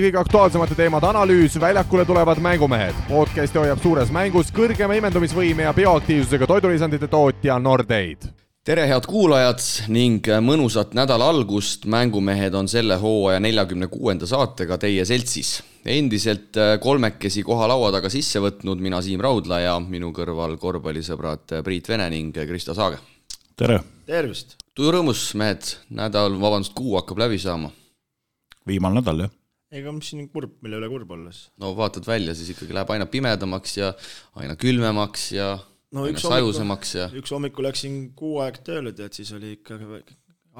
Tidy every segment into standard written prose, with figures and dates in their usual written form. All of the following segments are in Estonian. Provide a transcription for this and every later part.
Kõige aktuaalsemate teemade analüüs, väljakule tulevad mängumehed. Podcasti hoiab suures mängus kõrgema imendumisvõime ja bioaktiivsusega toidulisandite tootja Nordeid. Tere head kuulajad ning mõnusat nädala algust. Mängumehed on selle hooaja 46. saatega teie seltsis. Endiselt kolmekesi koha laua taga sisse võtnud mina Siim Raudla ja minu kõrval korvpallisõbrad Priit Vene ning Kristo Saage. Tere! Tervist! Tuju rõõmus, mehed. Kuu hakkab läbi saama. Viimal nädal, jah. Ega mis siin kurb, mille üle kurb olles? No vaatad välja, siis ikkagi läheb aina pimedamaks ja aina külmemaks ja aina sajusemaks. Üks hommikul läksin 6 aeg tööle, et siis oli ikka,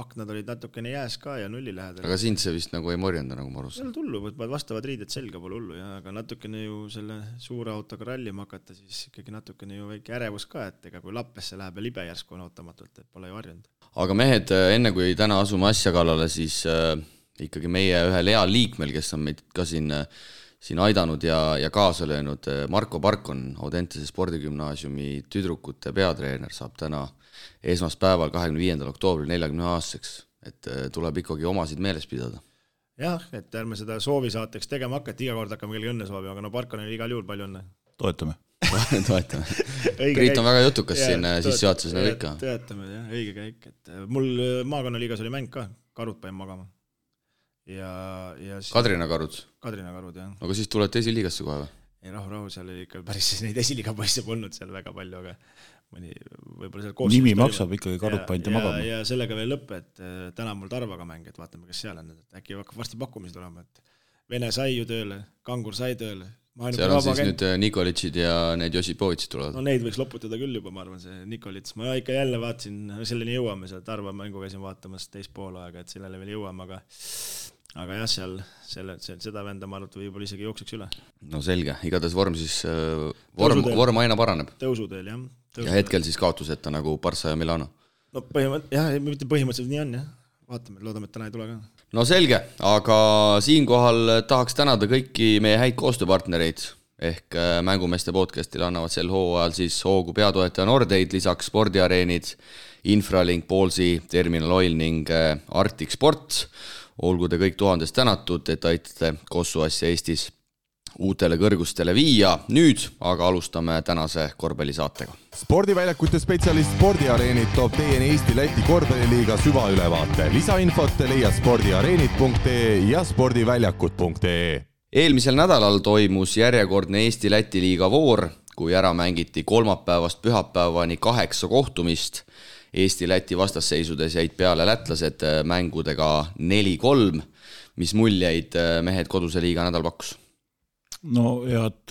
aknad olid natukene jääs ka ja nulli lähedal. Aga sind see vist nagu ei morjenda, nagu ma arvasin. Seal tullu, võtavad vastavad riided selga, pole hullu, aga natukene ju selle suure autoga rallima hakata, siis ikkagi natukene ju väike ärevus ka, et ega kui Lappesse läheb ja libe järsku on ootamatult, et pole ju harjunud. Aga mehed, enne kui täna asume asja kallale, siis ikkagi meie ühel heal liikmel, kes on meid ka siin aidanud ja kaasa löönud, Marko Parkon, Audentese spordigümnaasiumi tüdrukute peatreener, saab täna esmaspäeval 25. oktoobril 40 aastaseks, et tuleb ikkagi omasid meeles pidada. Jah, et ärme seda soovisaateks tegema hakata, iga kord hakkame kellegi õnne soovi, aga no Parkon oli igal juhul palju õnne. Toetame. Priit on väga jutukas siin sissejuhatuses nagu ikka. Toetame, jah, õige käik. Et mul maakonnaliigas oli mäng ka, karud pain magama. Kadrina karud, jah. Aga siis tulete esiliigasse kohe või? Ei, rahu, seal oli ikka päris neid esiliiga poisse polnud seal väga palju, aga mõni võib-olla seal koostöös nimi maksab ikkagi karud painte magama. Ja sellega veel lõpp, et täna mul Tarvaga mäng, et vaatame, kes seal on. Äkki hakkab varsti pakkumisi tulema, et Vene sai ju tööle, Kangur sai tööle. Seal on siis nüüd Nikolitšid ja need Josipovitsid tulevad. No neid võiks loputada küll juba, ma arvan, see Nikolits. Ma ikka jälle vaatasin, selleni jõuame, seal Tarva mängu käisin vaatamas teist pool aega, et sellele veel jõuame, aga jah, seal seda venda ma arvan, võib-olla isegi jookseks üle. No selge, igatahes vorm siis, vorm aina paraneb. Tõusuteel, jah. Ja hetkel siis kaotuseta nagu Barça ja Milano. No põhimõtteliselt nii on, jah. Vaatame, loodame, et täna ei tule ka. No selge, aga siinkohal tahaks tänada kõiki meie häid koostööpartnereid ehk mängumeeste podcastile annavad sel hooajal siis hoogu peatoetaja Nordeid, lisaks spordiareenid, Infralink, Ballsi, Terminal Oil ning Arctic Sport. Olgu te kõik 1000 tänatud, et aitate Kossu asja Eestis uutele kõrgustele viia. Nüüd aga alustame tänase korvpallisaatega. Spordiväljakute spetsialist Spordiareenid toob teieni Eesti-Läti korvpalliliiga süvaülevaate. Lisainfot leia spordiareenid.ee ja spordiväljakud.ee. Eelmisel nädalal toimus järjekordne Eesti-Läti liiga voor, kui ära mängiti kolmapäevast pühapäevani 8 kohtumist. Eesti-Läti vastasseisudes jäid peale lätlased mängudega 4-3. Mis muljeid mehed koduse liiga nädal pakkus? No head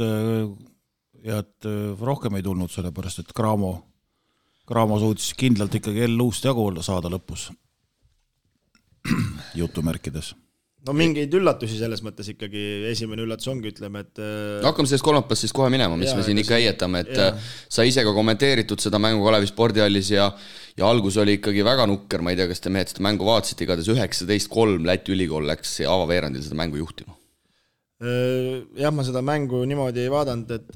rohkem ei tulnud, sellepärast et Graamo suutis kindlalt ikkagi luust jagu saada lõpus jutumärkides. No mingeid üllatusi selles mõttes ikkagi, esimene üllatus ongi, ütleme, et hakkame sellest kolmapäevast siis kohe minema, mis me siin ikka heietame, et sa ise ka kommenteeritud seda mängu Kalevi spordihallis ja algus oli ikkagi väga nukker, ma ei tea, kas te mehed seda mängu vaatasite, igatahes 19-3 Läti ülikool läks avaveerandil seda mängu juhtima. Jah, ma seda mängu niimoodi ei vaadanud, et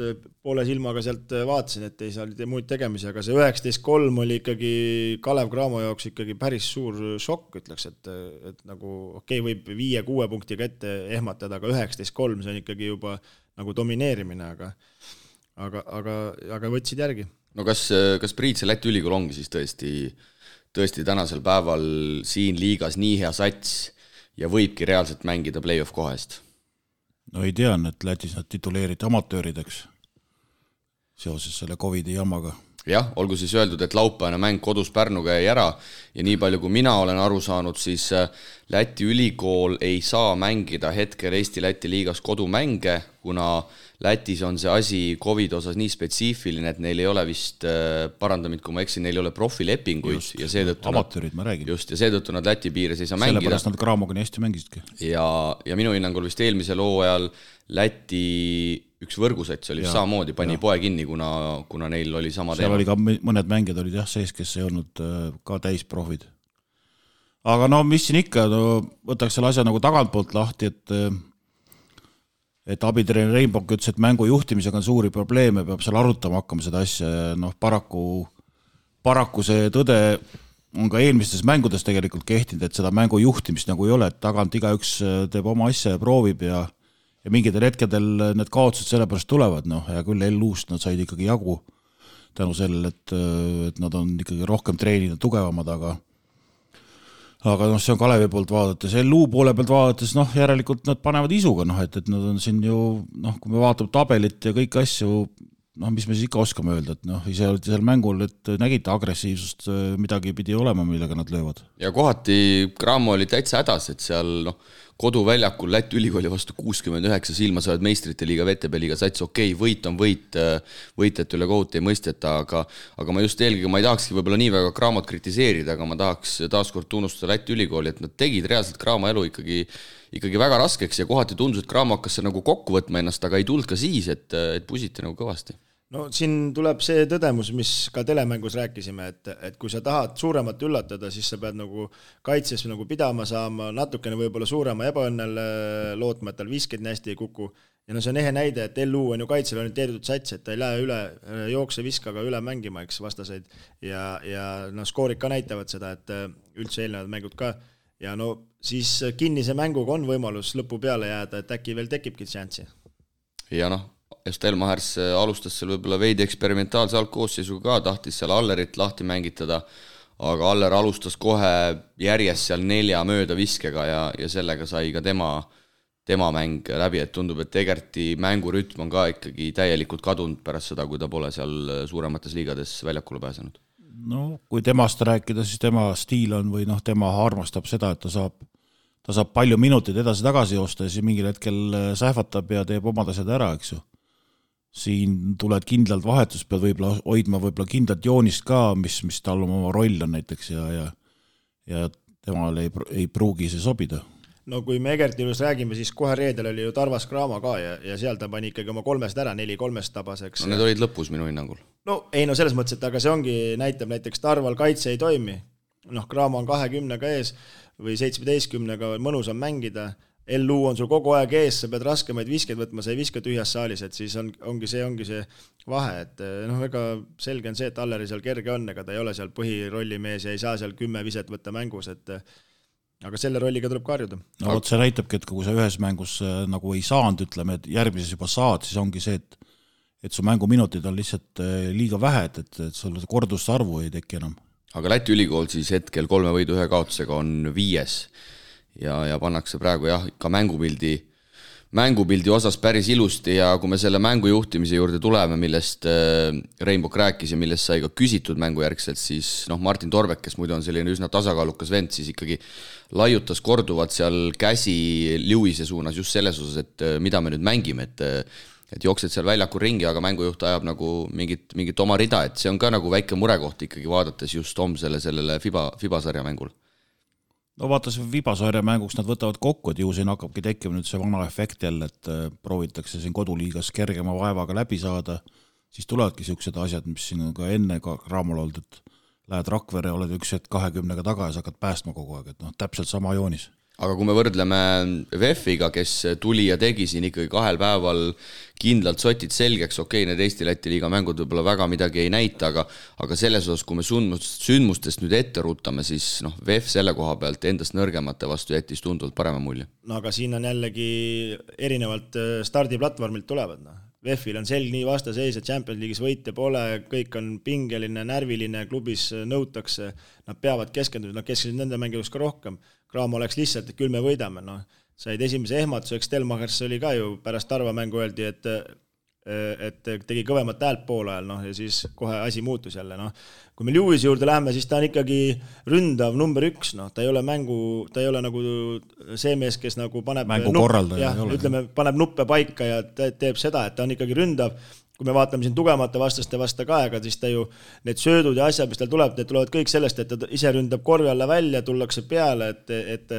poole silmaga sealt vaatasin, et ei saa muid tegemisi, aga see 19-3 oli ikkagi Kalev Cramo jaoks ikkagi päris suur šokk, ütleks, et nagu võib 5-6 punktiga ette ehmatada, aga 19-3 see on ikkagi juba nagu domineerimine, aga võtsid järgi. No kas Priit see Läti ülikool ongi siis tõesti tänasel päeval siin liigas nii hea sats ja võibki reaalselt mängida play-off kohest? No ei tean, et Lätis nad tituleeriti amatöörideks seoses selle COVID-i jamaga. Jah, olgu siis öeldud, et laupäevane mäng kodus Pärnuga jäi ära ja nii palju kui mina olen aru saanud, siis Läti ülikool ei saa mängida hetkel Eesti-Läti liigas kodumänge, kuna Lätis on see asi COVID osas nii spetsiifiline, et neil ei ole vist, parandamid kui ma eksin, neil ei ole profilepinguid just, ja seetõttu amatöörid, ma räägin. Just, ja seetõttu nad Läti piires ei saa mängida. Sellepärast nad Craamoga nii hästi mängisidki. Ja minu hinnangul vist eelmisel hooajal Läti üks võrgusats oli samamoodi, pani poe kinni, kuna neil oli sama teema. Seal oli ka mõned mängijad olid sees, kes ei olnud ka täisprofid. Aga no mis siin ikka, võtaks selle asja nagu tagantpoolt lahti, et abitreener Reinbok ütles, et mängu juhtimisega on suuri probleeme, peab seal arutama hakkama seda asja. Paraku see tõde on ka eelmistes mängudes tegelikult kehtinud, et seda mängu juhtimist nagu ei ole, et tagant igaüks teeb oma asja ja proovib ja mingitel hetkedel need kaotused sellepärast tulevad, ja küll L-uust nad said ikkagi jagu tänu sellele, et nad on ikkagi rohkem treeninud tugevamad, aga see on Kalevi poolt vaadates, L-u poole pealt vaadates, järelikult nad panevad isuga, et nad on siin ju, kui me vaatame tabelit ja kõiki asju, mis me siis ikka oskame öelda, et ise olite seal mängul, et nägite agressiivsust, midagi pidi olema, millega nad löövad. Ja kohati Cramo oli täitsa hädas, et seal koduväljakul Läti ülikooli vastu 69 silma saavad meistrite liiga, VTB liiga sats, võit on võit, võitjate üle kohut ei mõisteta, aga ma just eelkõige, ma ei tahakski võib-olla nii väga Cramot kritiseerida, aga ma tahaks taaskord tunnustada Läti ülikooli, et nad tegid reaalselt Cramo elu ikkagi väga raskeks ja kohati tundus, et Cramo hakkas nagu kokku võtma ennast, aga ei tulnud ka siis, et pusiti nagu kõvasti. No siin tuleb see tõdemus, mis ka telemängus rääkisime, et kui sa tahad suuremat üllatada, siis sa pead nagu kaitses nagu pidama saama, natukene võib-olla suurema ebaõnnel lootma, et tal visked nii hästi ei kuku. Ja see on ehe näide, et LU on ju kaitsel orienteeritud sats, et ta ei lähe üle jookse viskaga üle mängima, eks vastaseid. Ja skoorid ka näitavad seda, et üldse eelnevad mängud ka. Ja siis kinnise mänguga on võimalus lõpu peale jääda, et äkki veel tekibki šanssi. Ja Stelmachers alustas seal võib-olla veidi eksperimentaalse algkoosseisuga ka, tahtis seal Allerit lahti mängitada, aga Aller alustas kohe järjest seal 4 mööda viskega ja sellega sai ka tema mäng läbi, et tundub, et Egerti mängurütm on ka ikkagi täielikult kadunud pärast seda, kui ta pole seal suuremates liigades väljakule pääsenud. Kui temast rääkida, siis tema stiil on või tema armastab seda, et ta saab palju minuteid edasi-tagasi joosta ja siis mingil hetkel sähvatab ja teeb omad asjad ära, eks ju. Siin tuled kindlalt vahetus, pead võib-olla hoidma kindlalt joonist ka, mis tal oma roll on näiteks ja temal ei pruugi see sobida. Kui me Egerti juures räägime, siis kohe reedel oli ju Tarvas Cramo ka ja seal ta pani ikkagi oma 3 ära, 4-3 tabaseks. Need olid lõpus minu hinnangul. Selles mõttes, et aga see ongi, näitab näiteks Tarval kaitse ei toimi. Cramo on 20-ga ees või 17-ga mõnus on mängida. LU on sul kogu aeg ees, sa pead raskemaid viskeid võtma, sa ei viska tühjas saalis, et siis ongi see vahe, et väga selge on see, et Alleri seal kerge on, ega ta ei ole seal põhirollimees ja ei saa seal 10 viset võtta mängus, aga selle rolliga tuleb karjuda. See näitabki, et kui sa ühes mängus nagu ei saanud, ütleme, et järgmises juba saad, siis ongi see, et su mänguminutid on lihtsalt liiga vähe, et sul kordusarvu ei teki enam. Aga Läti ülikool siis hetkel 3 võidu 1 kaotusega on 5. Ja pannakse praegu ka mängupildi osas päris ilusti ja kui me selle mängu juhtimise juurde tuleme, millest Reinbok rääkis ja millest sai ka küsitud mängujärgselt, siis Martin Torbek, kes muidu on selline üsna tasakaalukas vend, siis ikkagi laiutas korduvat seal käsi Lewise suunas just selles osas, et mida me nüüd mängime, et jooksed seal väljakul ringi, aga mängujuht ajab nagu mingit oma rida, et see on ka nagu väike murekoht ikkagi vaadates just homsele sellele FIBA-sarja mängul. Vaatas Vibasarja mänguks nad võtavad kokku, et ju siin hakkabki tekkima nüüd see vana efekt jälle, et proovitakse siin koduliigas kergema vaevaga läbi saada, siis tulevadki sellised asjad, mis siin on ka enne Cramol olnud, et lähed Rakvere, oled üks hetk 20-ga taga ja sa hakkad päästma kogu aeg, et täpselt sama joonis. Aga kui me võrdleme VEF-iga, kes tuli ja tegi siin ikkagi 2 päeval kindlalt sotid selgeks, need Eesti-Läti liiga mängud võib-olla väga midagi ei näita, aga selles osas, kui me sündmustest nüüd ette ruutame, siis VEF selle koha pealt endast nõrgemate vastu jättis tunduvalt parema mulje. Aga siin on jällegi erinevalt stardiplatvormilt tulevad. VEF-il on selg nii vastaseis, et Champions League'is võite pole, kõik on pingeline, närviline, klubis nõutakse, nad peavad keskenduda, nad keskendusid nende mängijaks ka rohkem. Cramo oleks lihtsalt, et küll me võidame. Said esimese ehmatuseks, Stelmachers oli ka ju pärast Tarva mängu öeldi, et tegi kõvemat häält pool ajal ja siis kohe asi muutus jälle. Kui me Lewise juurde läheme, siis ta on ikkagi ründav number 1. Ta ei ole ta ei ole nagu see mees, kes nagu paneb paneb nuppe paika ja teeb seda, et ta on ikkagi ründav. Kui me vaatame siin tugevamate vastaste vasta ka aega, siis ta ju need söödud ja asjad, mis tal tuleb, need tulevad kõik sellest, et ta ise ründab korvi alla välja, tullakse peale, et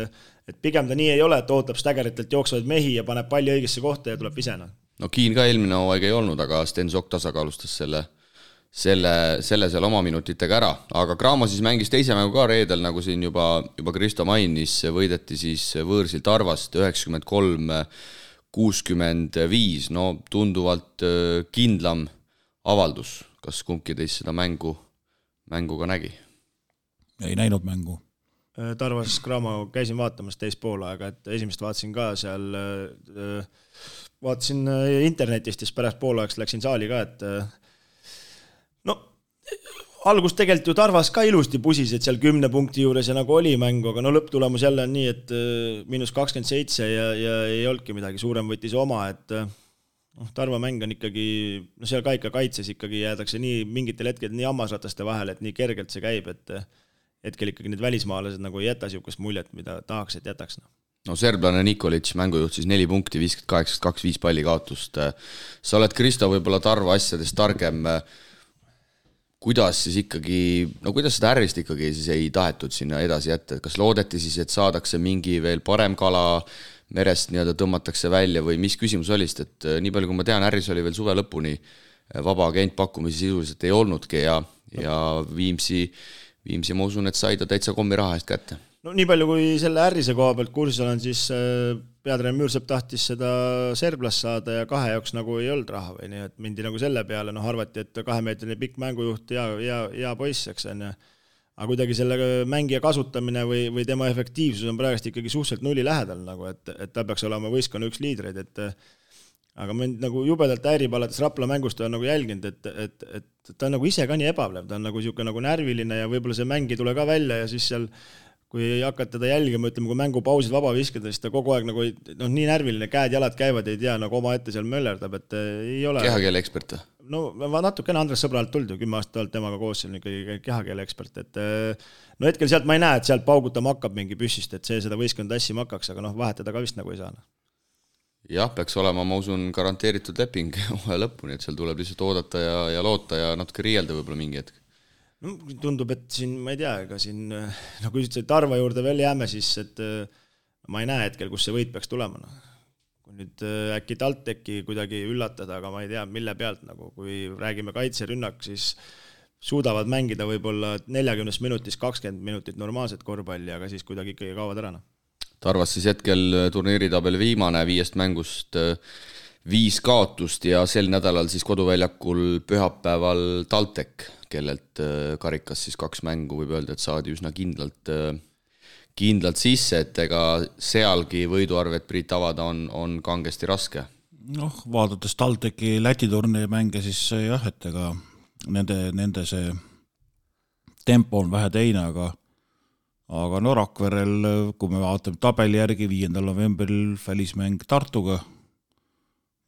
pigem ta nii ei ole, et ootab Staggeritelt jooksvaid mehi ja paneb palli õigesse kohta ja tuleb visena. Kiin ka eelmine hooaeg ei olnud, aga Sten Sokk tasakaalustas selle seal oma minutitega ära. Aga Cramo siis mängis teise mängu ka reedel, nagu siin juba Kristo mainis, võideti siis võõrsil Tarvast 93-65, tunduvalt kindlam avaldus. Kas kumbki teist seda mängu ka nägi? Ei näinud mängu. Tarvas Cramo käisin vaatamas teist poolaega, et esimest vaatasin ka seal, vaatasin internetist ja pärast poolaegast läksin saali ka, et no algus tegelikult ju Tarvas ka ilusti pusis, et seal 10 punkti juures ja nagu oli mängu, aga no lõpptulemus jälle on nii, et -27 ja ei olnudki midagi, suurem võttis oma, et Tarva mäng on ikkagi, no seal ka ikka kaitses ikkagi jäädakse nii mingitel hetkel nii hammasrataste vahel, et nii kergelt see käib, et hetkel ikkagi need välismaalased nagu ei jäta siukest muljet, mida tahaks, et jätaks. No serblane Nikolic mängujuht siis 4 punkti, 58-25 palli kaotust. Sa oled, Kristo, võib-olla Tarva asjadest targem. Kuidas siis ikkagi, no kuidas seda ärrist ikkagi siis ei tahetud sinna edasi jätta? Kas loodeti siis, et saadakse mingi veel parem kala merest nii-öelda tõmmatakse välja või mis küsimus oli, et nii palju kui ma tean, ärris oli veel suve lõpuni vaba agent pakkumisi sisuliselt ei olnudki ja Viimsi ma usun, et sai ta täitsa kommi raha eest kätte. No nii palju kui selle ärrise koha pealt kursis olen, siis peatreener Müürsepp tahtis seda serblast saada ja 2 jaoks nagu ei olnud raha või nii, et mindi nagu selle peale, arvati, et 2-meetrine pikk mängujuht ja poiss, eks on. Aga kuidagi selle mängija kasutamine või tema efektiivsus on praegust ikkagi suhteliselt nulli lähedal, nagu, et ta peaks olema võistkonna üks liidreid, et aga mind nagu jubedalt häirib alates Rapla mängust on nagu jälginud, et ta on nagu ise ka nii ebavlev, ta on nagu siuke nagu närviline ja võib-olla see mäng ei tule ka välja ja siis seal, kui hakkad teda jälgima, ütleme, kui mängupausid vaba viskada, siis ta kogu aeg nagu nii närviline, käed-jalad käivad, ei tea, nagu oma ette seal möllerdab, et ei ole... Kehakeele ekspert? No natukene Andres Sõbralt tuldi, 10 aastat olnud temaga koos, seal ikkagi kehakeele ekspert, et no hetkel sealt ma ei näe, et sealt paugutama hakkab mingi püssist, et see seda võistkond tassima hakkaks, aga vahetada ka vist nagu ei saa. Jah, peaks olema, ma usun, garanteeritud leping lõpuni, et seal tuleb lihtsalt oodata ja loota ja natuke riielda võib-olla mingi hetk. No, tundub, et siin, ma ei tea, ega siin, kui ütlesid Tarva juurde veel jääme, siis et ma ei näe hetkel, kus see võit peaks tulema. Kui nüüd äkki TalTechi kuidagi üllatada, aga ma ei tea, mille pealt, kui räägime kaitserünnak, siis suudavad mängida võib-olla 40 minutis 20 minutit normaalset korvpalli, aga siis kuidagi ikkagi kaovad ära. Tarvas siis hetkel turniiritabeli viimane 5 mängust 5 kaotust ja sel nädalal siis koduväljakul pühapäeval TalTech, kellelt karikas siis 2 mängu võib öelda, et saadi üsna kindlalt sisse, et ega sealgi võiduarvet Priit avada on kangesti raske. Vaadates TalTechi Läti turniiri mänge, siis jah, et ega nende see tempo on vähe teine, aga Rakverel, kui me vaatame tabeli järgi 5. novembril välismäng Tartuga,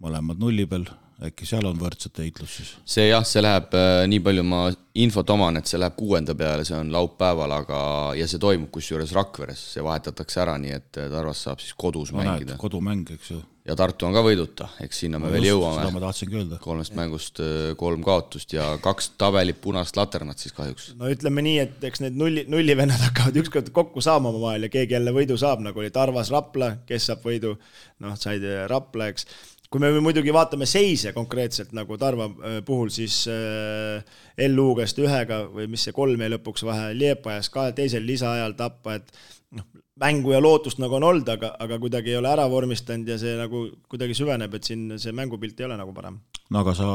mõlemad nulli peal, äkki seal on võrdset heitlus siis? See läheb, nii palju ma infot oman, et see läheb 6. peale, see on laupäeval, ja see toimub kusjuures Rakveres, see vahetatakse ära, nii et Tarvas saab siis kodus mängida. Kodumäng, eks ju. Ja Tartu on ka võiduta, eks sinna me veel jõuame. Seda ma tahtsingi öelda. 3 mängust 3 kaotust ja 2 tabelit punast laternat siis kahjuks. No ütleme nii, et eks need nullivennad hakkavad ükskord kokku saama oma vahel ja keegi jälle võidu saab, nagu oli Tarvas Rapla, kes saab võidu, said Rapla, eks. Kui me muidugi vaatame seise konkreetselt nagu Tarva puhul, siis LU-gast 1 või mis see 3 lõpuks vahe Liepajas ka teisel lisaajal tappa, et mängu ja lootust nagu on olnud, aga kuidagi ei ole ära vormistanud ja see nagu kuidagi süveneb, et siin see mängupilt ei ole nagu parem. No aga sa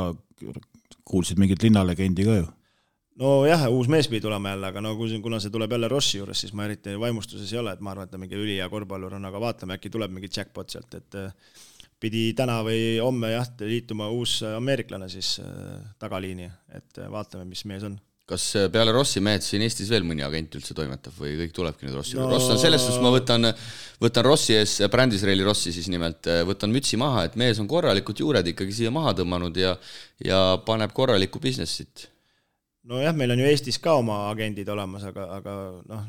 kuulsid mingit linnalegendi ka ju? No jah, uus mees pidi tulema jälle, aga kuna see tuleb jälle Rossi juures, siis ma eriti vaimustuses ei ole, et ma arvan, et ta mingi ülija korvpallur on, aga vaatame, äkki tuleb mingi jackpot sealt, et pidi täna või homme liituma uus ameeriklane siis tagaliini, et vaatame, mis mees on. Kas peale Rossi mehed siin Eestis veel mõni agent üldse toimetab või kõik tulebki nüüd Rossi? Ross on selles, kus ma võtan Rossi ees, Brändisreili Rossi siis nimelt, võtan mütsi maha, et mees on korralikult juured ikkagi siia maha tõmmanud ja paneb korralikku businessit. No jah, meil on ju Eestis ka oma agendid olemas, aga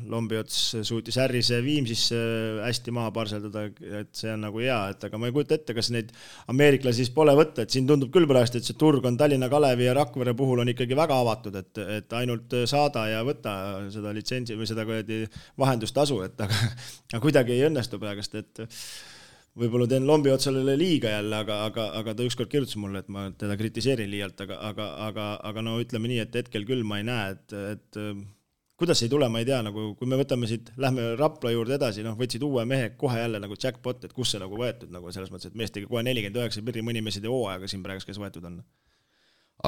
Lombiots suutis ärrise Viimsisse hästi maha parseldada, et see on nagu hea, et aga ma ei kujuta ette, kas neid ameeriklasi siis pole võtta, et siin tundub küll praegu, et see turg on Tallinna Kalevi ja Rakvere puhul on ikkagi väga avatud, et ainult saada ja võtta seda litsentsi või seda vahendustasu, et aga kuidagi ei õnnestu praegust, et võib-olla teen Lombiotsale liiga jälle, aga ta ükskord kirjutas mulle, et ma teda kritiseerin liialt, aga no ütleme nii, et hetkel küll ma ei näe, et kuidas ei tule, ma ei tea, nagu kui me võtame siit, lähme Rapla juurde edasi, võtsid uue mehe kohe jälle nagu jackpot, et kus see nagu võetud, nagu selles mõttes, et mees tegi kohe 49 pirri, mõni mees ei tee hooaega siin praegu, kes võetud on.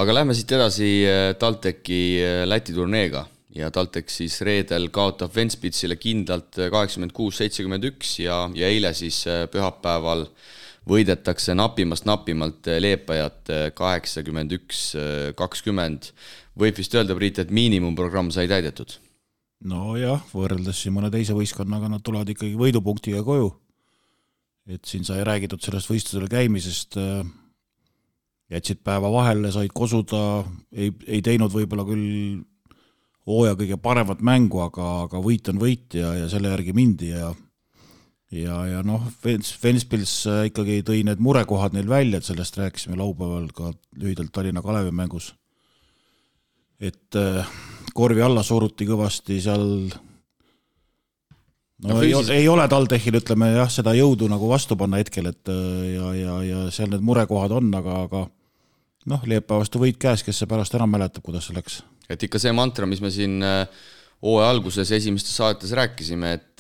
Aga lähme siit edasi TalTechi Läti turneega ja TalTech siis reedel kaotab Ventspilsile kindlalt 86-71 ja eile siis pühapäeval võidetakse napimalt Leepajat 81-20. Võib vist öelda, Priit, et miinimumprogramm sai täidetud? No jah, võrreldes siin mõne teise võistkonnaga nad tulevad ikkagi võidupunktiga koju. Et siin sai räägitud sellest võistlusel käimisest, jätsid päeva vahele, said kosuda, ei teinud võib-olla küll hooaja kõige paremat mängu, aga võit on võit ja selle järgi mindi ja noh, Ventspils ikkagi tõi need murekohad neil välja, et sellest rääkisime laupäeval ka lühidalt Tallinna Kalevi mängus. Et korvi alla suruti kõvasti seal, ei ole TalTechil, ütleme jah, seda jõudu nagu vastu panna hetkel, et ja seal need murekohad on, aga noh, Leepäevastu võit käes, kes see pärast ära mäletab, kuidas see läks. Et ikka see mantra, mis me siin hooaja alguses esimestes saates rääkisime, et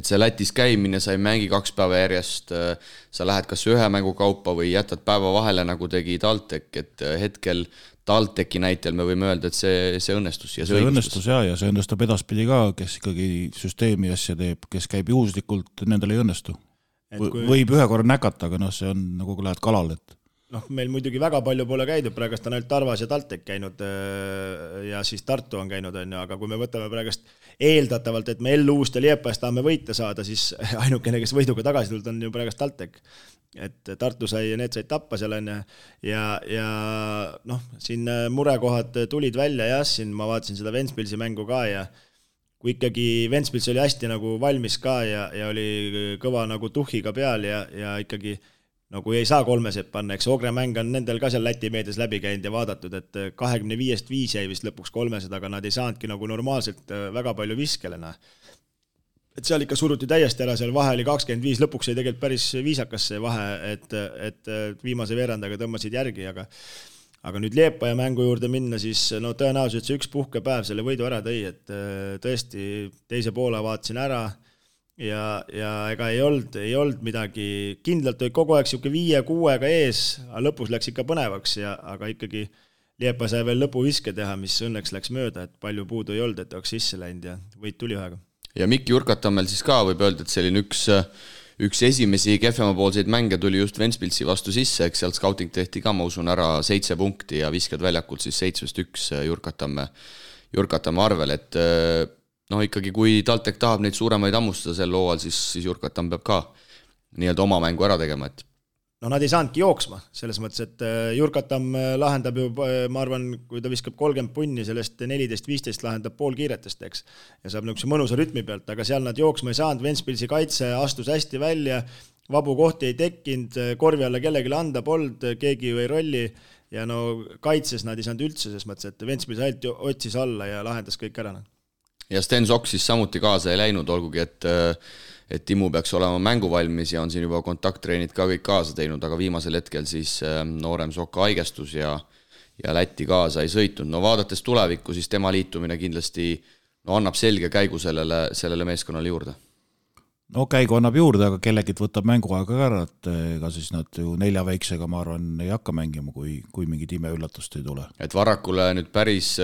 see Lätis käimine, sa ei mängi 2 päeva järjest, sa lähed kas ühe mängu kaupa või jätad päeva vahele, nagu tegi TalTech, et hetkel TalTechi näitel me võime öelda, et see õnnestus. Ja see õnnestus ja see õnnestub edaspidi ka, kes ikkagi süsteemi asja teeb, kes käib juhuslikult, nendel ei õnnestu. Võib ühe korra näkata, aga noh, see on nagu kui lähed kalal, et noh, meil muidugi väga palju pole käidud, praegust on ainult Tarvas ja TalTech käinud ja siis Tartu on käinud, aga kui me võtame praegust eeldatavalt, et me Elluust ja Liepajas tahame võita saada, siis ainukene, kes võiduga tagasi tulnud on ju praegust TalTech. Et Tartu need said tappa seal on ja noh, siin murekohad tulid välja ja siin ma vaatasin seda Ventspilsi mängu ka ja kui ikkagi Ventspils oli hästi nagu valmis ka ja oli kõva nagu tuhhiga peal ja ikkagi nagu ei saa 3 panna, eks Ogre mäng on nendel ka seal Läti meedias läbi käinud ja vaadatud, et 25-5 jäi vist lõpuks 300, aga nad ei saanudki nagu normaalselt väga palju viskelena. Et seal ikka suruti täiesti ära, seal vahe oli 25, lõpuks ei tegelikult päris viisakas see vahe, et viimase veerandaga tõmbasid järgi, aga nüüd Liepaja mängu juurde minna, siis no tõenäoliselt see üks puhkepäev selle võidu ära tõi, et tõesti teise poole vaatasin ära ja ega ei olnud midagi, kindlalt oli kogu aeg siuke 5-6-ga ees, aga lõpus läks ikka põnevaks aga ikkagi Liepa sai veel lõpuviske teha, mis õnneks läks mööda, et palju puudu ei olnud, et oleks sisse läinud ja võit tuli ühega. Ja Mikk Jurkatammel siis ka võib öelda, et selline üks esimesi kehvemapoolseid mänge tuli just Ventspilsi vastu sisse, eks sealt scouting tehti ka, ma usun, ära 7 punkti ja viskad väljakult siis 7-1 Jurkatamme arvel, et no ikkagi, kui TalTech tahab neid suuremaid ammustada sel hooajal, siis Jurkatam peab ka nii-öelda oma mängu ära tegema, et no nad ei saanudki jooksma, selles mõttes, et Jurkatam lahendab ju, ma arvan, kui ta viskab 30 punni, sellest 14-15 lahendab pool kiiretest, eks, ja saab niisuguse mõnusa rütmi pealt, aga seal nad jooksma ei saanud, Ventspilsi kaitse astus hästi välja, vabu kohti ei tekkinud, korvi alla kellegile anda polnud, keegi ju ei rolli, ja no kaitses nad ei saanud üldse, selles mõttes, et Ventspils ainult otsis alla ja lahendas kõik ära. Ja Sten Sokk siis samuti kaasa ei läinud, olgugi, et Timmu peaks olema mänguvalmis ja on siin juba kontakttreenid ka kõik kaasa teinud, aga viimasel hetkel siis noorem Sokka haigestus ja Lätti kaasa ei sõitnud. No vaadates tulevikku, siis tema liitumine kindlasti annab selge käigu sellele meeskonnale juurde. No käigu annab juurde, aga kellegit võtab mänguaega ära, et ega siis nad ju 4 väiksega, ma arvan, ei hakka mängima, kui mingid imeüllatust ei tule. Et Varrakule nüüd päris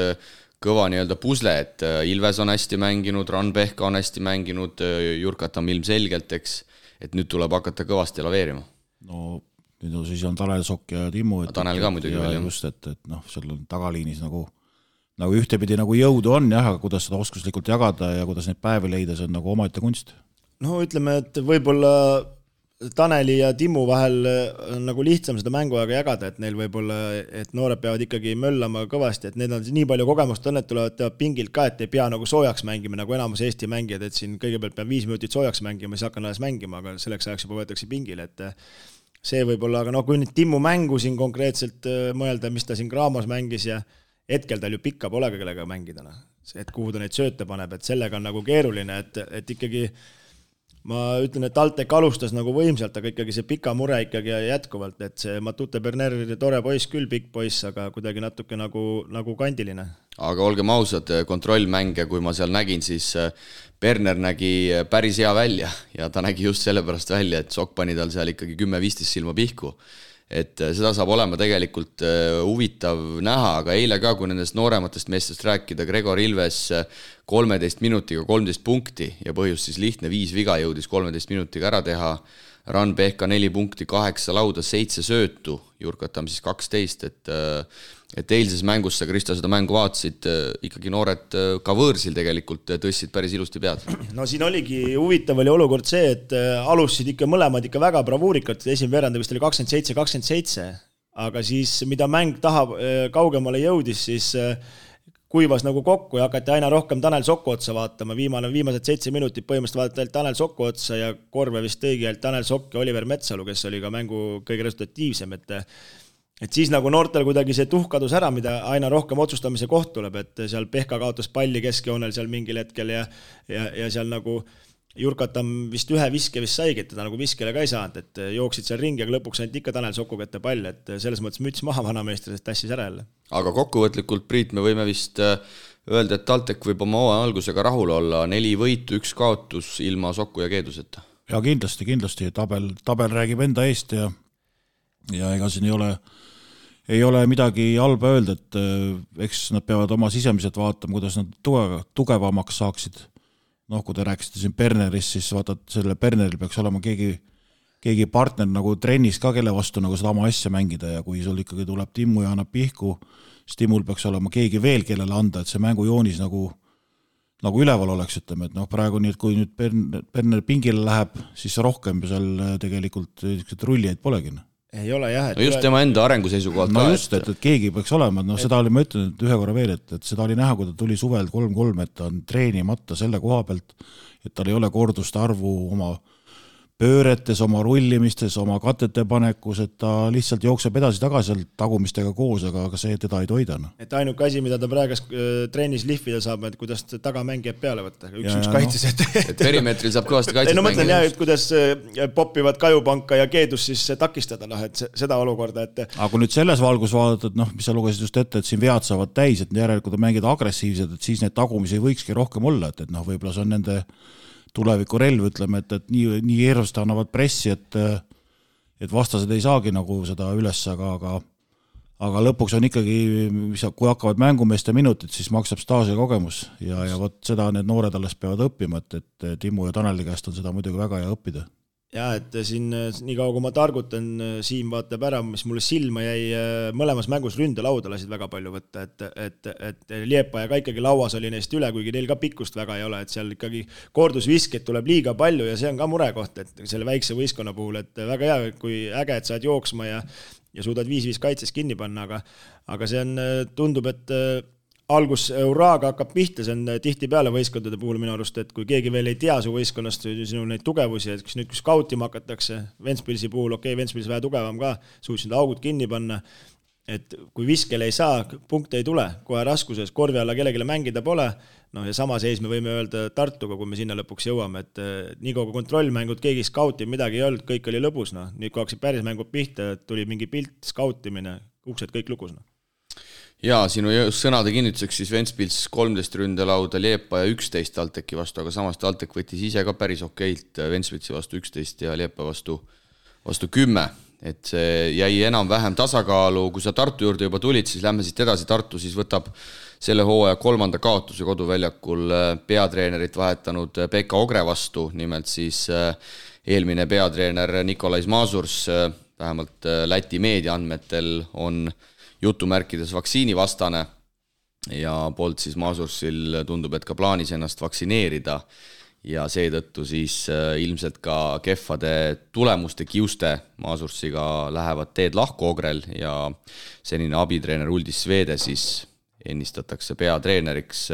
kõva nii-öelda pusle, et Ilves on hästi mänginud, Ranbehka on hästi mänginud, Jurkatam ilmselgelt, eks, et nüüd tuleb hakata kõvasti laveerima. No nüüd siis on Tanel Sokk ja Timmu. Tanel ka muidugi veel. Just, et noh, seal on tagaliinis nagu ühtepidi nagu jõudu on, jah, aga kuidas seda oskuslikult jagada ja kuidas neid päevi leida, see on nagu omaette kunst. No ütleme, et võib-olla Taneli ja Timmu vahel on nagu lihtsam seda mänguaega jagada, et neil võib-olla, et noored peavad ikkagi möllama kõvasti, et need on nii palju kogemust on, et tulevad pingilt ka, et ei pea nagu soojaks mängima, nagu enamus Eesti mängijad, et siin kõigepealt peab 5 minutit soojaks mängima, siis hakkan alles mängima, aga selleks ajaks juba võetakse pingile, et see võib-olla, aga kui nüüd Timmu mängu siin konkreetselt mõelda, mis ta siin Graamos mängis ja hetkel tal ju pikka pole kellega mängida, et kuhu ta neid sööte paneb, et sellega on nagu keeruline, et ikkagi ma ütlen, et TalTech alustas nagu võimsalt, aga ikkagi see pika mure ikkagi jätkuvalt, et see Matute Berner tore poiss küll, pikk poiss, aga kuidagi natuke nagu kandiline. Aga olgem ausad, kontrollmänge, kui ma seal nägin, siis Berner nägi päris hea välja ja ta nägi just sellepärast välja, et Sokk pani tal seal ikkagi 10-15 silma pihku. et seda saab olema tegelikult huvitav näha, aga eile ka, kui nendest noorematest meestest rääkida, Gregor Ilves 13 minutiga 13 punkti ja põhjus siis lihtne, 5 viga jõudis 13 minutiga ära teha, Ran Pehka 4 punkti, 8 lauda, 7 söötu, Jurkatam siis 12, et eilses mängus sa, Kristo, seda mängu vaatasid, ikkagi noored ka võõrsil tegelikult tõstsid päris ilusti pead. No siin oligi huvitav oli olukord see, et alustasid ikka mõlemad ikka väga bravuurikalt, esimene veerand vist oli 27-27, aga siis mida mäng kaugemale jõudis, siis kuivas nagu kokku ja hakati aina rohkem Tanel Sokku otsa vaatama, viimased 7 minutit põhimõtteliselt vaadati Tanel Sokku otsa ja korve vist tõigi Tanel Sokk ja Oliver Metsalu, kes oli ka mängu kõige resultatiivsem, et siis nagu noortel kuidagi see tuhk kadus ära, mida aina rohkem otsustamise koht tuleb, et seal Pehka kaotas palli keskjoonel seal mingil hetkel ja seal nagu Jurkatam vist ühe viske vist saigi, et teda nagu viskele ka ei saanud, et jooksid seal ringi, aga lõpuks ainult ikka Tanel Soku kätte pall, et selles mõttes müts maha vanameester, sest tassis ära jälle. Aga kokkuvõtlikult, Priit, me võime vist öelda, et TalTech võib oma algusega rahul olla, 4 võitu, 1 kaotus ilma Soku ja Keeduseta. Ja kindlasti, tabel räägib enda eest ja ega siin ei ole midagi halba öelda, et eks nad peavad oma sisemiselt vaatama, kuidas nad tugevamaks saaksid. Kui te rääkisite siin Bernerist, siis vaatad, selle Berneril peaks olema keegi partner nagu trennis ka, kelle vastu nagu seda oma asja mängida ja kui sul ikkagi tuleb Timmu ja annab pihku, siis Timmul peaks olema keegi veel, kellele anda, et see mängujoonis nagu üleval oleks, ütleme, et praegu nii, et kui nüüd Berner pingile läheb, siis rohkem seal tegelikult rullijaid polegi. Ei ole jah. No just tema enda arengu seisukohalt ka. No just, et keegi peaks olema, seda oli, ma ütlen, et ühe korra veel, et seda oli näha, kui ta tuli suvel 3-3, et ta on treenimata selle koha pealt, et tal ei ole korduste arvu oma pööretes, oma rullimistes, oma katete panekus, et ta lihtsalt jookseb edasi-tagasi tagumistega koos, aga see teda ei toida. Et ainuke asi, mida ta praegas treenis lihvida saab, et kuidas tagamängijad peale võtta. Üks kaitses, et perimeetril saab kõvasti kaitset mängida. Mõtlen jah, et kuidas popivad Kajupanka ja Keedus siis takistada, et seda olukorda. Aga kui nüüd selles valgus vaadata, et mis sa lugesid just ette, et siin vead saavad täis, et järelikult on mängida agressiivsed, et siis need tagumisi võikski rohkem olla, et võib-olla see on nende tuleviku relv, ütleme, et nii hirmsasti annavad pressi, et vastased ei saagi nagu seda üles, aga lõpuks on ikkagi, kui hakkavad mängumeeste minutid, siis maksab staaži kogemus ja võt seda need noored alles peavad õppima, et Timmu ja Taneli käest on seda muidugi väga hea õppida. Ja, et siin nii kaua, kui ma targutan, Siim vaatab ära, mis mulle silma jäi, mõlemas mängus ründelauda lasid väga palju võtta, et Liepa ja ka ikkagi lauas oli neist üle, kuigi neil ka pikkust väga ei ole, et seal ikkagi kordusviskeid tuleb liiga palju ja see on ka murekoht, et selle väikse võistkonna puhul, et väga hea, kui äge, et saad jooksma ja suudad 5-5 kaitses kinni panna, aga see on, tundub, et algus Euraaga hakkab pihta, see on tihti peale võistkondade puhul minu arust, et kui keegi veel ei tea su võistkonnast sinu neid tugevusi, et kui skautima hakatakse, Ventspilsi puhul, Ventspils vähe tugevam ka, suutsid augud kinni panna, et kui viskele ei saa, punkte ei tule, kohe raskuses, korvi alla kellegile mängida pole, ja sama seis me võime öelda Tartuga, kui me sinna lõpuks jõuame, et nii kui kontrollmängud, keegi skauti midagi ei olnud, kõik oli lõbus, nüüd kui hakkasid päris mängud pihta, tuli mingi pilt, skautimine, uksed kõik lukus. Jaa, sinu sõnade kinnituseks siis Ventspils 13 ründelauda, Liepa ja 11 TalTechi vastu, aga samas TalTech võttis ise ka päris okeilt Ventspilsi vastu 11 ja Liepa vastu 10. Et see jäi enam-vähem tasakaalu, kui sa Tartu juurde juba tulid, siis lähme siit edasi. Tartu siis võtab selle hooaja 3. kaotuse koduväljakul peatreenerit vahetanud Pekka Ogre vastu, nimelt siis eelmine peatreener Nikolais Mazurs, vähemalt Läti meediaandmetel on jutumärkides vaktsiinivastane ja poolt siis Mazursil tundub, et ka plaanis ennast vaktsineerida ja seetõttu siis ilmselt ka kehvade tulemuste kiuste Mazursiga lähevad teed lahku Ogrel ja senine abitreener Uldis Svede siis ennistatakse peatreeneriks,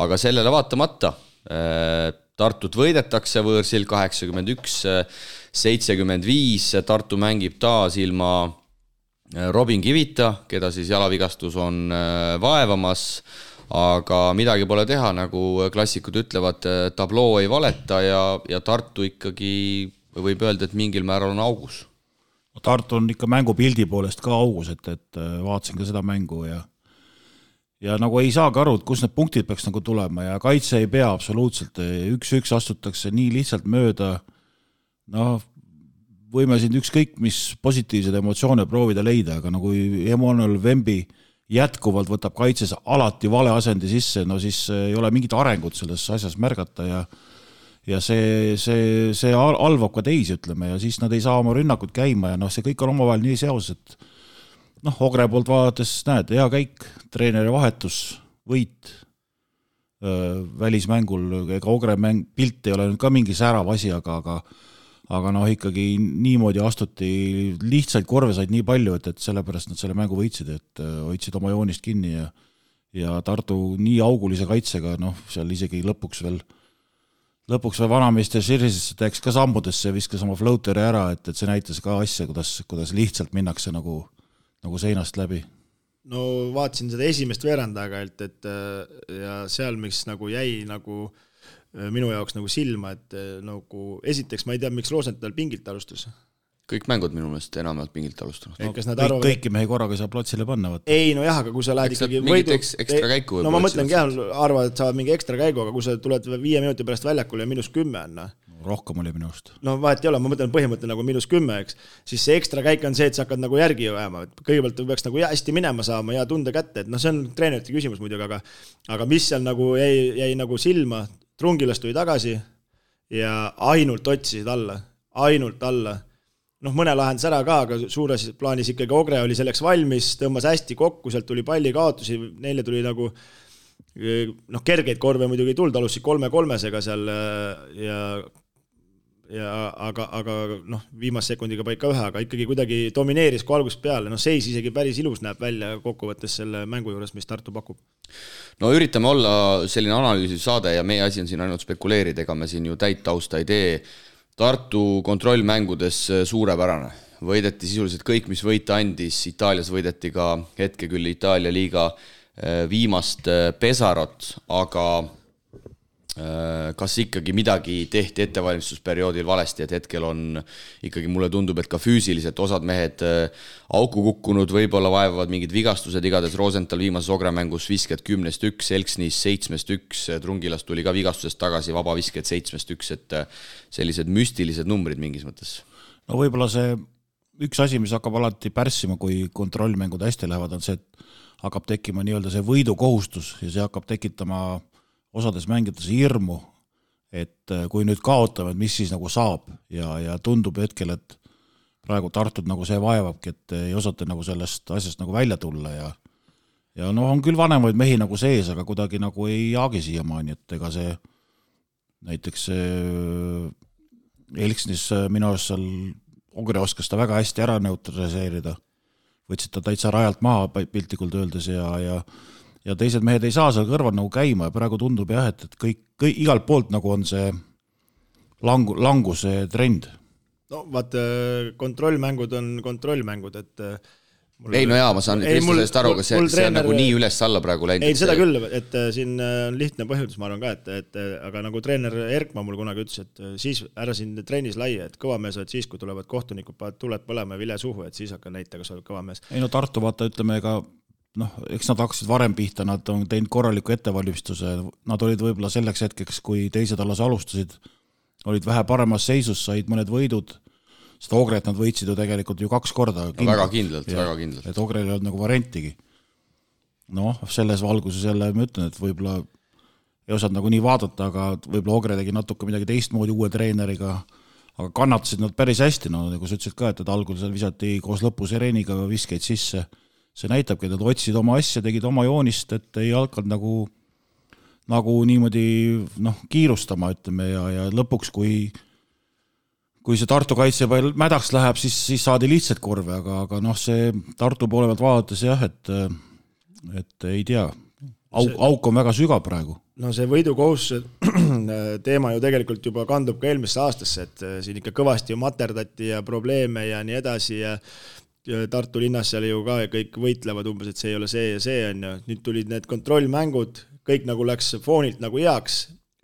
aga sellele vaatamata Tartut võidetakse võõrsil 81-75, Tartu mängib taas ilma Robin Kivita, keda siis jalavigastus on vaevamas, aga midagi pole teha, nagu klassikud ütlevad, tabloo ei valeta ja Tartu ikkagi võib öelda, et mingil määral on augus. Tartu on ikka mängupildi poolest ka augus, et vaatasin ka seda mängu ja nagu ei saagi aru, et kus need punktid peaks nagu tulema ja kaitse ei pea absoluutselt, 1-1 astutakse nii lihtsalt mööda, võime siin ükskõik mis positiivsed emotsioone proovida leida, aga nagu Emmanuel Wemby jätkuvalt võtab kaitses alati vale asendi sisse, no siis ei ole mingit arengut selles asjas märgata ja see alvab ka teisi, ütleme, ja siis nad ei saa oma rünnakut käima ja noh, see kõik on omavahel nii seos, et noh, Ogre poolt vaadates näed, hea käik, treeneri vahetus, võit välismängul, ega Ogre pilt ei ole nüüd ka mingi särav asi, aga noh, ikkagi niimoodi astuti, lihtsalt korve said nii palju, et sellepärast nad selle mängu võitsid, et hoidsid oma joonist kinni ja Tartu nii augulise kaitsega, noh, seal isegi lõpuks veel vanameister Širisesse teeks ka sammudesse ja viskas oma floateri ära, et see näitas ka asja, kuidas lihtsalt minnakse nagu seinast läbi. No vaatasin seda esimest veerandaga, et ja seal, mis nagu jäi nagu minu jaoks nagu silma, et nagu esiteks ma ei tea, miks Rosenthal pingilt alustas. Kõik mängud minu meelest enamalt pingilt alustanud. No, kõiki mehi korraga ei saa platsile panna. Võtta. Ei, no jah, aga kui sa lähed ikkagi võidu... ekstra käiku no ma mõtlengi jah, arvad, et saavad mingi ekstra käigu, aga kui sa tuled 5 minuti pärast väljakule ja -10 on, rohkem oli minu arust. No vahet ei ole, ma mõtlen põhimõte nagu -10, eks. Siis see ekstra käik on see, et sa hakkad nagu järgi jääma. Kõigepealt peaks nagu hästi minema saama ja tunde kätte, et no see on treenerite küsimus muidugi, aga mis seal nagu jäi nagu silma, Trungilast tuli tagasi ja ainult otsisid alla. Noh, mõne lahendas ära ka, aga suures plaanis ikkagi Ogre oli selleks valmis, tõmbas hästi kokku, sealt tuli palli kaotusi, neile tuli nagu noh, kergeid korve muidugi ei tulnud, alustasid 3-3-sega seal aga noh, viimase sekundiga paika ühe, aga ikkagi kuidagi domineeris kui algusest peale, noh seis isegi päris ilus näeb välja kokkuvõttes selle mängu juures, mis Tartu pakub. No üritame olla selline analüüsiv saade ja meie asi on siin ainult spekuleerida, ega me siin ju täit tausta ei tee. Tartu kontrollmängudes suurepärane. Võideti sisuliselt kõik, mis võita andis, Itaalias võideti ka hetke küll Itaalia liiga viimast pesarot, aga kas ikkagi midagi tehti ettevalmistusperioodil valesti, et hetkel on ikkagi mulle tundub, et ka füüsiliselt osad mehed auku kukkunud, võib-olla vaevavad mingid vigastused, igades Rosenthal viimases Ogre-mängus visked 10-1, Elksnis 7-1, Trungilast tuli ka vigastusest tagasi, vaba visked 7-1, et sellised müstilised numbrid mingis mõttes. No võib-olla see üks asi, mis hakkab alati pärssima, kui kontrollmängud hästi lähevad, on see, et hakkab tekkima nii-öelda see võidukohustus ja see hakkab tekitama osades mängides hirmu, et kui nüüd kaotame, et mis siis nagu saab ja tundub hetkel, et praegu Tartud nagu see vaevabki, et ei osata nagu sellest asjast nagu välja tulla ja noh, on küll vanemaid mehi nagu sees, aga kuidagi nagu ei jaagi siiamaani, et ega see näiteks Elksnis minu arust seal Ogre oskas ta väga hästi ära neutraliseerida, võtsid ta täitsa rajalt maha piltlikult öeldes ja teised mehed ei saa seal kõrval nagu käima ja praegu tundub jah, et kõik igalt poolt nagu on see languse trend. No vaat kontrollmängud on kontrollmängud, et ei, no jaa, ma saan sellest aru, aga see on nagu nii üles alla praegu läinud. Ei, seda küll, et siin on lihtne põhjus, ma arvan ka, et aga nagu treener Erkma mul kunagi ütles, et siis ära siin trennis laia, et kõva mees oled siis, kui tulevad kohtunikud, tuled põlema vile suhu, et siis hakka näita, kas oled kõva mees. Ei no Tartu vaata, ütleme ega noh, eks nad hakkasid varem pihta, nad on teinud korraliku ettevalmistuse, nad olid võib-olla selleks hetkeks, kui teised alles alustasid, olid vähe paremas seisus, said mõned võidud, seda Ogret nad võitsid ju tegelikult ju 2 korda. Väga kindlalt. Et Ogrel ei olnud nagu variantigi. Noh, selles valguses jälle ma ütlen, et võib-olla ei osanud nagu nii vaadata, aga võib-olla Ogre tegi natuke midagi teistmoodi uue treeneriga, aga kannatasid nad päris hästi, no nagu sa ütlesid ka, et algul seal visati koos lõpus Ereniga viskeid sisse. See näitabki, et nad otsid oma asja, tegid oma joonist, et ei hakanud nagu niimoodi kiirustama, ütleme, ja lõpuks, kui see Tartu kaitse mädaks läheb, siis saadi lihtsalt korve, aga see Tartu poole pealt vaadates jah, et ei tea, auk on väga sügav praegu. No see võidukohustuse teema ju tegelikult juba kandub ka eelmisse aastasse, et siin ikka kõvasti ju materdati ja probleeme ja nii edasi ja Tartu linnas seal ju ka kõik võitlevad umbes, et see ei ole see ja see on ja nüüd tulid need kontrollmängud, kõik nagu läks foonilt nagu heaks,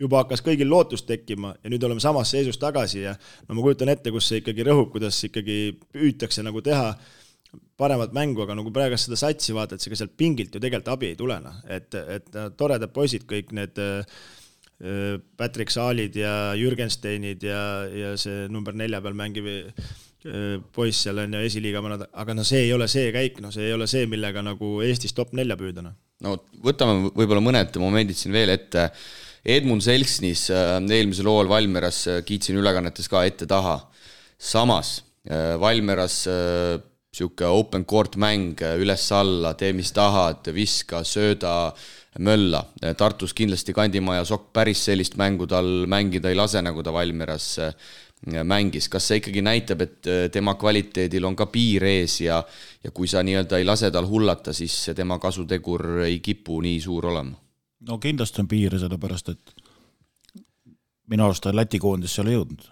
juba hakkas kõigil lootust tekkima ja nüüd oleme samas seisus tagasi ja no ma kujutan ette, kus see ikkagi rõhub, kuidas ikkagi püütakse nagu teha paremat mängu, aga nagu praegu seda satsi vaatad, see ka sealt pingilt ju tegelikult abi ei tulena, et toredad poisid kõik need Patrick Saalid ja Jürgensteinid ja see number 4 peal mängiv poiss seal on ja esiliiga mõned, aga no see ei ole see käik, no see ei ole see, millega nagu Eestis top 4 püüdana. No võtame võib-olla mõned momendid siin veel ette. Edmund Selksnis eelmisel hooajal Valmieras kiitsin ülekannetes ka ette taha. Samas Valmieras siuke open court mäng üles-alla, tee mis tahad, viska, sööda, mölla. Tartus kindlasti Kandimaja Sokk päris sellist mängu tal mängida ei lase, nagu ta Valmieras mängis. Kas see ikkagi näitab, et tema kvaliteedil on ka piir ees ja kui sa nii-öelda ei lase tal hullata, siis tema kasutegur ei kipu nii suur olema? No kindlasti on piir, sellepärast, et minu arust ta Läti koondis seal ei jõudnud.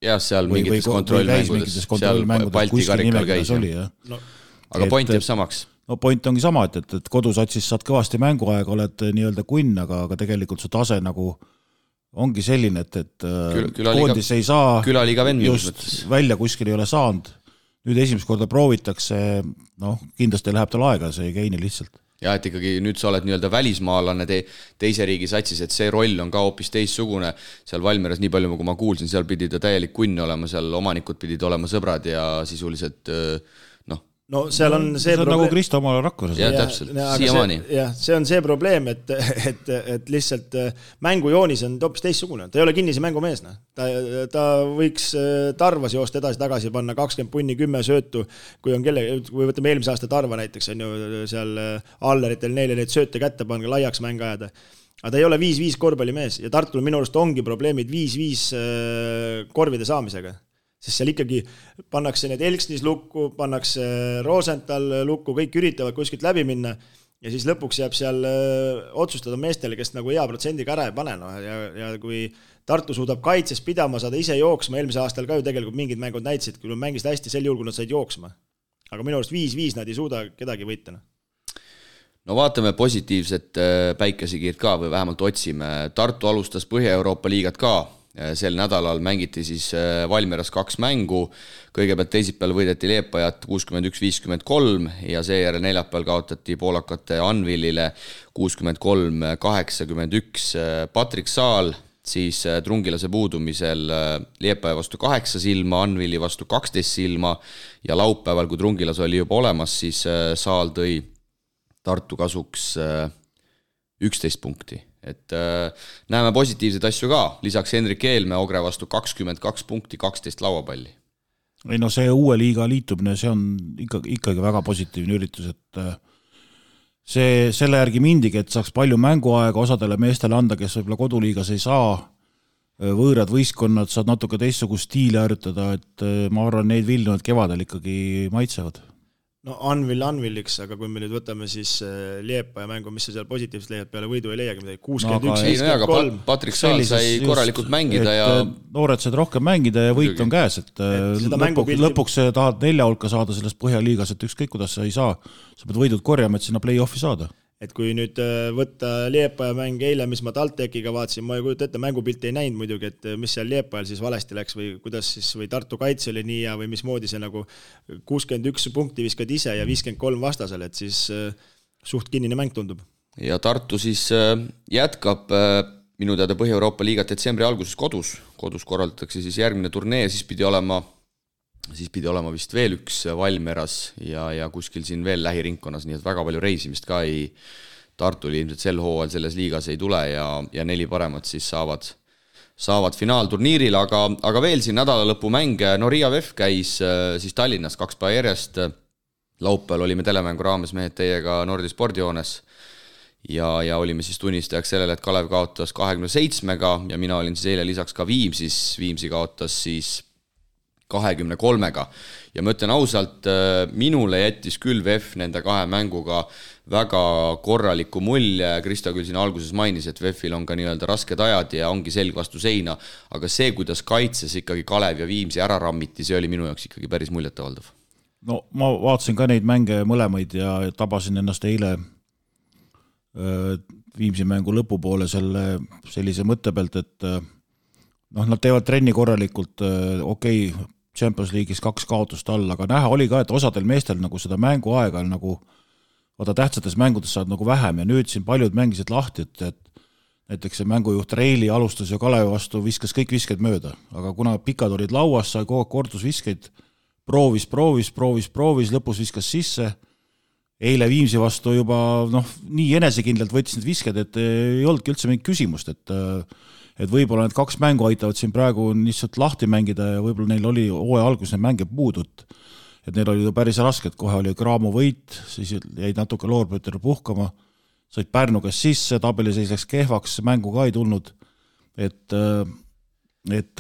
Jah, seal mingites kontrollmängudes, seal Balti karikal käis. No, aga point jääb samaks. No point ongi sama, et kodusatsis saad kõvasti mänguaega, oled nii-öelda kunn, aga tegelikult su tase nagu ongi selline, et koondis ei saa just välja kuskil ei ole saanud. Nüüd esimest korda proovitakse, kindlasti läheb tal aega, see ei käini lihtsalt. Ja et ikkagi nüüd sa oled nii-öelda välismaalane teise riigi satsis, et see roll on ka hoopis teissugune. Seal Valmieras nii palju, kui ma kuulsin, seal pidi ta täielik kunn olema, seal omanikud pidid olema sõbrad ja sisuliselt No seal on see probleem. Nagu Kristo omale Rakveres. Ja täpselt, siiamaani. See on see probleem, et lihtsalt mängujoonis on hoopis teissugune. Ta ei ole kinnise mängumees. Ta võiks Tarvas joosta edasi-tagasi panna 20 punni, 10 söötu, kui võtame eelmise aasta Tarva näiteks, on ju seal alleritel neile neid sööte kätte panna, laiaks mäng ajada. Aga ta ei ole 5-5 korvpallimees ja Tartul minu arust ongi probleemid 5-5 korvide saamisega. Sest seal ikkagi pannakse need Elksnis lukku, pannakse Rosenthal lukku, kõik üritavad kuskilt läbi minna ja siis lõpuks jääb seal otsustada meestele, kes nagu hea protsendiga ära ei pane. Ja kui Tartu suudab kaitses pidama, saada ise jooksma, eelmise aastal ka ju tegelikult mingid mängud näitsid, kui mängisid hästi sel juhul, kui nad said jooksma. Aga minu arust 5-5 nad ei suuda kedagi võita. No vaatame positiivset päikesikiirt ka või vähemalt otsime. Tartu alustas Põhja-Euroopa liigat ka. Sel nädalal mängiti siis Valmieras 2 mängu, kõigepealt teisipäeval võideti Liepajat 61-53 ja seejärel neljapäeval kaotati poolakate Anvilile 63-81. Patrik Saal siis Trungilase puudumisel Liepaja vastu 8 silma, Anvili vastu 12 silma ja laupäeval, kui Trungilas oli juba olemas, siis Saal tõi Tartu kasuks 11 punkti. Et näeme positiivseid asju ka, lisaks Henrik Eelme Ogre vastu 22 punkti, 12 lauapalli. Ei no see uue liiga liitumine, see on ikkagi väga positiivne üritus, et selle järgi mindigi, et saaks palju mänguaega osadele meestele anda, kes võib-olla koduliigas ei saa, võõrad võistkonnad saad natuke teistsugust stiili harjutada, et ma arvan, neid Vilnivad kevadel ikkagi maitsevad. No Anviliks, aga kui me nüüd võtame siis Liepaja mängu, mis sa seal positiivselt leiad peale võidu ei leiagi midagi, 61-53. Patrik Saal sai korralikult mängida ja noored said rohkem mängida ja võit on käes, et lõpuks tahad 4 hulka saada sellest Põhjaliigas, et ükskõik kuidas sa ei saa, sa pead võidud korjama, et sinna play-offi saada. Et kui nüüd võtta Liepaja mäng eile, mis ma TalTechiga vaatasin, ma ei kujuta ette, mängupilti ei näinud muidugi, et mis seal Liepajal siis valesti läks või kuidas siis, või Tartu kaitse oli nii ja või mismoodi see nagu 61 punkti viskad ise ja 53 vastasel, et siis suht kinnine mäng tundub. Ja Tartu siis jätkab minu teada Põhja-Euroopa liigat detsembri alguses kodus korraldatakse siis järgmine turnee, siis pidi olema vist veel üks Valmieras ja kuskil siin veel lähiringkonnas, nii et väga palju reisimist ka Tartul ilmselt sel hooajal selles liigas ei tule ja 4 paremat siis saavad finaalturniiril, aga veel siin nädalalõpu mänge, no Riia VEF käis siis Tallinnas 2 päeva järjest, laupäeval olime telemängu raames mehed teiega Nordi spordijoones ja olime siis tunnistajaks sellele, et Kalev kaotas 27-ga ja mina olin siis eile lisaks ka Viimsi kaotas siis 23-ga ja ma ütlen ausalt, minule jättis küll VEF nende 2 mänguga väga korraliku mulje, Krista küll siin alguses mainis, et VEF-il on ka nii-öelda rasked ajad ja ongi selg vastu seina, aga see, kuidas kaitses ikkagi Kalev ja Viimsi ära rammiti, see oli minu jaoks ikkagi päris muljetavaldav. No ma vaatasin ka neid mänge mõlemaid ja tabasin ennast eile Viimsi mängu lõpupoole sellise mõtte pealt, et nad teevad trenni korralikult, okei, Champions League'is 2 kaotust all, aga näha oli ka, et osadel meestel nagu seda mänguaega nagu tähtsates mängudes saad nagu vähem ja nüüd siin paljud mängisid lahti, et näiteks see mängujuht Reili alustas ja Kalevi vastu viskas kõik visked mööda, aga kuna pikad olid lauas, sai kogu kordusviskeid, proovis, lõpus viskas sisse. Eile Viimsi vastu juba nii enesekindlalt võttis need visked, et ei olnudki üldse mingit küsimust, et võib-olla need 2 mängu aitavad siin praegu lihtsalt lahti mängida ja võib-olla neil oli hooaja alguses need mänge puudud, et neil oli päris raske, et kohe oli Graamo võit, siis jäid natuke Loorbüttel puhkama, said Pärnu käest sisse, tabeliseis läks kehvaks, mängu ka ei tulnud, et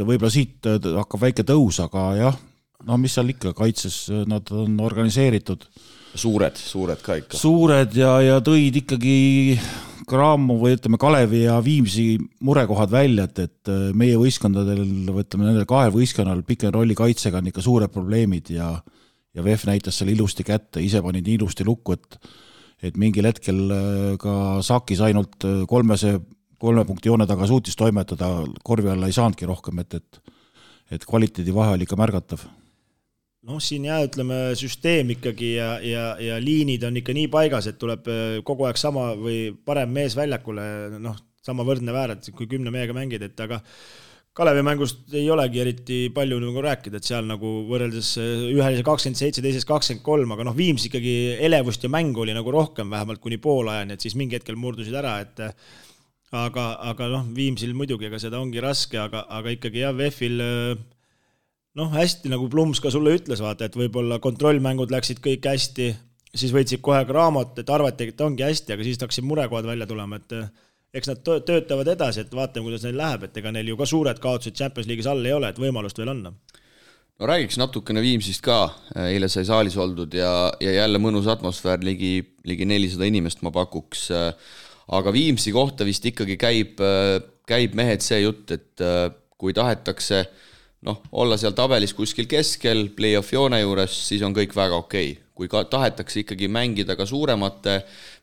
võib-olla siit hakkab väike tõus, aga jah, mis seal ikka, kaitses nad on organiseeritud. Suured ka ikka. Suured ja tõid ikkagi Graamo või ütleme Kalevi ja Viimsi murekohad välja, et meie võistkondadel, ütleme nendel 2 võistkonnal pikem rolli kaitsega on ikka suured probleemid ja VEF näitas selle ilusti kätte, ise pani nii ilusti lukku, et mingil hetkel ka Sakis ainult 3 punkti joone taga suutis toimetada, korvi alla ei saanudki rohkem, et kvaliteedi vahe oli ikka märgatav. Siin ütleme, süsteem ikkagi ja liinid on ikka nii paigas, et tuleb kogu aeg sama või parem mees väljakule, sama võrdne väärad, kui 10 mehega mängid, et aga Kalevi mängust ei olegi eriti palju nagu rääkida, et seal nagu võrreldes ühel 27, teises 23, aga Viims ikkagi elevust ja mängu oli nagu rohkem, vähemalt kuni poolajani, et siis mingi hetkel murdusid ära, et aga Viimsil muidugi, aga seda ongi raske, aga ikkagi VEF-il hästi nagu Plums ka sulle ütles, vaata, et võib-olla kontrollmängud läksid kõik hästi, siis võitsid kohe Graamot, et arvati, et ongi hästi, aga siis hakkasid murekohad välja tulema, et eks nad töötavad edasi, et vaatame, kuidas neil läheb, et ega neil ju ka suured kaotused Champions League'is all ei ole, et võimalust veel on. No räägiks natukene Viimsist ka, eile sai saalis oldud ja jälle mõnus atmosfäär, ligi 400 inimest ma pakuks, aga Viimsi kohta vist ikkagi käib mehed see jutt, et kui tahetakse olla seal tabelis kuskil keskel, play-off joone juures, siis on kõik väga okei. Kui tahetakse ikkagi mängida ka suuremate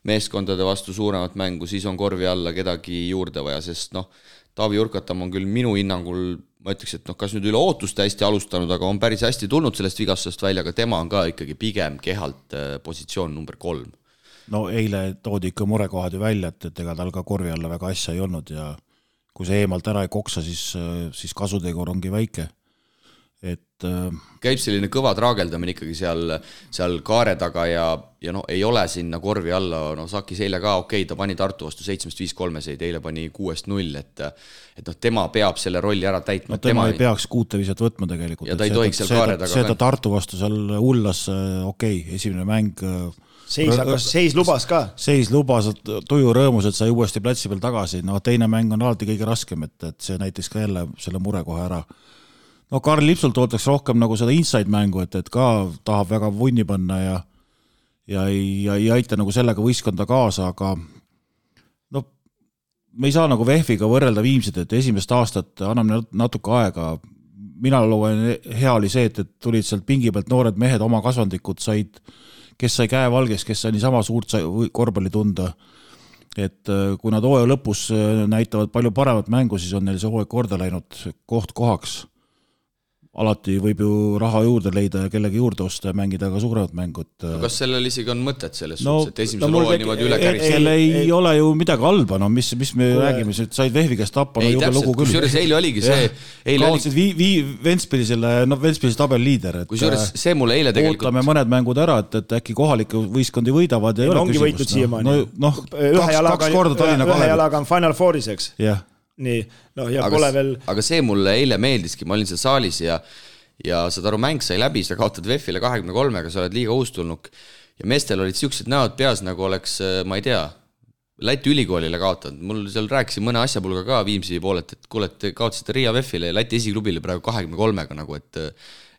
meeskondade vastu suuremat mängu, siis on korvi alla kedagi juurde vaja, sest Taavi Jurkatam on küll minu hinnangul, ma ütleks, et kas nüüd üle ootuste hästi alustanud, aga on päris hästi tulnud sellest vigastusest välja, aga tema on ka ikkagi pigem kehalt positsioon number 3. Eile toodi ikka murekohad ju välja, et ega tal ka korvi alla väga asja ei olnud ja kui see eemalt ära ei koksa, siis kasutegur ongi väike. Käib selline kõva traageldamine ikkagi seal kaare taga ja ei ole sinna korvi alla, Sakis eile ka ta pani Tartu vastu 7-5 3-seid, eile pani 6-0, et tema peab selle rolli ära täitma. Tema ei peaks 6 viset võtma tegelikult. Ja ta ei tohiks seal kaare taga. See ta Tartu vastu seal hullas, esimene mäng. Seis lubas ka. Seis lubas, tuju rõõmus, et sai uuesti platsi peal tagasi. Teine mäng on alati kõige raskem, et see näiteks ka jälle selle mure kohe ära. Karl Lipsult ootaks rohkem nagu seda inside mängu, et ka tahab väga vunni panna ja ei aita nagu sellega võistkonda kaasa, aga me ei saa nagu VEF-iga võrrelda Viimsit, et esimest aastat anname natuke aega. Mina loen hea oli see, et tulid sealt pingi pealt noored mehed, oma kasvandikud said, kes sai käe valges, kes sai niisama suurt korvpalli tunda. Et kui nad hooaja lõpus näitavad palju paremat mängu, siis on neil see hooaeg korda läinud koht kohaks. Alati võib ju raha juurde leida ja kellegi juurde osta ja mängida ka suuremat mängut. Kas sellel isegi on mõtet selles suhtes, et esimesel hooajal niimoodi üle käris? Ei ole ju midagi halba, mis me räägime, said VEF-i käest tappa, juba lugu küll. Kusjuures eile oligi see... Kaotsid Ventspilsi tabelliider. Kusjuures see mulle eile tegelikult... Ootame mõned mängud ära, et äkki kohaliku võistkondi võidavad ja ei ole küsimust. Kaks korda Tallinna Kalev. Ühe jalaga on Final Fouris, eks? Jah. Nii, ja pole veel... Aga see mulle eile meeldiski, ma olin seal saalis ja saad aru, mäng sai läbi, sa kaotad VEF-ile 23-ga, sa oled liiga uustulnuk ja meestel olid siuksed näod peas, nagu oleks, ma ei tea, Läti ülikoolile kaotanud. Mul seal rääkisin mõne asjapulga ka Viimsi poolet, et kuule, et kaotasite Riia VEF-ile ja Läti esiklubile praegu 23-ga nagu,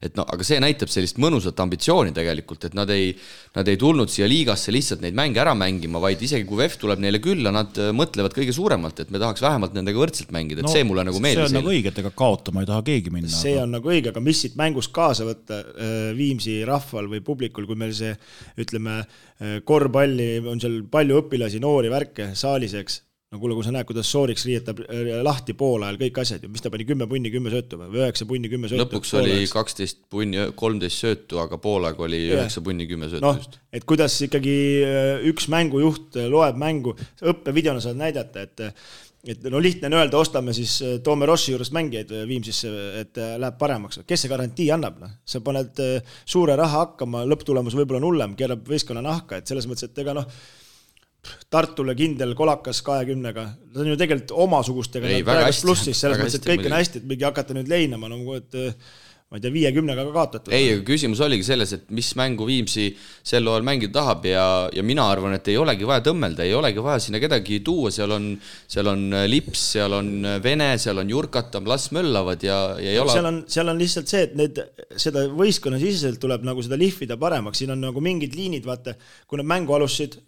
aga see näitab sellist mõnusat ambitsiooni tegelikult, et nad ei tulnud siia liigasse lihtsalt neid mänge ära mängima, vaid isegi kui VEF tuleb neile külla, nad mõtlevad kõige suuremalt, et me tahaks vähemalt nendega võrdselt mängida, et see mulle nagu meeldis. See on nagu õige, et ega kaotama ei taha keegi minna. See on nagu õige, aga mis siit mängust kaasa võtta Viimsi rahval või publikul, kui meil see, ütleme, korvpalli on seal palju õpilasi, noori värke saaliseks. No kuule, kui sa näed, kuidas Sooriks riietab lahti pool ajal kõik asjad, mis ta pani 10 punni, 10 söötu või 9 punni, 10 söötu. Lõpuks oli 12 punni, 13 söötu, aga poolaeg oli 9 punni, 10 söötu. Et kuidas ikkagi üks mängujuht loeb mängu, õppevideona saad näidata, et no lihtne on öelda, ostame siis Toome Rossi juurest mängijaid Viimsisse, et läheb paremaks. Kes see garantii annab? Sa paned suure raha hakkama, lõpptulemus võib-olla on hullem, keerab võistkonna nahka, et selles mõttes, et ega Tartule kindel kolakas 20-ga, nad on ju tegelikult omasugustega plussis, selles mõttes, et kõik on hästi, et mingi hakata nüüd leinama, et ma ei tea, 50-ga ka kaotatud. Ei, küsimus oligi selles, et mis mängu Viimsi sel ajal mängida tahab ja mina arvan, et ei olegi vaja tõmmelda, ei olegi vaja sinna kedagi tuua, seal on Lips, seal on Vene, seal on Jurkatam, las möllavad ja ei ole... Seal on lihtsalt see, et seda võistkonna siseselt tuleb nagu seda lihvida paremaks, siin on nagu mingid liinid, vaata, kui nad mängu alustasid,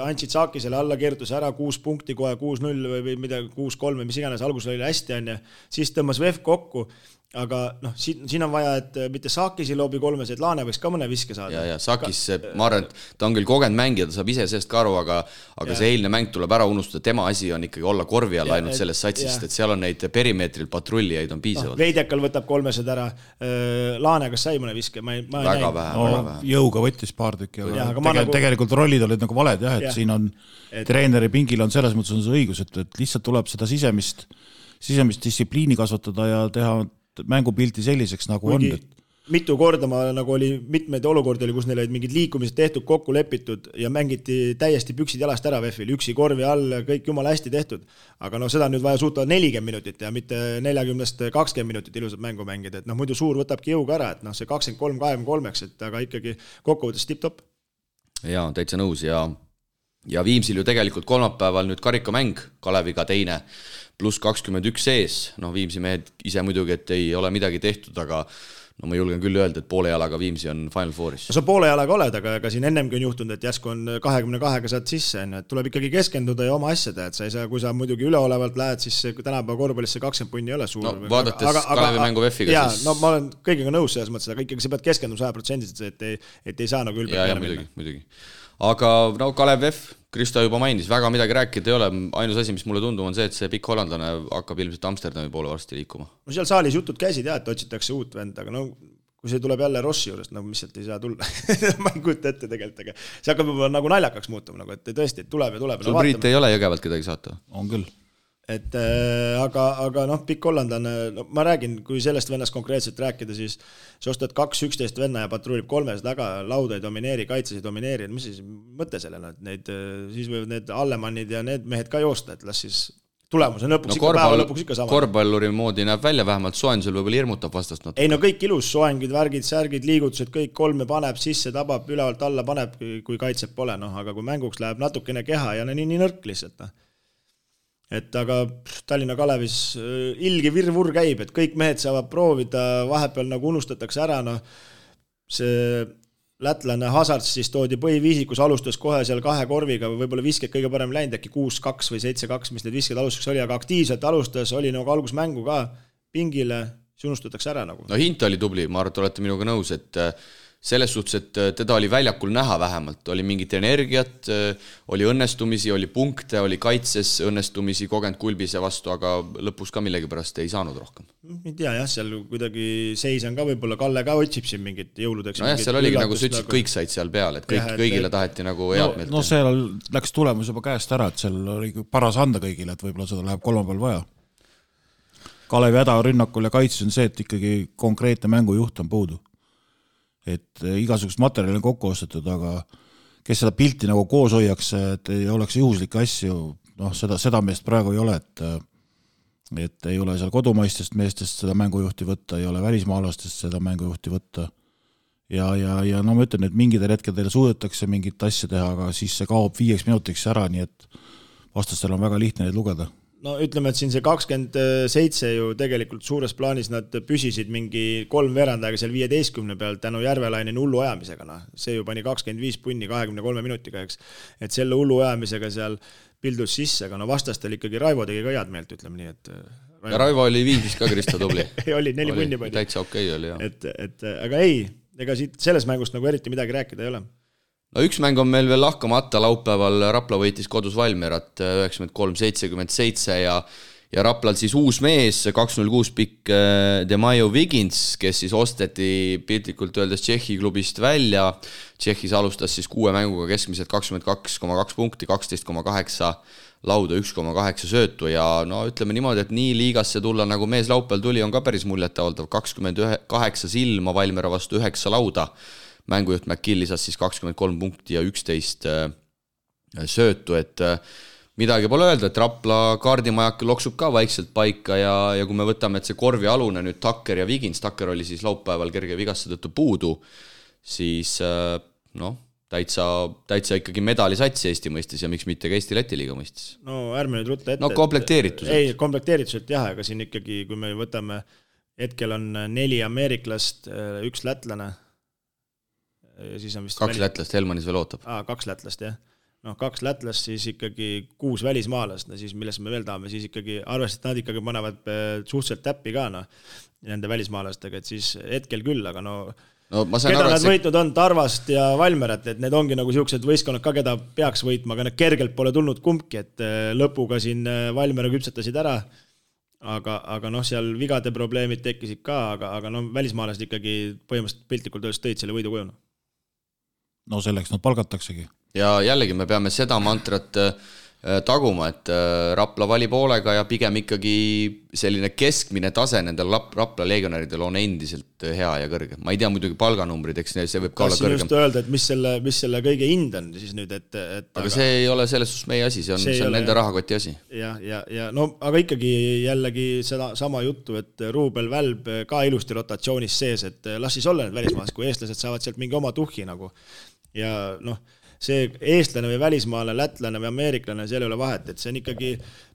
andsid Saakisele alla, keertus ära 6 punkti kohe, 6-0 või midagi, 6-3 või mis iganes, alguses oli hästi, siis tõmbas VEF kokku, aga siin on vaja, et mitte Saakisi loobi kolmes, et Laane võiks ka mõne viske saada. Ja Saakis, ma arvan, et ta on küll kogenud mängija, ta saab ise sellest ka aru, aga see eilne mäng tuleb ära unustada, tema asi on ikkagi olla korvi all ainult sellest satsist, et seal on neid perimeetril patrullijaid on piisavalt. Veidekal võtab kolmesed ära, Laane kas sai mõne viske? Väga vähe. Jõuga võttis paar tükki, aga tegelikult rollid olid nagu valed, et siin on treeneri pingil on selles mõttes on see õigus, et lihtsalt tuleb seda sisemist distsipliini kasvatada ja teha mängupilti selliseks, nagu on. Mitu korda nagu oli mitmeid olukordi, kus neil olid mingid liikumised tehtud, kokku lepitud ja mängiti täiesti püksid jalast ära VEF-il, üksi korvi all, kõik jumala hästi tehtud. Aga seda nüüd vaja suuta 40 minutit ja mitte 40-20 minutit ilusat mängu mängida, et muidu suur võtabki jõuga ära, et see 23-23, et aga ikkagi kokkuvõttes tipp-top. Jaa, täitsa nõus ja Viimsil ju tegelikult kolmapäeval nüüd karikamäng Kaleviga teine pluss 21 sees, Viimsi mehed ise muidugi, et ei ole midagi tehtud, aga ma julgen küll öelda, et poole jalaga Viimsi on Final Fouris. Sa poole jalaga oled, aga siin ennemgi on juhtunud, et jäsku on 22-ga saad sisse, et tuleb ikkagi keskenduda ja oma asjade, et sa ei saa, kui sa muidugi üleolevalt lähed, siis tänapäeva korvpallis see 20 punni ei ole suur. Vaadates Kalevi mängu VEF-iga jaa, ma olen kõigega nõus selles mõttes, aga ikkagi sa pead keskenduma 100%, et ei saa nagu ülbelt peale minna. Muidugi. Aga Kalev VEF, Kristo juba mainis, väga midagi rääkida ei ole, ainus asi, mis mulle tundub, on see, et see pikk hollandlane hakkab ilmselt Amsterdami poole varsti liikuma. Seal saalis jutud käisid et otsitakse uut vend, aga kui see tuleb jälle Rossi juurest, mis sealt ei saa tulla, ma ei kujuta ette tegelikult, aga see hakkab juba nagu naljakaks muutuma, et tõesti, tuleb ja tuleb. Sul Priit ei ole Jõgevalt kedagi saata? On küll. Et aga pikk hollandlane, ma räägin, kui sellest vennast konkreetselt rääkida, siis sa ostad 2-11 venna ja patrullib 3 taga, lauda ei domineeri, kaitses ei domineeri, mis siis mõte sellele, et siis võivad need Allemannid ja need mehed ka joosta, et las siis tulemus on lõpuks päeva lõpuks ikka sama. Korvpalluri moodi näeb välja, vähemalt soojendusel võib-olla hirmutab vastast natuke. Ei kõik ilus, soengid, värgid, särgid, liigutused, kõik kolme paneb sisse, tabab, ülevalt alla paneb, kui kaitseb pole, aga kui mänguks läheb natukene keha ja nii nõrk lihtsalt. Et aga Tallinna Kalevis ilgi virvur käib, et kõik mehed saavad proovida, vahepeal nagu unustatakse ära, see lätlane Hazards siis toodi põhiviisikus, alustas kohe seal 2 korviga, võib-olla visked kõige parem läinud, äkki 6-2 või 7-2, mis need visked alustuseks oli, aga aktiivselt alustas, oli nagu algusmängu ka pingile, siis unustatakse ära nagu. Hint oli tubli, ma arvan, et olete minuga nõus, et selles suhtes, et teda oli väljakul näha vähemalt, oli mingit energiat, oli õnnestumisi, oli punkte, oli kaitses õnnestumisi, kogenud Kulbise vastu, aga lõpus ka millegi pärast ei saanud rohkem. Ei tea, seal kuidagi seis on ka, võib-olla Kalle ka otsib siin mingit jõuludeks. Seal oligi nagu sa ütlesid, kõik said seal peal, et kõigile taheti nagu head meelt. Seal läks tulemus juba käest ära, et seal oli paras anda kõigile, et võib-olla seda läheb kolmapäeval vaja. Kalevi häda rünnakul ja kaitses on see, et ikkagi konkreetne mängujuht on puudu. Et igasugust materjali on kokku ostetud, aga kes seda pilti nagu koos hoiaks, et ei oleks juhuslikke asju, seda meest praegu ei ole, et ei ole seal kodumaistest meestest seda mängujuhti võtta, ei ole välismaalastest seda mängujuhti võtta ja ma ütlen, et mingidel hetkedel suudetakse mingit asja teha, aga siis see kaob 5 minutiks ära, nii et vastastel on väga lihtne neid lugeda. Ütleme, et siin see 27 ju tegelikult suures plaanis nad püsisid mingi 3 veerandajaga seal 15 peal tänu Järvelainen hullu ajamisega. See ju pani 25 punni 23 minutiga, eks. Et selle hullu ajamisega seal pildus sisse, aga vastastel ikkagi Raivo tegi ka head meelt, ütleme nii. Et ja Raivo oli Viimsis ka Kristo tubli. oli 4 punni pani. Täitsa okei oli, jah. Aga ei, ega siit selles mängust nagu eriti midagi rääkida ei ole. Üks mäng on meil veel lahkamata, laupäeval Rapla võitis kodus Valmierat 93-77 ja Raplal siis uus mees, 206 pikk Demaio Wiggins, kes siis osteti piltlikult öeldes Tšehhi klubist välja. Tšehhis alustas siis 6 mänguga keskmiselt 22,2 punkti, 12,8 lauda, 1,8 söötu ja no ütleme niimoodi, et nii liigasse tulla nagu mees laupäeval tuli, on ka päris muljetavaldav. 28 silma Valmiera vastu 9 lauda. Mängujuht McGill lisas siis 23 punkti ja 11 söötu, et midagi pole öelda, et Rapla kaardimajak loksub ka vaikselt paika ja kui me võtame, et see korvi alune nüüd Tucker ja Wiggins, Tucker oli siis laupäeval kerge vigastuse tõttu puudu, siis täitsa ikkagi medalisats Eesti mõistes ja miks mitte ka Eesti-Läti liiga mõistes. No ärme nüüd rutta ette. No komplekteerituselt. Ei, komplekteerituselt jah, aga siin ikkagi, kui me võtame, hetkel on 4 ameeriklast, 1 lätlane. Siis on vist 2 lätlast, Helmanis veel ootab. 2 lätlast, jah. 2 lätlast, siis ikkagi 6 välismaalast, siis milles me veel tahame, siis ikkagi arvestades, nad ikkagi panevad suhteliselt täppi ka nende välismaalastega, et siis hetkel küll, aga keda nad võitnud on, Tarvast ja Valmerat, et need ongi nagu siuksed võistkonnad ka, keda peaks võitma, aga need kergelt pole tulnud kumbki, et lõpuga siin Valmera küpsetasid ära, aga seal vigade probleemid tekkisid ka, aga välismaalased ikkagi põhimõtteliselt piltlikult öeldes tõid selle võidu kujuna. No selleks nad palgataksegi. Ja jällegi me peame seda mantrat taguma, et Rapla valib hoolega ja pigem ikkagi selline keskmine tase nendel Rapla legionäridel on endiselt hea ja kõrge. Ma ei tea muidugi palganumbrid, eks see võib ka olla kõrgem. Kas just öelda, et mis selle kõige hind on siis nüüd, aga see ei ole selles suhtes meie asi, see on nende rahakoti asi. Ja aga ikkagi jällegi seda sama juttu, et Ruubel Välb ka ilusti rotatsioonis sees, et las siis olla need välismaas, kui eestlased saavad sealt mingi oma tuhhi nagu. Ja see eestlane või välismaale, lätlane või ameeriklane, seal ei ole vahet, et see on ikkagi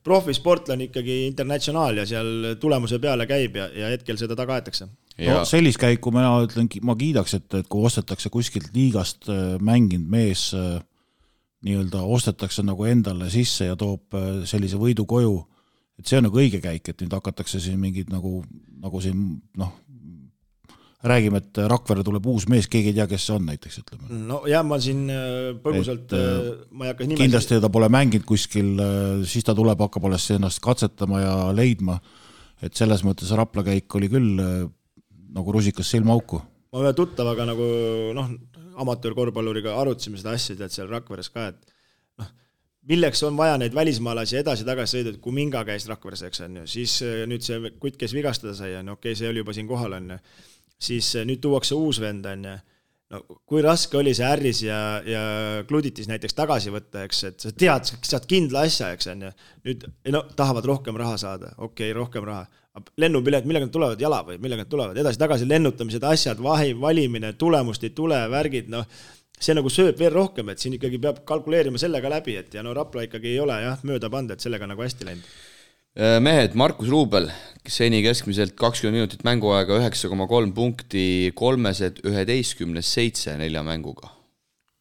profisportlane ikkagi internatsionaal ja seal tulemuse peale käib ja hetkel seda taga aetakse. No, sellist käiku ma ütlen, ma kiidaks, et kui ostetakse kuskilt liigast mänginud mees, nii-öelda ostetakse nagu endale sisse ja toob sellise võidu koju, et see on nagu õige käik, et nüüd hakatakse siin mingid nagu siin räägime, et Rakvere tuleb uus mees, keegi ei tea, kes see on näiteks, ütleme. No jah, ma siin põgusalt, ma ei hakka nimesid. Kindlasti ta pole mänginud kuskil, siis ta tuleb, hakkab alles ennast katsetama ja leidma, et selles mõttes Rapla käik oli küll nagu rusikas silmaauku. Ma ühe tuttavaga nagu amatöörkorvpalluriga arutasime seda asja, et seal Rakveres ka, et milleks on vaja neid välismaalasi edasi-tagasi sõida, et kui Minga käis Rakveres, eks on ju, siis nüüd see kutt, kes vigastada sai, okei, see oli juba siin kohal, on ju. Siis nüüd tuuakse uus vend, on ju. Kui raske oli see Ärris ja Kluditis näiteks tagasi võtta, eks, et sa tead, saad kindla asja, eks on ju. Nüüd tahavad rohkem raha saada, okei, rohkem raha. Lennupilet, millega nad tulevad, jala või millega nad tulevad, edasi-tagasi lennutamised, asjad, valimine, tulemust ei tule, värgid, see nagu sööb veel rohkem, et siin ikkagi peab kalkuleerima sellega läbi, et ja Rapla ikkagi ei ole mööda panda, et sellega nagu hästi läinud. Mehed, Markus Ruubel, seni keskmiselt 20 minutit mänguaega, 9,3 punkti, 311-7 4 mänguga.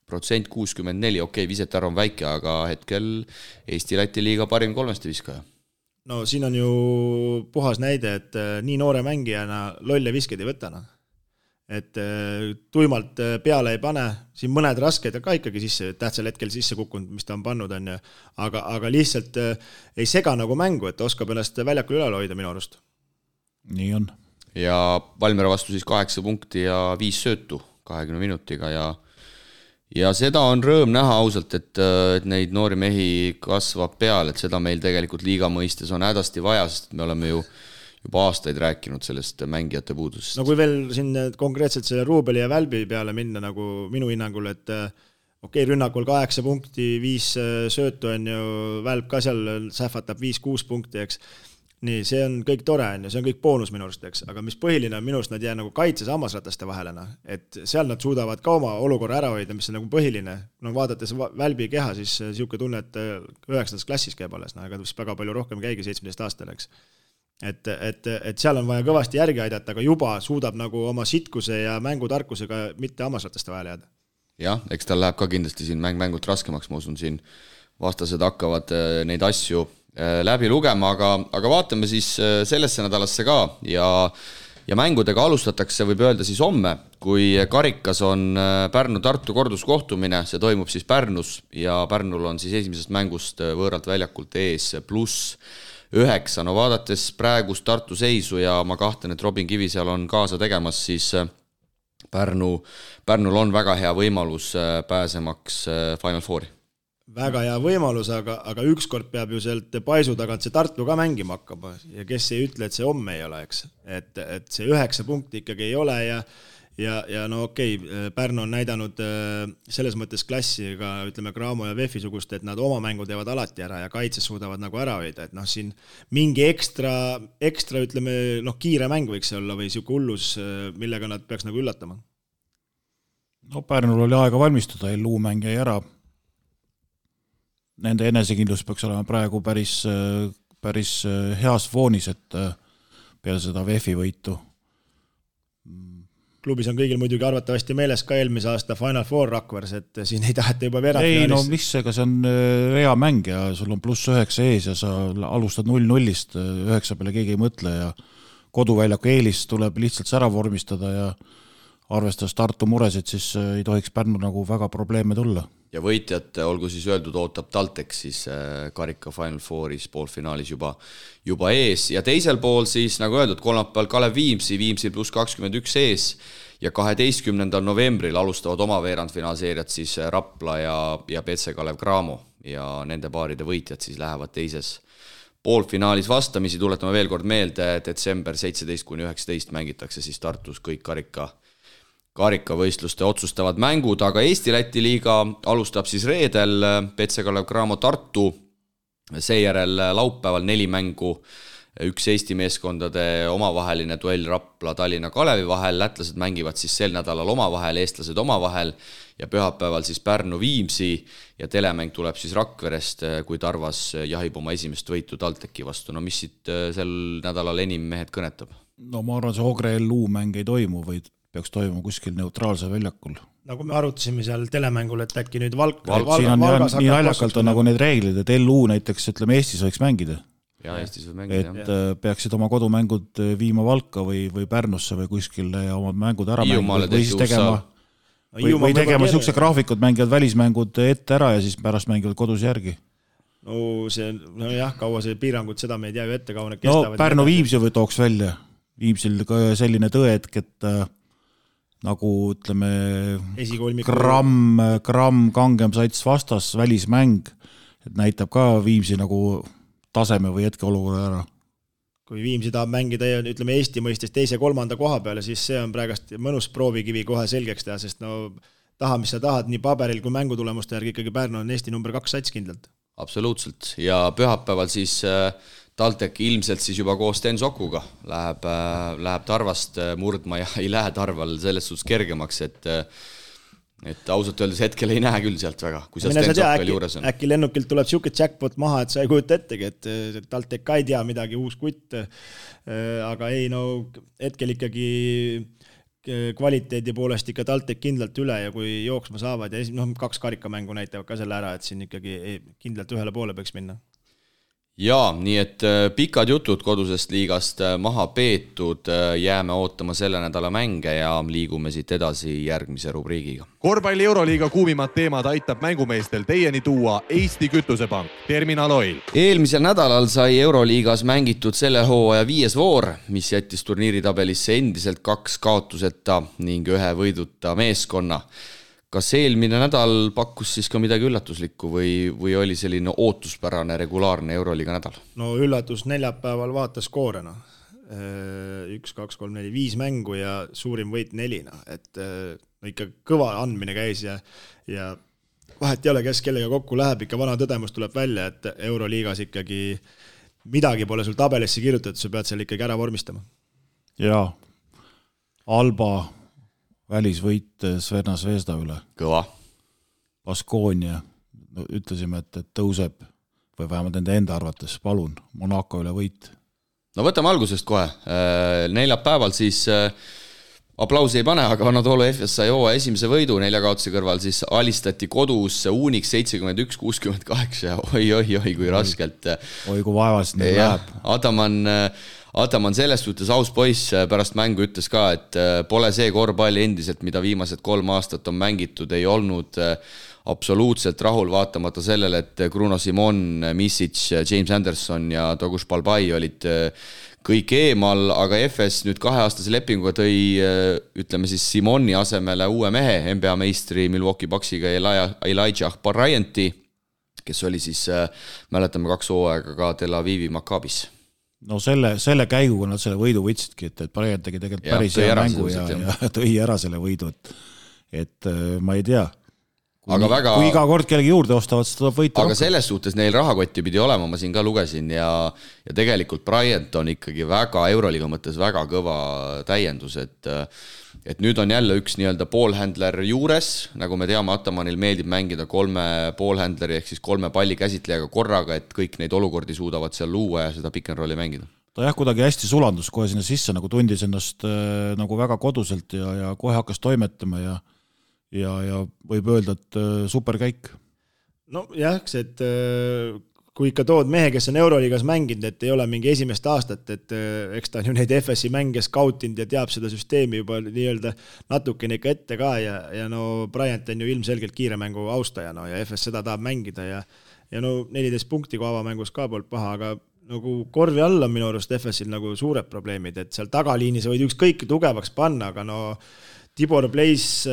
Protsent 64, okei, visetarv on väike, aga hetkel Eesti-Läti liiga parim 3 viskaja. No siin on ju puhas näide, et nii noore mängijana lolle visked ei võtana. Et tuimalt peale ei pane, siin mõned rasked ka ikkagi sisse, tähtsal hetkel sisse kukkunud, mis ta on pannud, on ju. Aga lihtsalt ei sega nagu mängu, et oskab ennast väljakul üle hoida minu arust. Nii on. Ja Valmiera vastu siis 8 punkti ja 5 söötu 20 minutiga ja seda on rõõm näha ausalt, et neid noori mehi kasvab peal, et seda meil tegelikult liiga mõistes on hädasti vaja, sest me oleme ju juba aastaid rääkinud sellest mängijate puudusest. No kui veel siin konkreetselt selle Ruubeli ja Välbi peale minna nagu minu hinnangul, et okei, rünnakul 8 punkti, 5 söötu on ju, Välb ka seal sähvatab 5-6 punkti, eks. Nii, see on kõik tore, see on kõik boonus minu arust, eks. Aga mis põhiline on minu arust, nad jää nagu kaitses hammasrataste vahelena, et seal nad suudavad ka oma olukorra ära hoida, mis on nagu põhiline. No vaadates Välbi keha, siis siuke tunne, et 9. klassis käib alles, aga väga palju rohkem käigi 17 aastal, eks. Et seal on vaja kõvasti järgi aidata, aga juba suudab nagu oma sitkuse ja mängutarkusega mitte hammasrataste vahele jääda. Jah, eks tal läheb ka kindlasti siin mängult raskemaks, ma usun, siin vastased hakkavad neid asju läbi lugema, aga vaatame siis sellesse nädalasse ka ja mängudega alustatakse, võib öelda siis homme, kui karikas on Pärnu-Tartu korduskohtumine, see toimub siis Pärnus ja Pärnul on siis esimesest mängust võõralt väljakult ees pluss 9. No vaadates praegust Tartu seisu ja ma kahtlen, et Robin Kivisäär on kaasa tegemas, siis Pärnul on väga hea võimalus pääsemaks Final Fouri. Väga hea võimalus, aga ükskord peab ju sealt paisu tagant see Tartu ka mängima hakkama ja kes ei ütle, et see homme ei ole, eks. Et see 9 punkti ikkagi ei ole ja no okei, Pärnu on näidanud selles mõttes klassi ka, ütleme, Graamo ja Vefi sugust, et nad oma mängu teevad alati ära ja kaitses suudavad nagu ära hoida, et noh, siin mingi ekstra ütleme, noh, kiire mäng võiks olla või siuke hullus, millega nad peaks nagu üllatama. No Pärnul oli aega valmistuda, LU mäng jäi ära. Nende enesekindlus peaks olema praegu päris heas foonis, et peale seda VEF-i võitu. Klubis on kõigil muidugi arvatavasti meeles ka eelmise aasta Final Four Rakvers, et siin ei taheta juba veerandfinaalis. Ei, no mis ega see on rea mäng ja sul on +9 ees ja sa alustad 0-0-st, 9 peale keegi ei mõtle ja koduväljaku eelis tuleb lihtsalt ära vormistada ja arvestades Tartu muresid, siis ei tohiks Pärnu nagu väga probleeme tulla. Ja võitjad, olgu siis öeldud, ootab TalTech siis karika Final Fouris poolfinaalis juba ees ja teisel pool siis, nagu öeldud, kolmapäeval Kalev Viimsi +21 ees ja 12. novembril alustavad oma veerandfinaalseeriat siis Rapla ja PC Kalev Cramo ja nende paaride võitjad siis lähevad teises poolfinaalis vastamisi, tuletame veel kord meelde, detsember 17-19 mängitakse siis Tartus kõik karikavõistluste otsustavad mängud, aga Eesti-Läti liiga alustab siis reedel PC Kalev Cramo Tartu, seejärel laupäeval 4 mängu, 1 Eesti meeskondade omavaheline duell Rapla Tallinna Kalevi vahel, lätlased mängivad siis sel nädalal omavahel, eestlased omavahel ja pühapäeval siis Pärnu Viimsi ja telemäng tuleb siis Rakverest, kui Tarvas jahib oma esimest võitu TalTechi vastu. No mis siit sel nädalal enim mehed kõnetab? No ma arvan, see Ogre LU mäng ei toimu, vaid peaks toimuma kuskil neutraalse väljakul. Nagu me arutasime seal telemängul, et äkki nüüd siin on nii naljakalt on nagu need reeglid, et LU näiteks, ütleme, Eestis võiks mängida. Ja Eestis võib mängida. Et peaksid oma kodumängud viima Valka või Pärnusse või kuskile ja omad mängud ära mängida või siis tegema siukse graafikud, mängivad välismängud ette ära ja siis pärast mängivad kodus järgi. No jah, kaua see piirangud, seda me ei tea ju ette, kaua need kestavad. No Pärnu Viimsi või tooks välja. Viimsil selline tõetk, et nagu ütleme gramm kangem sats vastas välismäng, et näitab ka Viimsi nagu taseme või hetkeolukorra ära. Kui Viimsi tahab mängida, ütleme Eesti mõistes 2.-3. koha peale, siis see on praegast mõnus proovikivi kohe selgeks teha, sest no taha, mis sa tahad, nii paberil kui mängutulemuste järgi ikkagi Pärnu on Eesti number 2 sats kindlalt. Absoluutselt ja pühapäeval siis TalTech ilmselt siis juba koos Sten Sokuga läheb Tarvast murdma ja ei lähe Tarval selles suhtes kergemaks, et ausalt öeldes hetkel ei näe küll sealt väga, kui seal Sten Sokk veel juures on. Äkki lennukilt tuleb siuke jackpot maha, et sa ei kujuta ettegi, et TalTech ka ei tea midagi, uus kutt, aga ei, no hetkel ikkagi kvaliteedi poolest ikka TalTech kindlalt üle ja kui jooksma saavad ja 2 karikamängu näitavad ka selle ära, et siin ikkagi kindlalt ühele poole peaks minna. Jaa, nii et pikad jutud kodusest liigast maha peetud, jääme ootama selle nädala mänge ja liigume siit edasi järgmise rubriigiga. Korvpalli Euroliiga kuumimad teemad aitab mängumeestel teieni tuua Eesti Kütusepank, Terminal Oil. Eelmisel nädalal sai Euroliigas mängitud selle hooaja 5. voor, mis jättis turniiritabelisse endiselt 2 kaotuseta ning 1 võiduta meeskonna. Kas eelmine nädal pakkus siis ka midagi üllatuslikku või oli selline ootuspärane regulaarne Euroliiga nädal? No üllatus neljapäeval vaatas koorena. 1, 2, 3, 4, 5 mängu ja suurim võit 4. Et ikka kõva andmine käis ja vahet ei ole, kes kellega kokku läheb, ikka vana tõdemus tuleb välja, et Euroliigas ikkagi midagi pole sul tabelisse kirjutatud, sa pead seal ikkagi ära vormistama. Jaa, Alba välisvõit Sverna Zvezda üle. Kõva. Baskonia, ütlesime, et tõuseb või vähemalt nende enda arvates, palun, Monaco üle võit. No võtame algusest kohe. Neljapäeval siis aplausi ei pane, aga Anadolu FS sai hooaja esimese võidu 4 kaotuse kõrval, siis alistati kodus Unix 71-68, oi, kui raskelt. Oi, kui vaevast nüüd läheb. Ataman selles suhtes aus poiss pärast mängu ütles ka, et pole see korvpalli endiselt, mida viimased 3 aastat on mängitud, ei olnud absoluutselt rahul vaatamata sellele, et Bruno Simon, Misic, James Anderson ja Toguš Balbai olid kõik eemal, aga FS nüüd 2-aastase lepinguga tõi, ütleme siis Simoni asemele uue mehe, NBA meistri Milwaukee Bucksiga Elijah Bryant'i, kes oli siis, mäletame 2 hooaega ka Tel Avivi Maccabis. No selle käiguga nad selle võidu võtsidki, et Bryant tegi tegelikult päris hea mängu ja tõi ära selle võidu, et ma ei tea. Kui iga kord kellegi juurde ostavad, siis tuleb võita aga rohkem. Selles suhtes neil rahakotti pidi olema, ma siin ka lugesin ja tegelikult Bryant on ikkagi väga Euroliiga mõttes väga kõva täiendus, et nüüd on jälle üks nii-öelda poolhändler juures, nagu me teame, Atamanil meeldib mängida 3 poolhändleri ehk siis 3 palli käsitlejaga korraga, et kõik neid olukordi suudavad seal luua ja seda pick and rolli mängida. Ta kuidagi hästi sulandus kohe sinna sisse, nagu tundis ennast nagu väga koduselt ja kohe hakkas toimetama ja võib öelda, et superkäik. No jah, et kui ikka tood mehe, kes on Euroliigas mänginud, et ei ole mingi esimest aastat, et eks ta on ju neid FS-i mänge skautinud ja teab seda süsteemi juba nii-öelda natukene ikka ette ka ja no Bryant on ju ilmselgelt kiire mängu austaja ja FS seda tahab mängida ja no 14 punkti kui avamängus ka poolt paha, aga nagu korvi all on minu arust FS-il nagu suured probleemid, et seal tagaliini sa võid ükskõik tugevaks panna, aga no Tibor Blaze,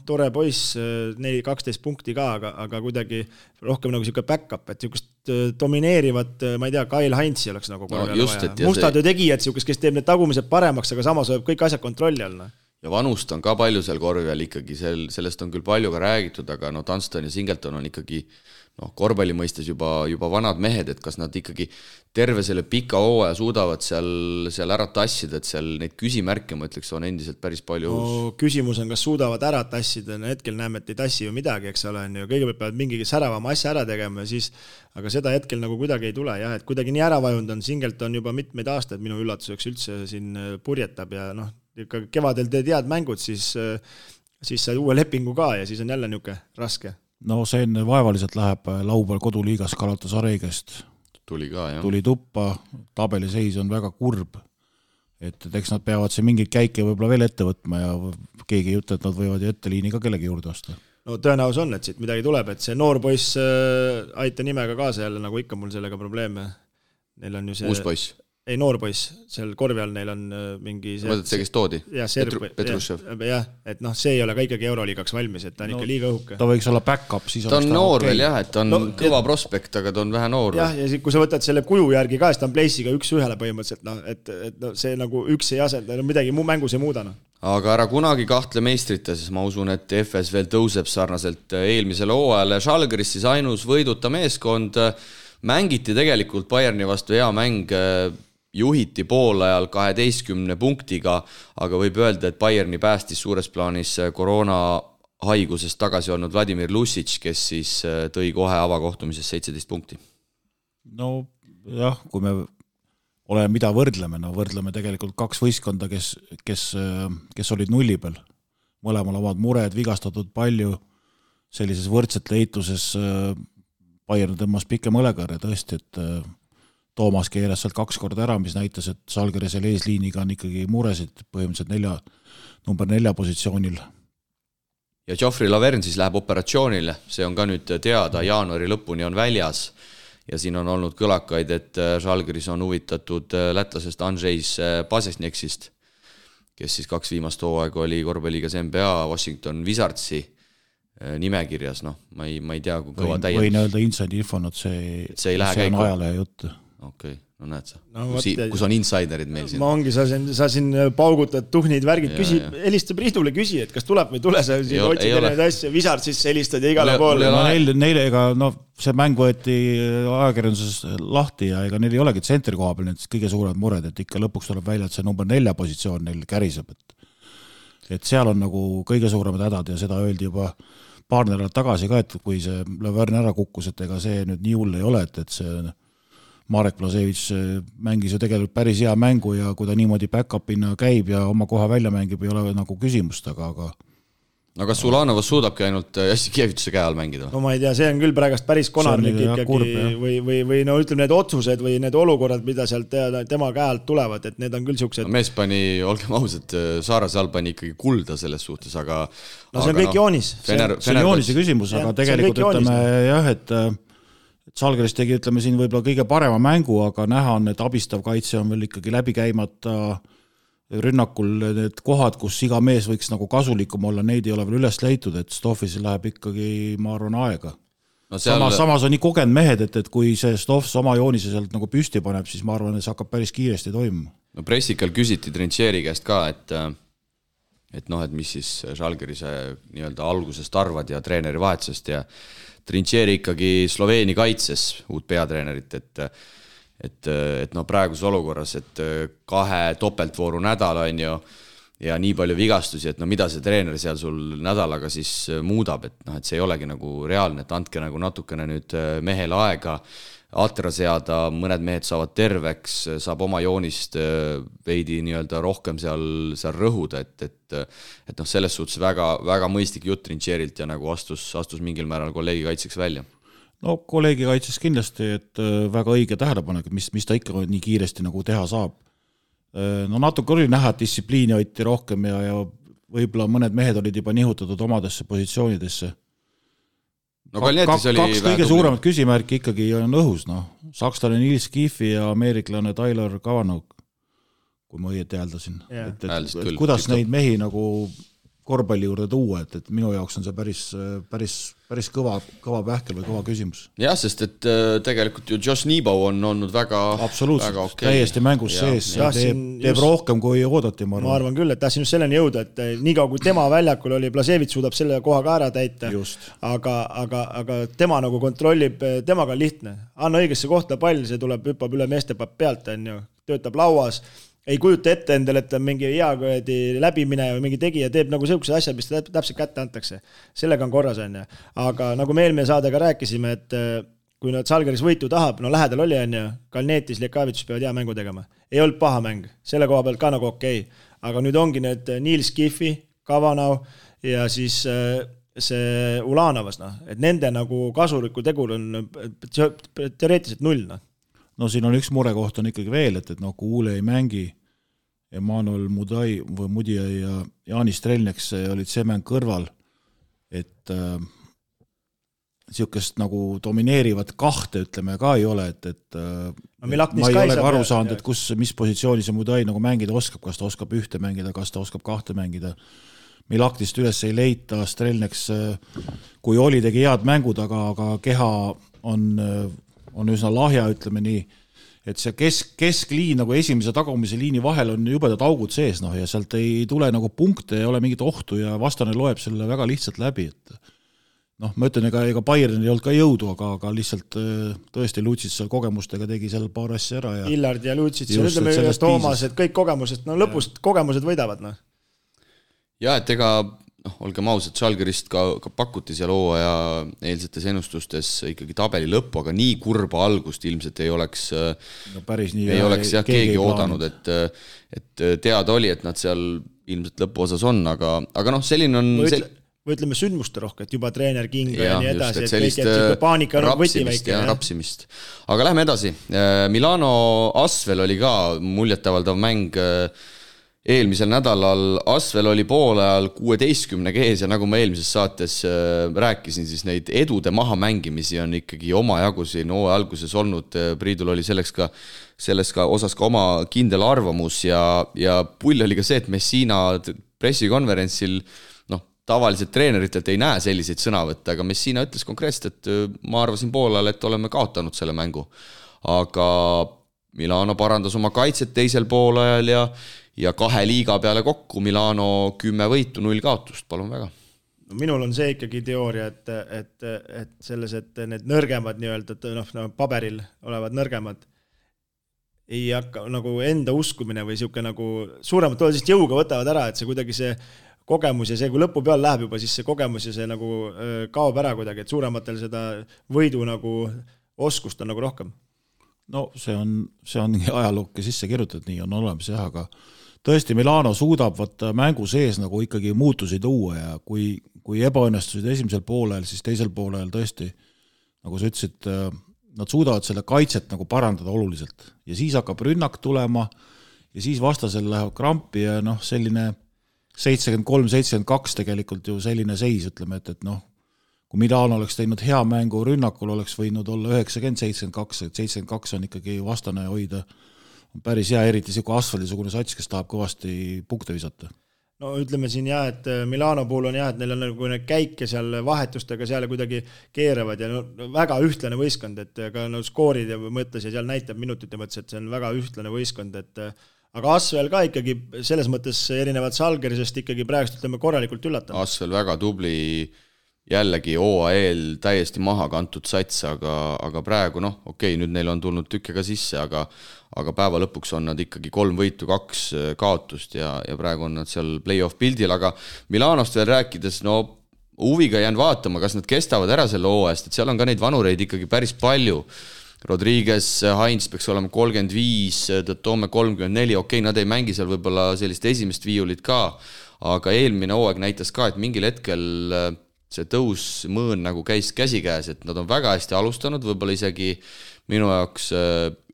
tore poiss, 12 punkti ka, aga kuidagi rohkem nagu siuke back-up, et siukest domineerivat, ma ei tea, Kyle Heinzi oleks nagu korvi all vaja. Mustad ju tegijad siukest, kes teeb need tagumised paremaks, aga samas võib kõik asjad kontrolli all. Ja vanust on ka palju seal korvi all ikkagi, sellest on küll palju ka räägitud, aga Dunston ja Singleton on ikkagi korvpalli mõistes juba vanad mehed, et kas nad ikkagi terve selle pika hooaja suudavad seal ära tassida, et seal neid küsimärke, ma ütleks, on endiselt päris palju. No, küsimus on, kas suudavad ära tassida, hetkel näeme, et ei tassi ju midagi, eks ole, kõigepealt peavad mingi säravama asja ära tegema, aga seda hetkel nagu kuidagi ei tule, jah, et kuidagi nii ära vajund on, Singleton juba mitmeid aastaid minu üllatuseks üldse siin purjetab ja ikka kevadel tead mängud, siis sai uue lepingu ka ja siis on jälle niuke raske. No see vaevaliselt läheb laupäeval koduliigas Galatasareigest. Tuli tuppa, tabeliseis on väga kurb, et eks nad peavad see mingeid käike võib-olla veel ette võtma ja keegi ei ütle, et nad võivad ju etteliini ka kellegi juurde osta. No tõenäos on, et siit midagi tuleb, et see noor poiss aita nimega kaasa jälle, nagu ikka mul sellega probleeme. Neil on ju see... Uus poiss? Ei, noor poiss, seal korvi all neil on mingi... Mõtled see, kes toodi? Petrushev. Jah, et see ei ole ka ikkagi Euroliigaks valmis, et ta on ikka liiga õhuke. Ta võiks olla back-up, siis ta on noor veel jah, et ta on kõva prospekt, aga ta on vähe noor. Jah, ja kui sa võtad selle kuju järgi ka, siis ta on Blaze'iga 1-1 põhimõtteliselt, et see nagu üks ei asenda, midagi mängus ei muuda. Aga ära kunagi kahtle meistrite, siis ma usun, et FS veel tõuseb sarnaselt eelmisele hooajale. Žalgiris siis ainus võiduta meeskond, mängiti tegelikult Bayerni vastu hea mäng, juhiti poolajal 12 punktiga, aga võib öelda, et Bayerni päästis suures plaanis koroona haigusest tagasi olnud Vladimir Lusic, kes siis tõi kohe avakohtumises 17 punkti. No jah, kui me oleme mida võrdleme tegelikult 2 võistkonda, kes olid nulli peal. Mõlemal omad mured, vigastatud palju, sellises võrdsete eituses Bayern tõmmas pikem õlekarja tõesti, et Toomas keeras sealt 2 korda ära, mis näitas, et Žalgirisel eesliiniga on ikkagi muresid põhimõtteliselt number 4 positsioonil. Ja Geoffrey Laverne siis läheb operatsioonile, see on ka nüüd teada, jaanuari lõpuni on väljas ja siin on olnud kõlakaid, et Žalgiris on huvitatud lätlasest Andrzejs Pasesneksist, kes siis 2 viimast hooaega oli korvpalliigas NBA Washington Wizardsi nimekirjas, ma ei tea, kui kõva täiendus. Võin öelda inside infon, et see on ajalehe jutt. Okei, no näed sa. Kus on insiderid meil siin? Ma ongi, sa siin paugutad tuhnid, värgid, helista Priidule küsi, et kas tuleb või tule, sa siin otsid erinevaid asja, Wizard siis helistad ja igale poole. Neile see mäng võeti ajakirjanduses lahti ja ega neil ei olegi tsentri koha peal need kõige suuremad mured, et ikka lõpuks tuleb välja, et see number 4 positsioon neil käriseb, et seal on nagu kõige suuremad hädad ja seda öeldi juba paar nädalat tagasi ka, et kui see Laverne ära kukkus, et ega see nüüd nii hull ei ole, et see Marek Blasevich mängis ju tegelikult päris hea mängu ja kui ta niimoodi back-upina käib ja oma koha välja mängib, ei ole nagu küsimust, aga no kas Ulanovas suudabki ainult Jassikevituse käe all mängida? No ma ei tea, see on küll praegast päris konarlik ikkagi või no ütleme need otsused või need olukorrad, mida sealt tema käe alt tulevad, et need on küll siuksed. No mees pani, olgem ausad, Saarase all pani ikkagi kulda selles suhtes, aga no see on kõik joonis. See on joonise küsimus, aga tegelikult ütleme jah, et Žalgiris tegi, ütleme siin võib-olla kõige parema mängu, aga näha on, et abistav kaitse on veel ikkagi läbi käimata rünnakul need kohad, kus iga mees võiks nagu kasulikum olla, neid ei ole veel üles leitud, et Stoffis läheb ikkagi, ma arvan, aega. No samas on nii kogenud mehed, et kui see Stoffs oma joonise sealt nagu püsti paneb, siis ma arvan, et see hakkab päris kiiresti toimuma. No pressikal küsiti Trincheri käest ka, et mis siis Žalgirise nii-öelda algusest arvad ja treeneri vahetusest ja Trincheri ikkagi Sloveeni kaitses uut peatreenerit, et praeguses olukorras, et 2 topeltvooru nädal on ju ja nii palju vigastusi, et mida see treener seal sul nädalaga siis muudab, et see ei olegi nagu reaalne, et andke nagu natukene nüüd mehele aega atra seada, mõned mehed saavad terveks, saab oma joonist veidi nii-öelda rohkem seal rõhuda, et selles suhtes väga, väga mõistlik jutt Trincherilt ja nagu astus mingil määral kolleegi kaitseks välja. No kolleegi kaitses kindlasti, et väga õige tähelepanek, mis ta ikka nii kiiresti nagu teha saab. No natuke oli näha, et distsipliini hoiti rohkem ja võib-olla mõned mehed olid juba nihutatud omadesse positsioonidesse. No Kalnietis oli kaks kõige suuremat küsimärki ikkagi on õhus. Sakslane Nils Kiffi ja ameeriklane Tyler Kavanagh, kui ma õieti hääldasin. Et kuidas neid mehi nagu korvpalli juurde tuua, et minu jaoks on see päris kõva pähkel või kõva küsimus. Jah, sest et tegelikult ju Josh Nebo on olnud väga absoluutselt, okay. Täiesti mängus sees ja teeb rohkem kui oodati. Ma arvan küll, et tahtsin just selleni jõuda, et nii kaua kui tema väljakul oli, Blasevits suudab selle koha ka ära täita, aga tema nagu kontrollib, temaga on lihtne. Anna õigesse kohta pall, see tuleb, hüppab üle meeste pealt, töötab lauas, ei kujuta ette endale, et on mingi hea läbimine või mingi tegija teeb nagu sellised asjad, mis ta täpselt kätte antakse. Sellega on korras, aga nagu me eelmine saadega rääkisime, et kui nad Žalgiris võitu tahab, no lähedal oli, Kalnietis, Lekavitus peavad hea mängu tegema. Ei olnud paha mäng, selle koha pealt ka nagu okei. Aga nüüd ongi need Nils Kiffi, Kavanagh ja siis see Ulanovas, et nende nagu kasuliku tegur on teoreetiliselt 0. No siin on üks murekoht on ikkagi veel, et Kuule ei mängi, Emanuel Mudija ja Jaani Strelneks olid see mäng kõrval, et niisugust nagu domineerivat kahte, ütleme, ka ei ole, et ma ei ole aru saanud, et mis positsiooni see Mudija nagu mängida oskab, kas ta oskab ühte mängida, kas ta oskab kahte mängida. Milaktist üles ei leita, Strelneks, kui oli, tegi head mängud, aga keha on üsna lahja, ütleme nii, et see keskliin nagu esimese tagumise liini vahel on jubedad augud sees, ja sealt ei tule nagu punkte, ei ole mingit ohtu ja vastane loeb selle väga lihtsalt läbi, et ma ütlen, ega Bayern ei olnud ka jõudu, aga lihtsalt tõesti Lutsits seal kogemustega tegi seal paar asja ära. Illard ja Lutsits ja ütleme Toomas, et kõik kogemused, lõpust kogemused võidavad. Ja, et ega olgem ausad, Žalgirist ka pakuti seal hooaja eilsetes ennustustes ikkagi tabeli lõppu, aga nii kurba algust ilmselt ei oleks, keegi oodanud, et teada oli, et nad seal ilmselt lõpuosas on, aga selline on... Või ütleme sündmuste rohke, et juba treener Kinga ja nii edasi, et kõik paanika on võti väike. Rapsimist. Aga lähme edasi. Milano Asvel oli ka muljetavaldav mäng eelmisel nädalal. Asvel oli poolajal 16 ees ja nagu ma eelmises saates rääkisin, siis neid edude maha mängimisi on ikkagi oma jagu siin hooaja alguses olnud. Priidul oli selles ka osas ka oma kindel arvamus ja pull oli ka see, et Messina pressikonverentsil tavaliselt treeneritelt ei näe selliseid sõnavõtte, aga Messina ütles konkreetselt, et ma arvasin poolajal, et oleme kaotanud selle mängu. Aga Milano parandas oma kaitset teisel poolajal ja 2 liiga peale kokku Milano 10 võitu, 0 kaotust, palun väga. Minul on see ikkagi teooria, et selles, et need nõrgemad nii-öelda, paberil olevad nõrgemad ei hakka nagu enda uskumine või siuke nagu suuremad tollest jõuga võtavad ära, et see kuidagi see kogemus ja see, kui lõpu peal läheb juba, siis see kogemus ja see nagu kaob ära kuidagi, et suurematel seda võidu nagu oskust on nagu rohkem. No see on ajalooke sisse kirjutatud, nii on olemas jah, aga tõesti Milano suudab võtta mängu sees nagu ikkagi muutusi tuua ja kui ebaõnnestusid esimesel poolel, siis teisel poolel tõesti, nagu sa ütlesid, nad suudavad selle kaitset nagu parandada oluliselt ja siis hakkab rünnak tulema ja siis vastasel läheb krampi ja selline 73-72 tegelikult ju selline seis, ütleme, et kui Milano oleks teinud hea mängu rünnakul, oleks võinud olla 90-72, et 72 on ikkagi vastane hoida päris hea, eriti siuke asfaldisugune sats, kes tahab kõvasti punkte visata. No ütleme siin et Milano puhul on et neil on nagu need käike seal vahetustega seal kuidagi keeravad ja väga ühtlane võistkond, et ka skoorid ja mõttes ja seal näitab minutite mõttes, et see on väga ühtlane võistkond, et aga Asvel ka ikkagi selles mõttes erinevad Salgerisest ikkagi praegust ütleme korralikult üllatanud. Asvel väga tubli, jällegi OAL täiesti maha kantud sats, aga praegu nüüd neil on tulnud tükke ka sisse, aga päeva lõpuks on nad ikkagi 3 võitu, 2 kaotust ja praegu on nad seal play-off pildil, aga Milanost veel rääkides, huviga jään vaatama, kas nad kestavad ära selle hooajast, et seal on ka neid vanureid ikkagi päris palju. Rodriguez, Heinz peaks olema 35, Toome 34, nad ei mängi seal võib-olla sellist esimest viiulit ka, aga eelmine hooaeg näitas ka, et mingil hetkel see tõusmõõn nagu käis käsikäes, et nad on väga hästi alustanud, võib-olla isegi minu jaoks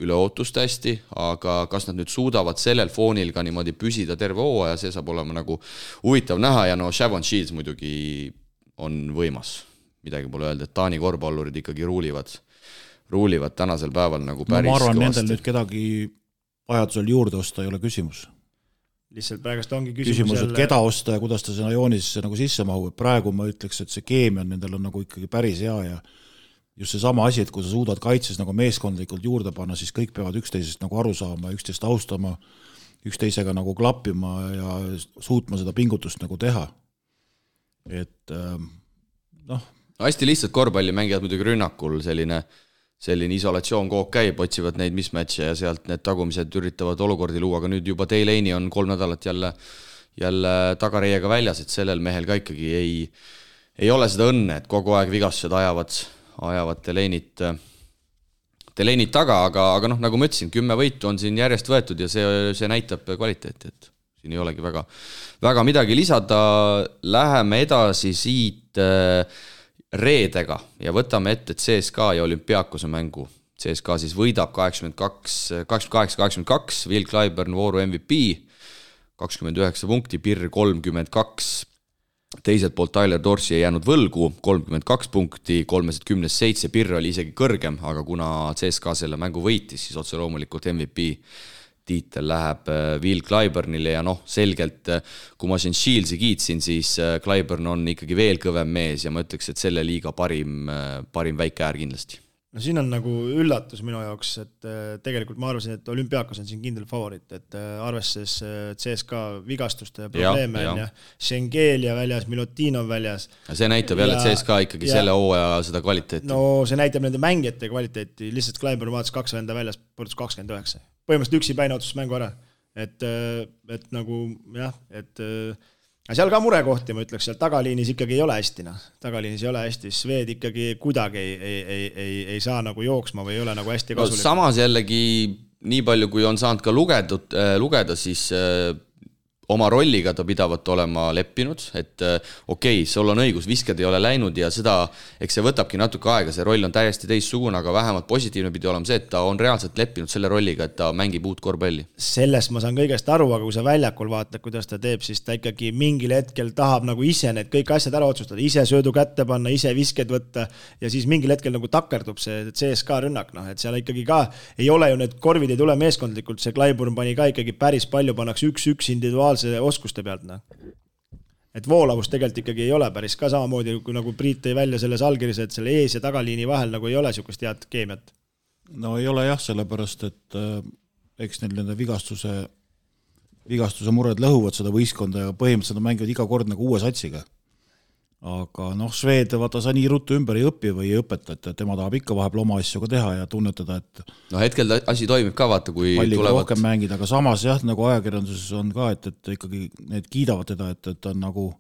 üle ootust hästi, aga kas nad nüüd suudavad sellel foonil ka niimoodi püsida terve hooaja, see saab olema nagu huvitav näha ja Shavon Shields muidugi on võimas. Midagi pole öelda, et Taani korvpallurid ikkagi ruulivad tänasel päeval nagu päris ma arvan, kõvasti. Nendel nüüd kedagi vajadusel juurde osta ei ole küsimus. Lihtsalt praegust ongi küsimus et keda osta ja kuidas ta sinna joonisesse nagu sisse mahub. Praegu ma ütleks, et see keemia nendel on nagu ikkagi päris hea ja just see sama asi, et kui sa suudad kaitses nagu meeskondlikult juurde panna, siis kõik peavad üksteisest nagu aru saama, üksteist austama, üksteisega nagu klappima ja suutma seda pingutust nagu teha. Et hästi lihtsalt korvpalli mängijad muidugi rünnakul selline isolatsioon koog käib, otsivad neid mismatche ja sealt need tagumised üritavad olukordi luua, aga nüüd juba Delaney on 3 nädalat jälle tagareiega väljas, et sellel mehel ka ikkagi ei ole seda õnne, et kogu aeg vigastused ajavad Delaneyt taga, aga nagu ma ütlesin, 10 võitu on siin järjest võetud ja see näitab kvaliteeti, et siin ei olegi väga midagi lisada. Läheme edasi siit reedega ja võtame ette CSKA ja Olümpiakose mängu. CSKA siis võidab 88-82, Will Clyburn vooru MVP, 29 punkti, Pirr 32, teiselt poolt Tyler Dorsey ei jäänud võlgu, 32 punkti, 3-10-7, Pirr oli isegi kõrgem, aga kuna CSKA selle mängu võitis, siis otse loomulikult MVP tiitel läheb Will Clyburnile ja selgelt, kui ma siin Shieldsi kiitsin, siis Clyburn on ikkagi veel kõvem mees ja ma ütleks, et selle liiga parim väike äär kindlasti. No siin on nagu üllatus minu jaoks, et tegelikult ma arvasin, et Olümpiakos on siin kindel favorit, et arvestades CSKA vigastuste probleeme ja Schengelia väljas, Milutinov väljas. See näitab jälle, et CSKA ikkagi selle hooaja seda kvaliteeti. No see näitab nende mängijate kvaliteeti, lihtsalt Clyburn vaatas 2 venda väljas, põrdus 29. Põhimõtteliselt üksi päine otsus mängu ära. Et nagu jah, aga seal ka murekohti, ma ütleks, seal tagaliinis ikkagi ei ole hästi. Tagaliinis ei ole hästi, Sved ikkagi kuidagi ei saa nagu jooksma või ei ole nagu hästi kasulik. Samas jällegi, nii palju kui on saanud ka lugeda, siis oma rolliga ta pidavat olema leppinud, et sul on õigus, visked ei ole läinud ja seda, eks see võtabki natuke aega, see roll on täiesti teistsugune, aga vähemalt positiivne pidi olema see, et ta on reaalselt leppinud selle rolliga, et ta mängib uut korvpalli. Sellest ma saan kõigest aru, aga kui sa väljakul vaatad, kuidas ta teeb, siis ta ikkagi mingil hetkel tahab nagu ise need kõik asjad ära otsustada, ise söödu kätte panna, ise visked võtta ja siis mingil hetkel nagu takerdub see CSKA rünnak, et seal ikkagi ka ei ole ju need korvid ei tule meeskondlikult, see Clyburn pani ka ikkagi päris palju, pannaks üks individuaalse oskuste pealt. Et voolavus tegelikult ikkagi ei ole päris ka samamoodi, kui nagu Priit tõi välja selles allkirjas, et selle ees- ja tagaliini vahel nagu ei ole sükust head keemiat. No ei ole jah, sellepärast, et eks neil nende vigastuse mured lõhuvad seda võistkonda ja põhimõtteliselt mängivad iga kord nagu uue satsiga. Aga Sved, vaata sa nii ruttu ümber ei õpi või ei õpeta, et tema tahab ikka vahepeal oma asju ka teha ja tunnetada, et hetkel asi toimib ka, vaata, kui tulevad rohkem mängida, aga samas jah, nagu ajakirjanduses on ka, et ikkagi need kiidavad teda, et on nagu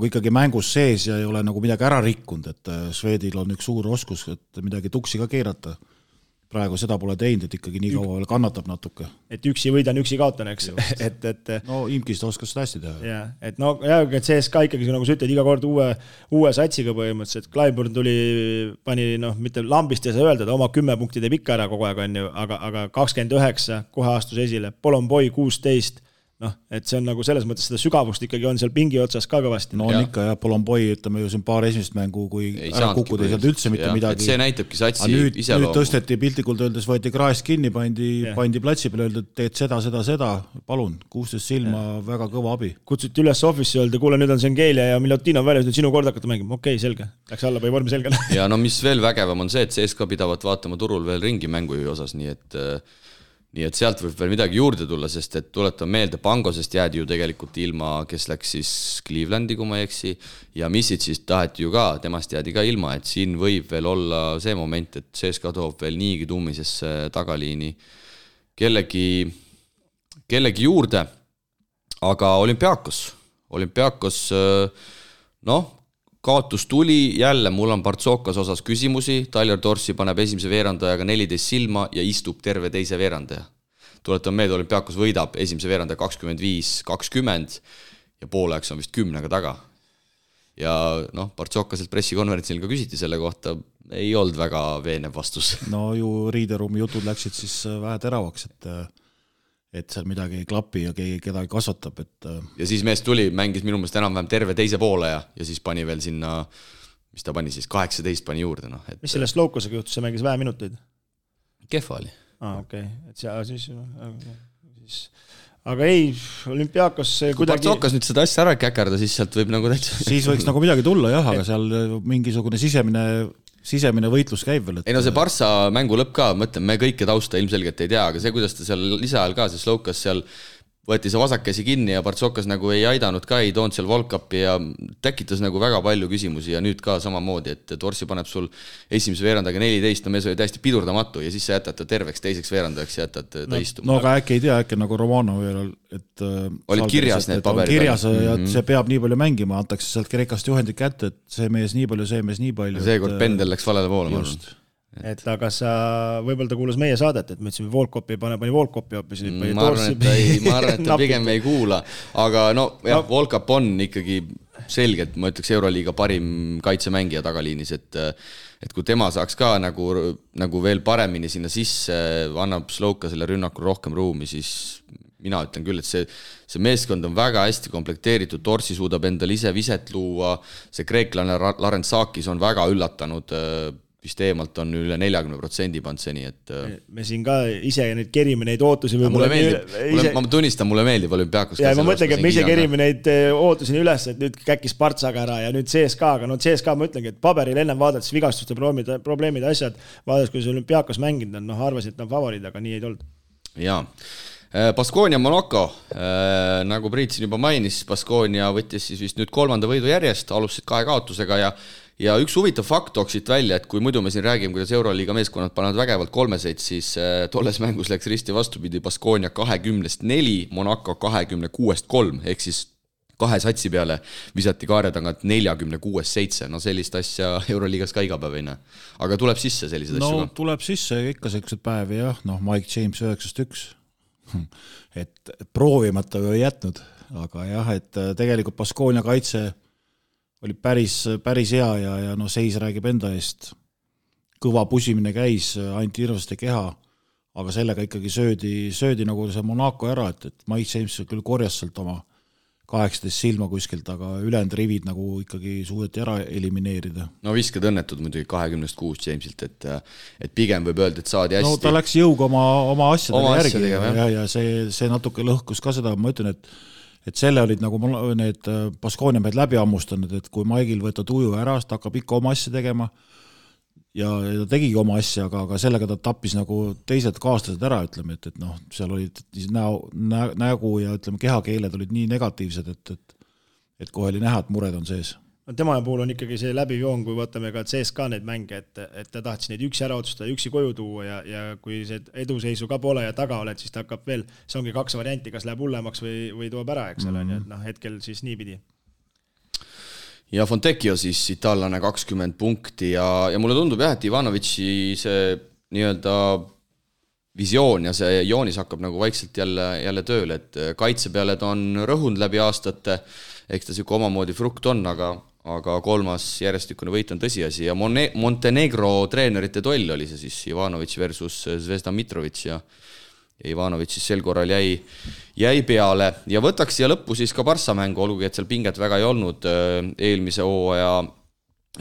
ikkagi mängus sees ja ei ole nagu midagi ära rikkunud, et Svedil on üks suur oskus, et midagi tuksi ka keerata. praegu seda pole teinud, et ikkagi nii kaua veel kannatab natuke. Et üksi võidan, üksi kaotan, eks. No Imkist oskas seda hästi teha. Ja, et no et CSKA ikkagi, nagu sa ütled, iga kord uue satsiga põhimõtteliselt, Clyburn pani, mitte lambist ei saa öelda, ta oma 10 punkti teeb ikka ära kogu aeg, on ju, aga 29 kohe astus esile, Polonboi 16, et see on nagu selles mõttes seda sügavust ikkagi on seal pingi otsas ka kõvasti. No on ikka jah, Polonboi, ütleme ju siin paar esimest mängu, kui ära kukkuda ei saanud üldse mitte midagi. See näitabki satsi iseloomu. Nüüd tõsteti piltlikult öeldes, võeti kraest kinni, pandi platsi peale, öeldi, et teed seda, palun, 16 silma, väga kõva abi. Kutsuti üles office öelda, kuule, nüüd on Sengelia ja Milutinov väljas, nüüd sinu kord hakata mängima. Okei, selge. Läks alla või vormi selgele. Ja no mis veel vägevam on see, et CSKA pidavat vaatama turul veel ringi mängujuhi osas, nii et sealt võib veel midagi juurde tulla, sest et tuletan meelde, Pangosest jäädi ju tegelikult ilma, kes läks siis Clevelandi, kui ma ei eksi, ja Missid siis taheti ju ka, temast jäädi ka ilma, et siin võib veel olla see moment, et CSKA toob veel niigi tummisesse tagaliini kellegi juurde, aga Olümpiakos, kaotus tuli, jälle mul on Partsokas osas küsimusi, Tyler Dorsey paneb esimese veerandajaga 14 silma ja istub terve teise veerandaja. Tuletan meelde, Olümpiakos võidab esimese veerandaja 25-20 ja pooleks on vist 10 taga. Ja Partsokaselt pressikonverentsil ka küsiti selle kohta, ei olnud väga veenev vastus. No ju riideruumi jutud läksid siis vähe teravaks, et seal midagi ei klapi ja keegi kedagi kasvatab. Ja siis mees tuli, mängis minu meelest enam-vähem terve teise poole ja siis pani veel sinna, mis ta pani siis, 18 pani juurde. Mis sellest Loukosega juhtus, see mängis vähe minuteid? Kehva oli. Okei. Et siis... Aga ei, Olümpiakos kuidagi... Kui Partsokas nüüd seda asja ära käkerda, siis sealt võib nagu täitsa... Siis võiks nagu midagi tulla jah, aga seal mingisugune sisemine võitlus käib veel. Ei no see Barça mängu lõpp ka, mõtlen, me kõike tausta ilmselgelt ei tea, aga see, kuidas ta seal lisaajal ka, see Loukas seal võeti see vasakkäsi kinni ja Partsokas nagu ei aidanud ka, ei toonud seal Volkapi ja tekitas nagu väga palju küsimusi ja nüüd ka samamoodi, et Dorsi paneb sul esimese veerandaga 14, no mees oli täiesti pidurdamatu ja siis sa jätad ta terveks teiseks veerandajaks ja jätad ta istuma. No aga äkki ei tea, äkki nagu Romanov veel, et olid kirjas need paberid. Kirjas ja see peab nii palju mängima, antakse sealt Kreekast juhendid kätte, et see mees nii palju. Seekord pendel läks valele poole. Et aga sa, võib-olla ta kuulas meie saadet, et me ütlesime Volkopi ei pane Volkopi hoopis. Ma arvan, et ta pigem ei kuula, aga Volkop on ikkagi selgelt, ma ütleks Euroliiga parim kaitsemängija tagaliinis, et kui tema saaks ka nagu veel paremini sinna sisse, annab Sloukasele rünnakul rohkem ruumi, siis mina ütlen küll, et see meeskond on väga hästi komplekteeritud, Dorsi suudab endal ise viset luua, see kreeklane Larensakis on väga üllatanud, vist eemalt on üle 40% pand seni, et me siin ka ise neid kerime neid ootusi mulle meeldib, ma tunnistan, mulle meeldib Olümpiakos. Ja ma mõtlengi, et me ise kerime neid ootusi üles, et nüüd käkis Partsaga ära ja nüüd CSKA-ga, CSKA ma ütlengi, et paberil ennem vaadates vigastuste probleemid asjad, vaadates, kui see Olümpiakos mänginud on, arvasid, et on favoriid, aga nii ei tulnud. Jaa. Baskonia Monaco, nagu Priit siin juba mainis, Baskonia võttis siis vist nüüd 3. võidu järjest, alustasid 2 kaotusega ja üks huvitav fakt tooksid välja, et kui muidu me siin räägime, kuidas Euroliiga meeskonnad panevad vägevalt 3-seid, siis tolles mängus läks risti vastupidi, Baskonia 20-4, Monaco 26-3, ehk siis 2 satsi peale visati kaare tagant 46-7, no sellist asja Euroliigas ka iga päev ei näe. Aga tuleb sisse sellised asju ka? Tuleb sisse ikka sellised päevi jah, Mike James 9-1, et proovimata ei jätnud, aga jah, et tegelikult Baskonia kaitse oli päris hea ja seis räägib enda eest. Kõva pusimine käis, anti hirmsasti keha, aga sellega ikkagi söödi nagu see Monaco ära, et Mike James küll korjas sealt oma 18 silma kuskilt, aga ülejäänud rivid nagu ikkagi suudeti ära elimineerida. No viskad õnnetud muidugi 26 Jamesilt, et pigem võib öelda, et saadi hästi. No ta läks jõuga oma asjadega järgi ja see natuke lõhkus ka seda, ma ütlen, et selle olid nagu need Baskonia mehed läbi ammustanud, et kui Maigil võtta tuju ära, ta hakkab ikka oma asja tegema ja ta tegigi oma asja, aga sellega ta tappis nagu teised kaaslased ära, ütleme, et seal olid nägu ja ütleme, kehakeeled olid nii negatiivsed, et kohe oli näha, et mured on sees. Tema puhul on ikkagi see läbijoon, kui vaatame ka CSKA neid mänge, et ta tahtis neid üksi ära otsustada, üksi koju tuua ja kui see eduseisu ka pole ja taga oled, siis ta hakkab veel, see ongi 2 varianti, kas läheb hullemaks või toob ära, eks ole, et hetkel siis nii pidi. Ja Fontecchio siis itaallane 20 punkti ja mulle tundub jah, et Ivanovitši see nii-öelda visioon ja see joonis hakkab nagu vaikselt jälle tööle, et kaitse peale ta on rõhunud läbi aastate, eks ta siuke omamoodi frukt on, aga 3. järjestikune võit on tõsiasi ja Montenegro treenerite toll oli see siis Ivanović versus Zvezda Mitrović ja Ivanović siis sel korral jäi peale ja võtaks siia lõppu siis ka Barssa mängu, olgugi et seal pinget väga ei olnud, eelmise hooaja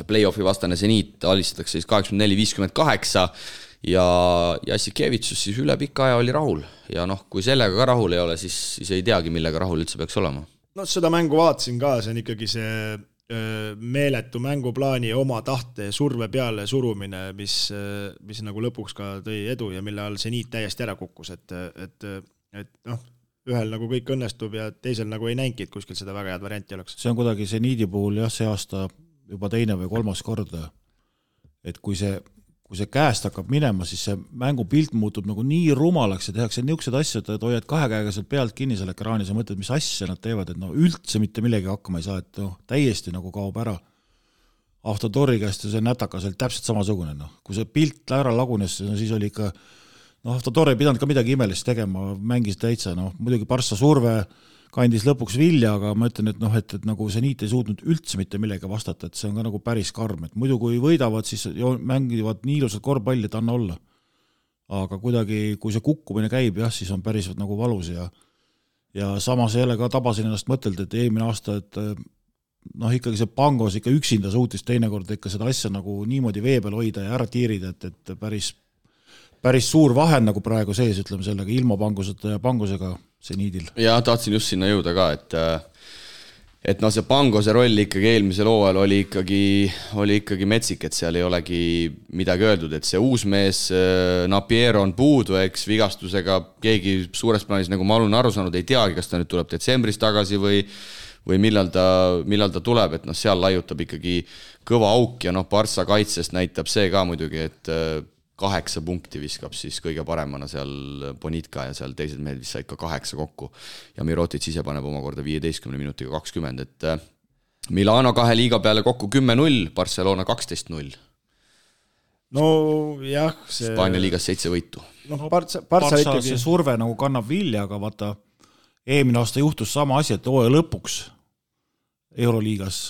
play-offi vastane Zeniit alistatakse siis 84-58 ja Jassikevitsus siis üle pika aja oli rahul ja kui sellega ka rahul ei ole, siis ei teagi, millega rahul üldse peaks olema. No seda mängu vaatasin ka, see on ikkagi see meeletu mänguplaani oma tahte surve peale surumine, mis nagu lõpuks ka tõi edu ja mille all Zeniit täiesti ära kukkus, et ühel nagu kõik õnnestub ja teisel nagu ei näinki, et kuskil seda väga head varianti oleks. See on kuidagi Zeniidi puhul see aasta juba 2. või 3. korda, et kui see käest hakkab minema, siis see mängupilt muutub nagu nii rumalaks ja tehakse niisugused asjad, et hoiad 2 käega sealt pealt kinni seal ekraanis ja mõtled, mis asja nad teevad, et üldse mitte millegi hakkama ei saa, et täiesti nagu kaob ära. Avtodori käest see nätakas oli täpselt samasugune, kui see pilt ära lagunes, siis oli ikka, Avtodor ei pidanud ka midagi imelist tegema, mängis täitsa, muidugi Barssa surve kandis lõpuks vilja, aga ma ütlen, et nagu Zeniit ei suutnud üldse mitte millegi vastata, et see on ka nagu päris karm, et muidu kui võidavad, siis mängivad nii ilusad korvpalli, et anna olla. Aga kuidagi, kui see kukkumine käib, siis on päris nagu valus ja samas jälle ka tabasin ennast mõtelda, et eelmine aasta, et ikkagi see Pangos ikka üksinda suutis teinekord ikka seda asja nagu niimoodi vee peal hoida ja ära tiirida, et päris suur vahe nagu praegu sees, ütleme sellega, ilma Panguseta ja Pangusega Zeniidil. Ja tahtsin just sinna jõuda ka, et see Pangose roll ikkagi eelmisel hooajal oli ikkagi metsik, et seal ei olegi midagi öeldud, et see uus mees Napier on puudu, eks vigastusega keegi suures plaanis, nagu ma olen aru saanud, ei teagi, kas ta nüüd tuleb detsembris tagasi või millal ta tuleb, et seal laiutab ikkagi kõva auk ja Barssa kaitsest näitab see ka muidugi, et 8 punkti viskab siis kõige paremana seal Bonitka ja seal teised mehed vist said ka 8 kokku ja Mirotic ise paneb omakorda 15 minutiga 20, et Milano 2 liiga peale kokku 10-0, Barcelona 12-0. No jah, see Hispaania liigas 7 võitu. Barça ikkagi see surve nagu kannab vilja, aga vaata, eelmine aasta juhtus sama asi, et hooaja lõpuks Euroliigas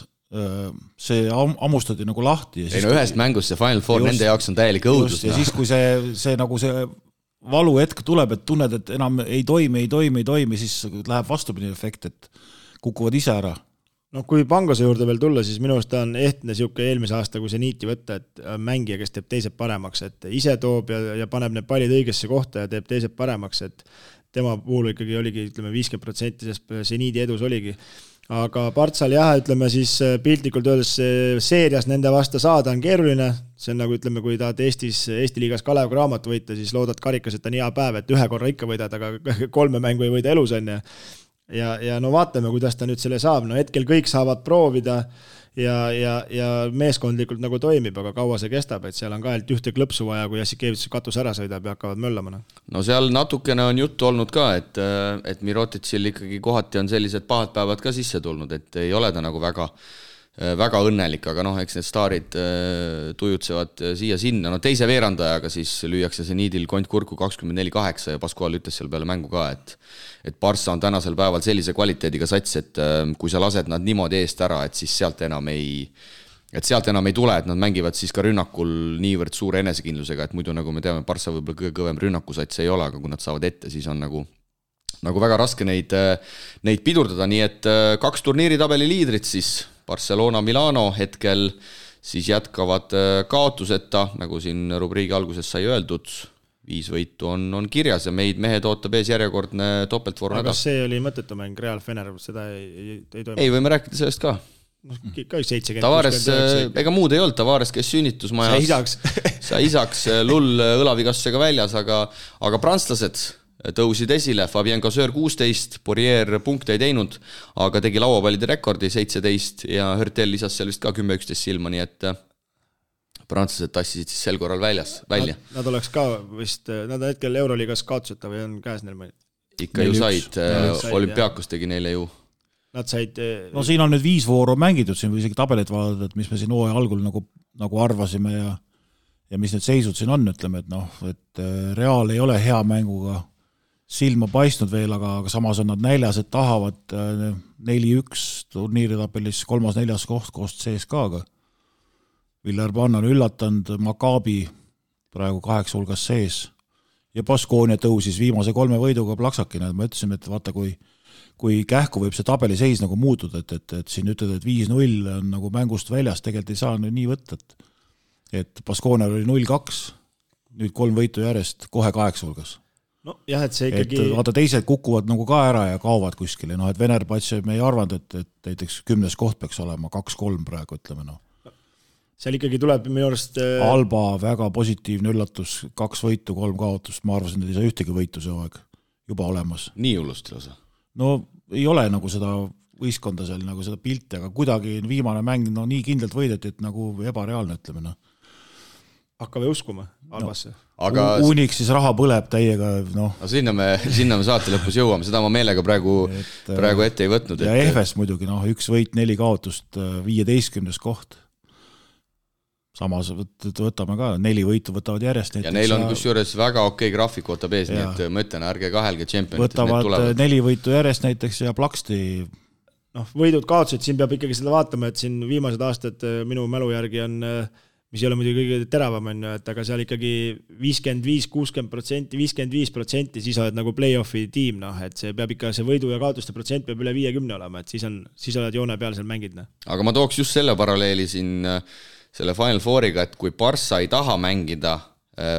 see ammustati nagu lahti ja ühest mängust see Final Four nende jaoks on täielik õudus. Ja siis, kui see nagu see valu hetk tuleb, et tunned, et enam ei toimi, siis läheb vastupidi efekt, et kukuvad ise ära. Kui Pangose juurde veel tulla, siis minu arust ta on ehtne siuke eelmise aasta, kui Zeniiti võtta, et mängija, kes teeb teised paremaks, et ise toob ja paneb need pallid õigesse kohta ja teeb teised paremaks, et tema puhul ikkagi oligi, ütleme, 50% sest Zeniidi edus oligi. Aga Bartsal ütleme siis piltlikult öeldes seerias nende vasta saada on keeruline, see on nagu ütleme, kui tahad Eesti liigas Kalev Cramo võita, siis loodad karikas, et on hea päev, et 1 korra ikka võidad, aga 3 mängu ei võida elus on ja vaatame, kuidas ta nüüd selle saab, hetkel kõik saavad proovida ja meeskondlikult nagu toimib, aga kaua see kestab, et seal on ka ühte klõpsu vaja, kui Jassikevitsus katus ära sõidab ja hakkavad möllama. No seal natukene on juttu olnud ka, et Miroticil ikkagi kohati on sellised pahad päevad ka sisse tulnud, et ei ole ta nagu väga õnnelik, aga eks need staarid tujutsevad siia-sinna. Teise veerandajaga siis lüüakse Zeniidil kont kurku 24-8 ja Pascual ütles seal peale mängu ka, et Barça on tänasel päeval sellise kvaliteediga sats, et kui sa lased nad niimoodi eest ära, et siis sealt enam ei tule, et nad mängivad siis ka rünnakul niivõrd suure enesekindlusega, et muidu nagu me teame, Barça võib-olla kõige kõvem rünnakusats ei ole, aga kui nad saavad ette, siis on nagu väga raske neid pidurdada, nii et 2 turniiritabeli liidrit siis Barcelona, Milano hetkel siis jätkavad kaotuseta, nagu siin rubriigi alguses sai öeldud, 5 võitu on kirjas ja meid mehed ootab ees järjekordne topeltvoor nädal. Aga see oli mõttetu mäng Real Fener, seda ei toimu? Ei, võime rääkida sellest ka. Ka 70. Tavares, ega muud ei olnud, Tavares, kes sünnitusmajas sa isaks lull õlavigastusega väljas, aga prantslased tõusid esile, Fabien Casseur 16, Poirier punkte ei teinud, aga tegi lauapallide rekordi 17 ja Hurtel lisas seal vist ka 10-11 silma, nii et prantslased tassisid siis sel korral välja. Nad oleks ka vist, nad on hetkel Euroliigas kaotuseta või on käes neil mõni? Ikka ju said, Olümpiakos tegi neile ju. Nad said... No siin on nüüd 5 vooru mängitud, siin või isegi tabelit vaadata, et mis me siin hooaja algul nagu arvasime ja mis need seisud siin on, ütleme, et Real ei ole hea mänguga silma paistnud veel, aga samas on nad näljas, et tahavad 4-1 turniiritabelis 3.-4. koht koos CSKA-ga. Villarban on üllatanud, Maccabi praegu 8 hulgas sees ja Baskonia tõusis viimase 3 võiduga plaksakina, et ma ütlesin, et vaata, kui kähku võib see tabeliseis nagu muutuda, et siin ütled, et 5-0 on nagu mängust väljas, tegelikult ei saa nii võtta, et Baskonia oli 0-2, nüüd 3 võitu järjest, kohe 8 hulgas. No jah, et see ikkagi... Et vaata, teised kukuvad nagu ka ära ja kaovad kuskile, et Venerbats me ei arvanud, et näiteks 10. koht peaks olema 2-3 praegu, ütleme . Seal ikkagi tuleb minu arust... Alba väga positiivne üllatus, 2 võitu, 3 kaotust, ma arvasin, et ei saa ühtegi võitu see aeg juba olemas. Nii hullust lausa? No ei ole nagu seda võistkonda seal, nagu seda pilti, aga kuidagi viimane mäng nii kindlalt võideti, et nagu ebareaalne, ütleme . Hakkame uskuma Albasse. Aga... Uniks siis raha põleb täiega, . No sinna me saate lõpus jõuame, seda ma meelega praegu ette ei võtnud. Ja EFS muidugi, 1 võit, 4 kaotust, 15. koht. Samas võtame ka, 4 võitu võtavad järjest. Ja neil on kusjuures väga okei graafik võtab ees, nii et ma ütlen, ärge kahelge Champions. Võtavad 4 võitu järjest näiteks ja Plaksti. Võidud kaotused, siin peab ikkagi seda vaatama, et siin viimased aastad minu mälu järgi on... mis ei ole muidugi kõige teravam, et aga seal ikkagi 55-60%, 55%, siis oled nagu play-offi tiim, et see peab ikka, see võidu ja kaotuste protsent peab üle 50 olema, et siis oled joone peal seal mängid. Aga ma tooks just selle paralleeli siin selle Final Fouriga, et kui Barca ei taha mängida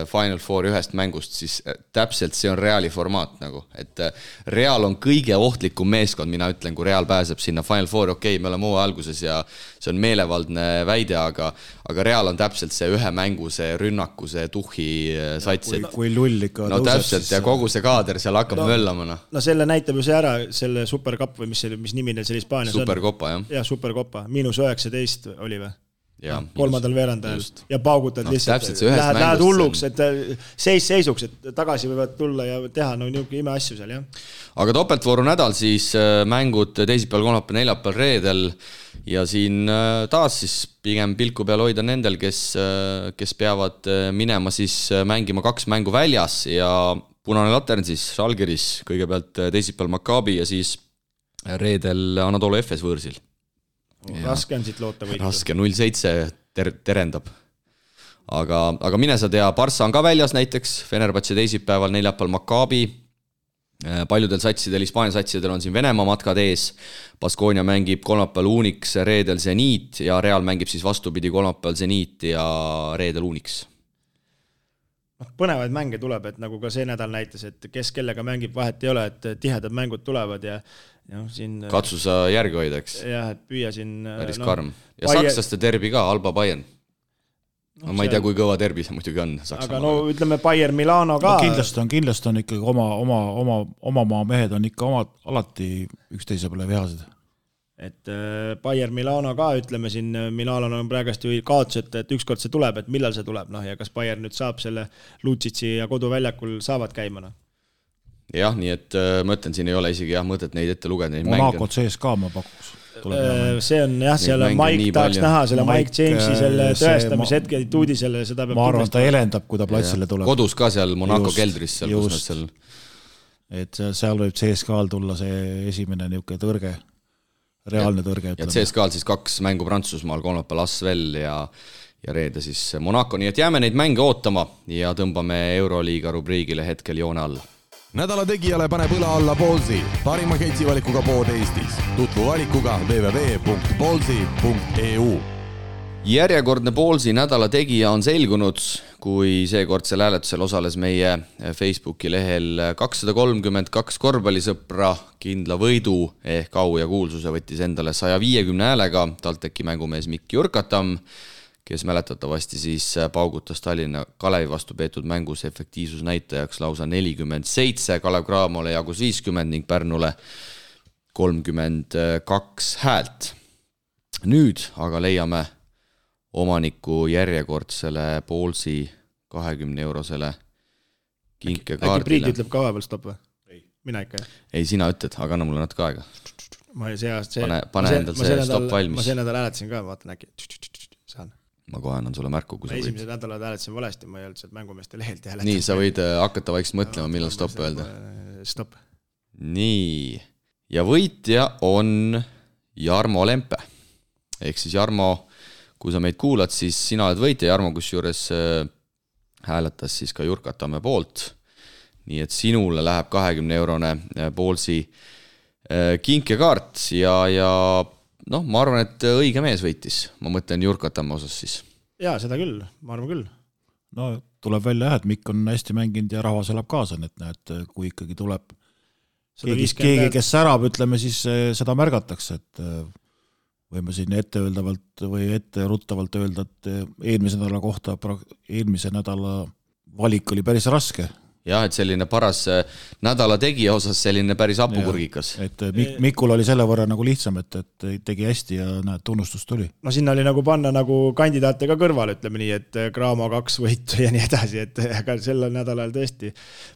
Final Four 1 mängust, siis täpselt see on Reali formaat nagu, et Real on kõige ohtlikum meeskond, mina ütlen, kui Real pääseb sinna Final Four, okei, me oleme hooaja alguses ja see on meelevaldne väide, aga Real on täpselt see ühe mängu, see rünnaku, see tuhhi sats. Kui lull ikka no täpselt, ja kogu see kaader seal hakkab möllama. No selle näitab ju see ära, selle Supercup või mis nimi neil seal Hispaanias on. Supercopa, jah. Ja, Supercopa, -19 oli või? Ja, kolmandal veerandajal ja paugutad lihtsalt, lähed hulluks, et seisuks, et tagasi võivad tulla ja teha niisugune ime asju seal, jah. Aga topeltvooru nädal siis mängud teisipäeval, kolmapäeval, neljapäeval, reedel ja siin taas siis pigem pilku peal hoida nendel, kes peavad minema siis mängima 2 mängu väljas ja punane latern siis Žalgiris, kõigepealt teisipäeval Maccabi ja siis reedel Anadolu FS võõrsil. Raske on siit loota võitu. Raske, 0-7 terendab. Aga mine sa tea, Barca on ka väljas näiteks, Fenerbahce teisipäeval, neljapäeval Maccabi. Paljudel satsidel, Hispaania satsidel on siin Venemaa matkad ees. Baskonia mängib kolmapäeval Unix, reedel Zenit ja Real mängib siis vastupidi kolmapäeval Zenit ja reedel Unix. Põnevaid mänge tuleb, et nagu ka see nädal näitas, et kes kellega mängib, vahet ei ole, et tihedad mängud tulevad ja siin... Katsu sa järgi hoida, eks? Jah, et püüa siin... Päris karm. Ja sakslaste derbi ka, Alba Bayern. Ma ei tea, kui kõva derbi see muidugi on. Aga ütleme Bayern Milano ka... Kindlasti on ikkagi oma maa mehed on ikka alati üksteise peale vihased. Et Bayern Milano ka, ütleme siin, Milano on praegast ju kaotus, et ükskord see tuleb, et millal see tuleb, ja kas Bayern nüüd saab selle Lutsitsi ja koduväljakul saavad käima, Jah, nii et ma ütlen, siin ei ole isegi mõtet neid ette lugeda. Monaco CSKA ma pakuks. See on jah, seal Mike tahaks näha selle Mike Jamesi selle tõestamise hetke tuudi selle, seda peab... Ma arvan, ta elendab, kui ta platsile tuleb. Kodus ka seal Monaco keldris. Et seal võib CSKA-l tulla see esimene niisugune tõrge. Reaalne tõrge. Ja CSKA-l siis 2 mängu Prantsusmaal, kolmapäeval Asvel ja reede siis Monaco, nii et jääme neid mänge ootama ja tõmbame Euroliiga rubriigile hetkel joone alla. Nädala tegijale paneb õla alla Ballsi, parima ketsivalikuga pood Eestis. Tutvu valikuga www.ballsi.eu. Järjekordne Ballsi nädala tegija on selgunud, kui seekordsel hääletusel osales meie Facebooki lehel 232 korvpallisõpra kindla võidu ehk au ja kuulsuse võttis endale 150 häälega TalTechi mängumees Mikk Jurkatam, kes mäletatavasti siis paugutas Tallinna Kalevi vastu peetud mängus efektiivsusnäitajaks lausa 47, Kalev Cramole jagus 50 ning Pärnule 32 häält. Nüüd aga leiame omaniku järjekordsele Ballsi 20-eurosele kinkekaardile. Äkki Priit ütleb ka vahepeal stopp või? Mina ikka. Ei, sina ütled, aga anna mulle natuke aega. Pane endal see stopp valmis. Ma see nädal hääletasin ka, vaatan äkki. Saan. ma kohe annan sulle märku, kui sa võid. Esimesed nädalad hääletasin valesti, ma ei olnud sealt mängumeeste lehelt hääletasin. Nii, sa võid hakata vaikselt mõtlema, millal stopp öelda. Stopp. Nii, ja võitja on Jarmo Lempe. Ehk siis Jarmo, kui sa meid kuulad, siis sina oled võitja. Jarmo, kus juures hääletas siis ka Jurkatamme poolt. Nii et sinule läheb 20-eurone Poolsi kinkekaart ja noh, ma arvan, et õige mees võitis. Ma mõtlen Jurkatamme osas siis. Jaa, seda küll, ma arvan küll. No tuleb välja, et Mikk on hästi mänginud ja rahvas elab kaasa, et näed, kui ikkagi tuleb keegi, kes särab, ütleme, siis seda märgatakse, et võime siin etteöeldavalt või etteruttavalt öelda, et eelmise nädala valik oli päris raske. Jah, et selline paras nädala tegija osas selline päris apukurgikas. Et Mikul oli selle võrra nagu lihtsam, et tegi hästi ja näed, tunnustus tuli. No sinna oli nagu panna nagu kandidaate ka kõrval, ütleme nii, et Graamo 2 võitu ja nii edasi, et aga sellel nädalal tõesti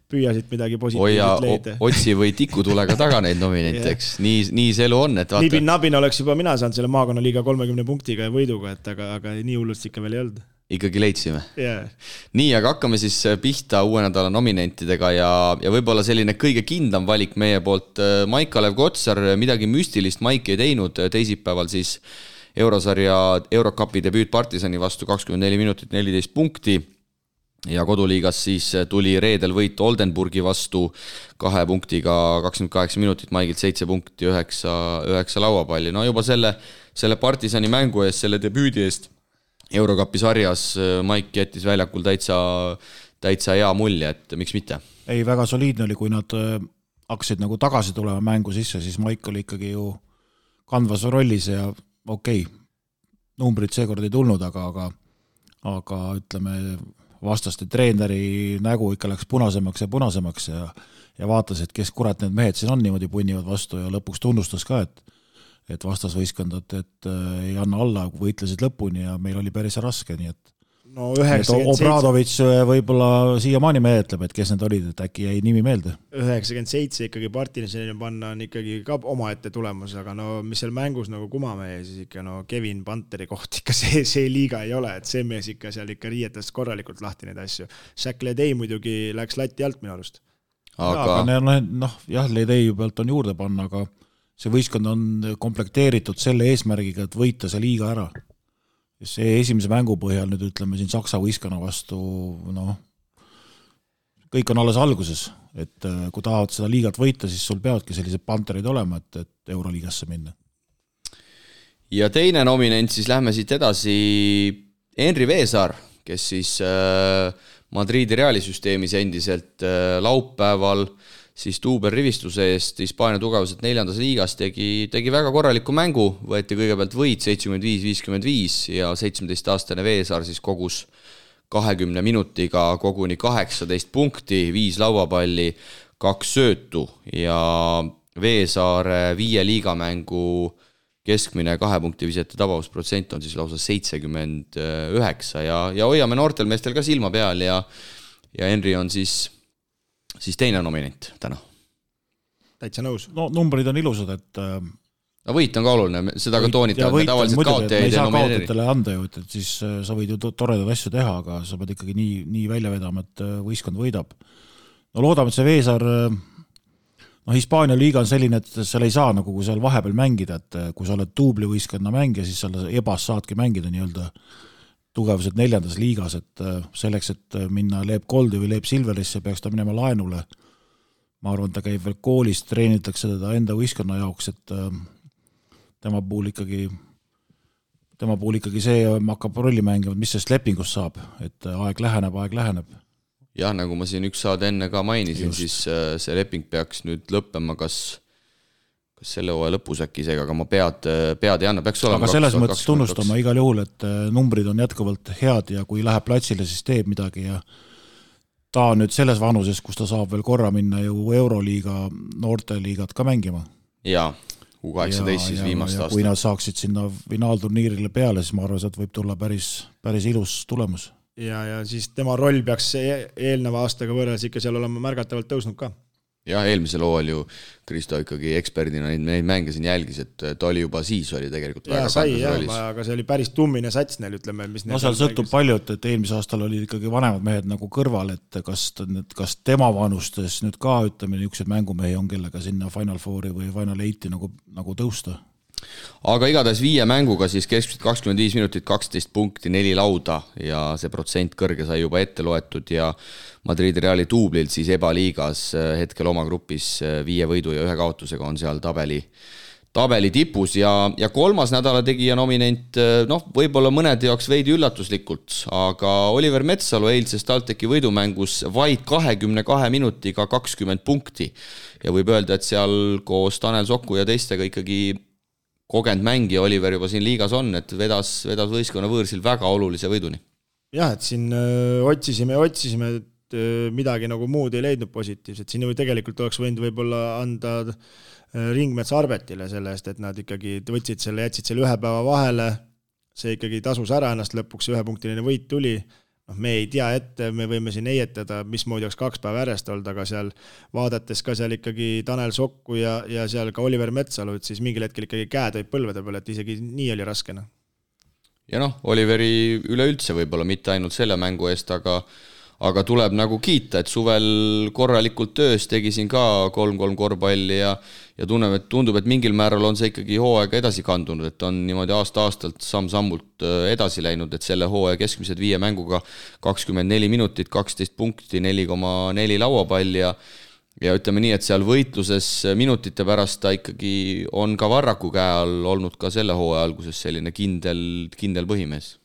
püüasid midagi positiivset leida. Otsi või tikutulega taga neid nominenteks. Nii see elu on, et vaata. Nabin oleks juba mina saanud selle maakonnaliiga 30 punktiga ja võiduga, et aga nii hullust ikka veel ei olnud. Ikkagi leidsime. Yeah. Nii, aga hakkame siis pihta uue nädala nominentidega ja võib-olla selline kõige kindlam valik meie poolt. Maik-Kalev Kotsar, midagi müstilist Maik ei teinud, teisipäeval siis eurosarja Eurocupi debüüt Partisani vastu 24 minutit 14 punkti ja koduliigas siis tuli reedel võit Oldenburgi vastu 2 punktiga 28 minutit, Maigilt 7 punkti 9 lauapalli. No juba selle Partisani mängu eest, selle debüüdi eest Eurocupi sarjas Maik jättis väljakul täitsa hea mulje, et miks mitte? Ei, väga soliidne oli, kui nad hakkasid nagu tagasi tulema mängu sisse, siis Maik oli ikkagi ju kandvas rollis ja okei, numbrid seekord ei tulnud, aga ütleme, vastaste treeneri nägu ikka läks punasemaks ja vaatas, et kes kurat need mehed siin on niimoodi punnivad vastu ja lõpuks tunnustas ka, et vastasvõistkondad, et ei anna alla, võitlesid lõpuni ja meil oli päris raske, nii et no 97... Obradovitš võib-olla siiamaani meetleb, et kes need olid, et äkki jäi nimi meelde. 97 ikkagi Partisanile panna on ikkagi ka omaette tulemus, aga no mis seal mängus nagu kumamehe, siis ikka no Kevin Panteri koht ikka see liiga ei ole, et see mees ikka seal ikka riietas korralikult lahti neid asju. Shaq Ledei muidugi läks lati alt minu arust. Aga jah, Ledei pealt on juurde panna, aga see võistkond on komplekteeritud selle eesmärgiga, et võita see liiga ära. See esimese mängu põhjal nüüd ütleme siin Saksa võistkonna vastu, kõik on alles alguses, et kui tahavad seda liigat võita, siis sul peavadki sellised panterid olema, et Euroliigasse minna. Ja teine nominent, siis lähme siit edasi Henri Veesaar, kes siis Madridi realisüsteemis endiselt laupäeval siis Tuuber rivistuse eest Hispaania tugevuselt 4. liigas tegi väga korraliku mängu, võeti kõigepealt võit 75-55 ja 17-aastane Veesaar siis kogus 20 minutiga koguni 18 punkti, 5 lauapalli, 2 söötu ja Veesaare 5 liigamängu keskmine 2 punkti visete tabavusprotsent on siis lausa 79 ja hoiame noortel meestel ka silma peal ja Henri on siis teine nominent täna. Täitsa nõus. No numbrid on ilusad, et no võit on ka oluline, seda ka toonitavad, me tavaliselt kaotajaid ei saa kaotajatele anda ju, et siis sa võid ju toredad asju teha, aga sa pead ikkagi nii välja vedama, et võistkond võidab. No loodame, et see Veesaar, Hispaania liiga on selline, et seal ei saa nagu kui seal vahepeal mängida, et kui sa oled tuubli võistkonna mängija, siis seal ebas saadki mängida nii-öelda tugevuselt 4. liigas, et selleks, et minna Leep Goldi või Leep Silverisse, peaks ta minema laenule. Ma arvan, ta käib veel koolis, treenitakse teda enda võistkonna jaoks, et tema puhul ikkagi see hakkab rolli mängima, mis sellest lepingust saab, et aeg läheneb. Jah, nagu ma siin üks saade enne ka mainisin, just. Siis see leping peaks nüüd lõppema kas selle hooaja lõpus äkki isegi, aga ma pead ei anna, peaks olema. Aga selles mõttes tunnustama igal juhul, et numbrid on jätkuvalt head ja kui läheb platsile, siis teeb midagi ja ta on nüüd selles vanuses, kus ta saab veel korra minna ju Euroliiga, noorteliigat ka mängima. Jaa, U18 siis viimast aastat. Kui nad saaksid sinna finaalturniirile peale, siis ma arvan, et võib tulla päris ilus tulemus. Ja siis tema roll peaks eelneva aastaga võrreldes ikka seal olema märgatavalt tõusnud ka. jah, eelmisel hooajal ju Kristo ikkagi eksperdina neid mänge siin jälgis, et ta oli juba siis oli tegelikult väga kandas rollis. Aga see oli päris tummine sats neil, ütleme. Seal sõltub palju, et eelmise aastal oli ikkagi vanemad mehed nagu kõrval, et kas tema vanustes nüüd ka, ütleme, niisugused mängumehi on, kellega sinna Final Fouri või Final 8 nagu tõusta. Aga igatahes 5 mänguga siis keskmiselt 25 minutit, 12 punkti, 4 lauda ja see protsent kõrge sai juba ette loetud ja Madridi Reali duublilt siis ebaliigas hetkel oma grupis 5 võidu ja 1 kaotusega on seal tabeli tipus ja kolmas nädala tegija nominent, võib-olla mõnede jaoks veidi üllatuslikult, aga Oliver Metsalu eilses TalTechi võidumängus vaid 22 minutiga 20 punkti ja võib öelda, et seal koos Tanel Soku ja teistega ikkagi kogenud mängija Oliver juba siin liigas on, et vedas võistkonna võõrsil väga olulise võiduni. Jah, et siin otsisime, et midagi nagu muud ei leidnud positiivset. Siin ju tegelikult oleks võinud võib-olla anda Ringmets Arbetile selle eest, et nad ikkagi jätsid selle 1 päeva vahele, see ikkagi tasus ära ennast lõpuks, 1-punktiline võit tuli. Me ei tea ette, me võime siin eietada, mismoodi oleks 2 päeva järjest olnud, aga seal vaadates ka seal ikkagi Tanel Sokku ja seal ka Oliver Metsalu, et siis mingil hetkel ikkagi käed olid põlvede peal, et isegi nii oli raskena. Ja Oliveri üleüldse võib-olla mitte ainult selle mängu eest, aga tuleb nagu kiita, et suvel korralikult töös tegi siin ka 3-3 korvpalli ja tundub, et mingil määral on see ikkagi hooaega edasi kandunud, et on niimoodi aasta-aastalt samm-sammult edasi läinud, et selle hooaja keskmised 5 mänguga 24 minutit, 12 punkti, 4,4 lauapall ja ütleme nii, et seal võitluses minutite pärast ta ikkagi on ka Varraku käe all olnud ka selle hooaja alguses selline kindel põhimees.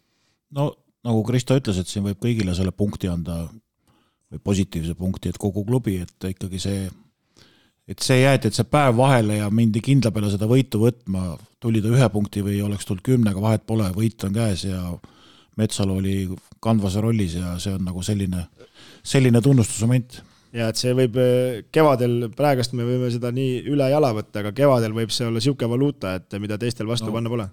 No nagu Kristo ütles, et siin võib kõigile selle punkti anda või positiivse punkti, et kogu klubi, et ikkagi see jäeti, et see päev vahele ja mindi kindla peale seda võitu võtma, tuli ta 1 punkti või oleks tulnud 10, vahet pole, võit on käes ja Metsalu oli kandvas rollis ja see on nagu selline tunnustusmoment. Ja et see võib kevadel, praegast me võime seda nii üle jala võtta, aga kevadel võib see olla siuke valuuta, et mida teistel vastu panna pole.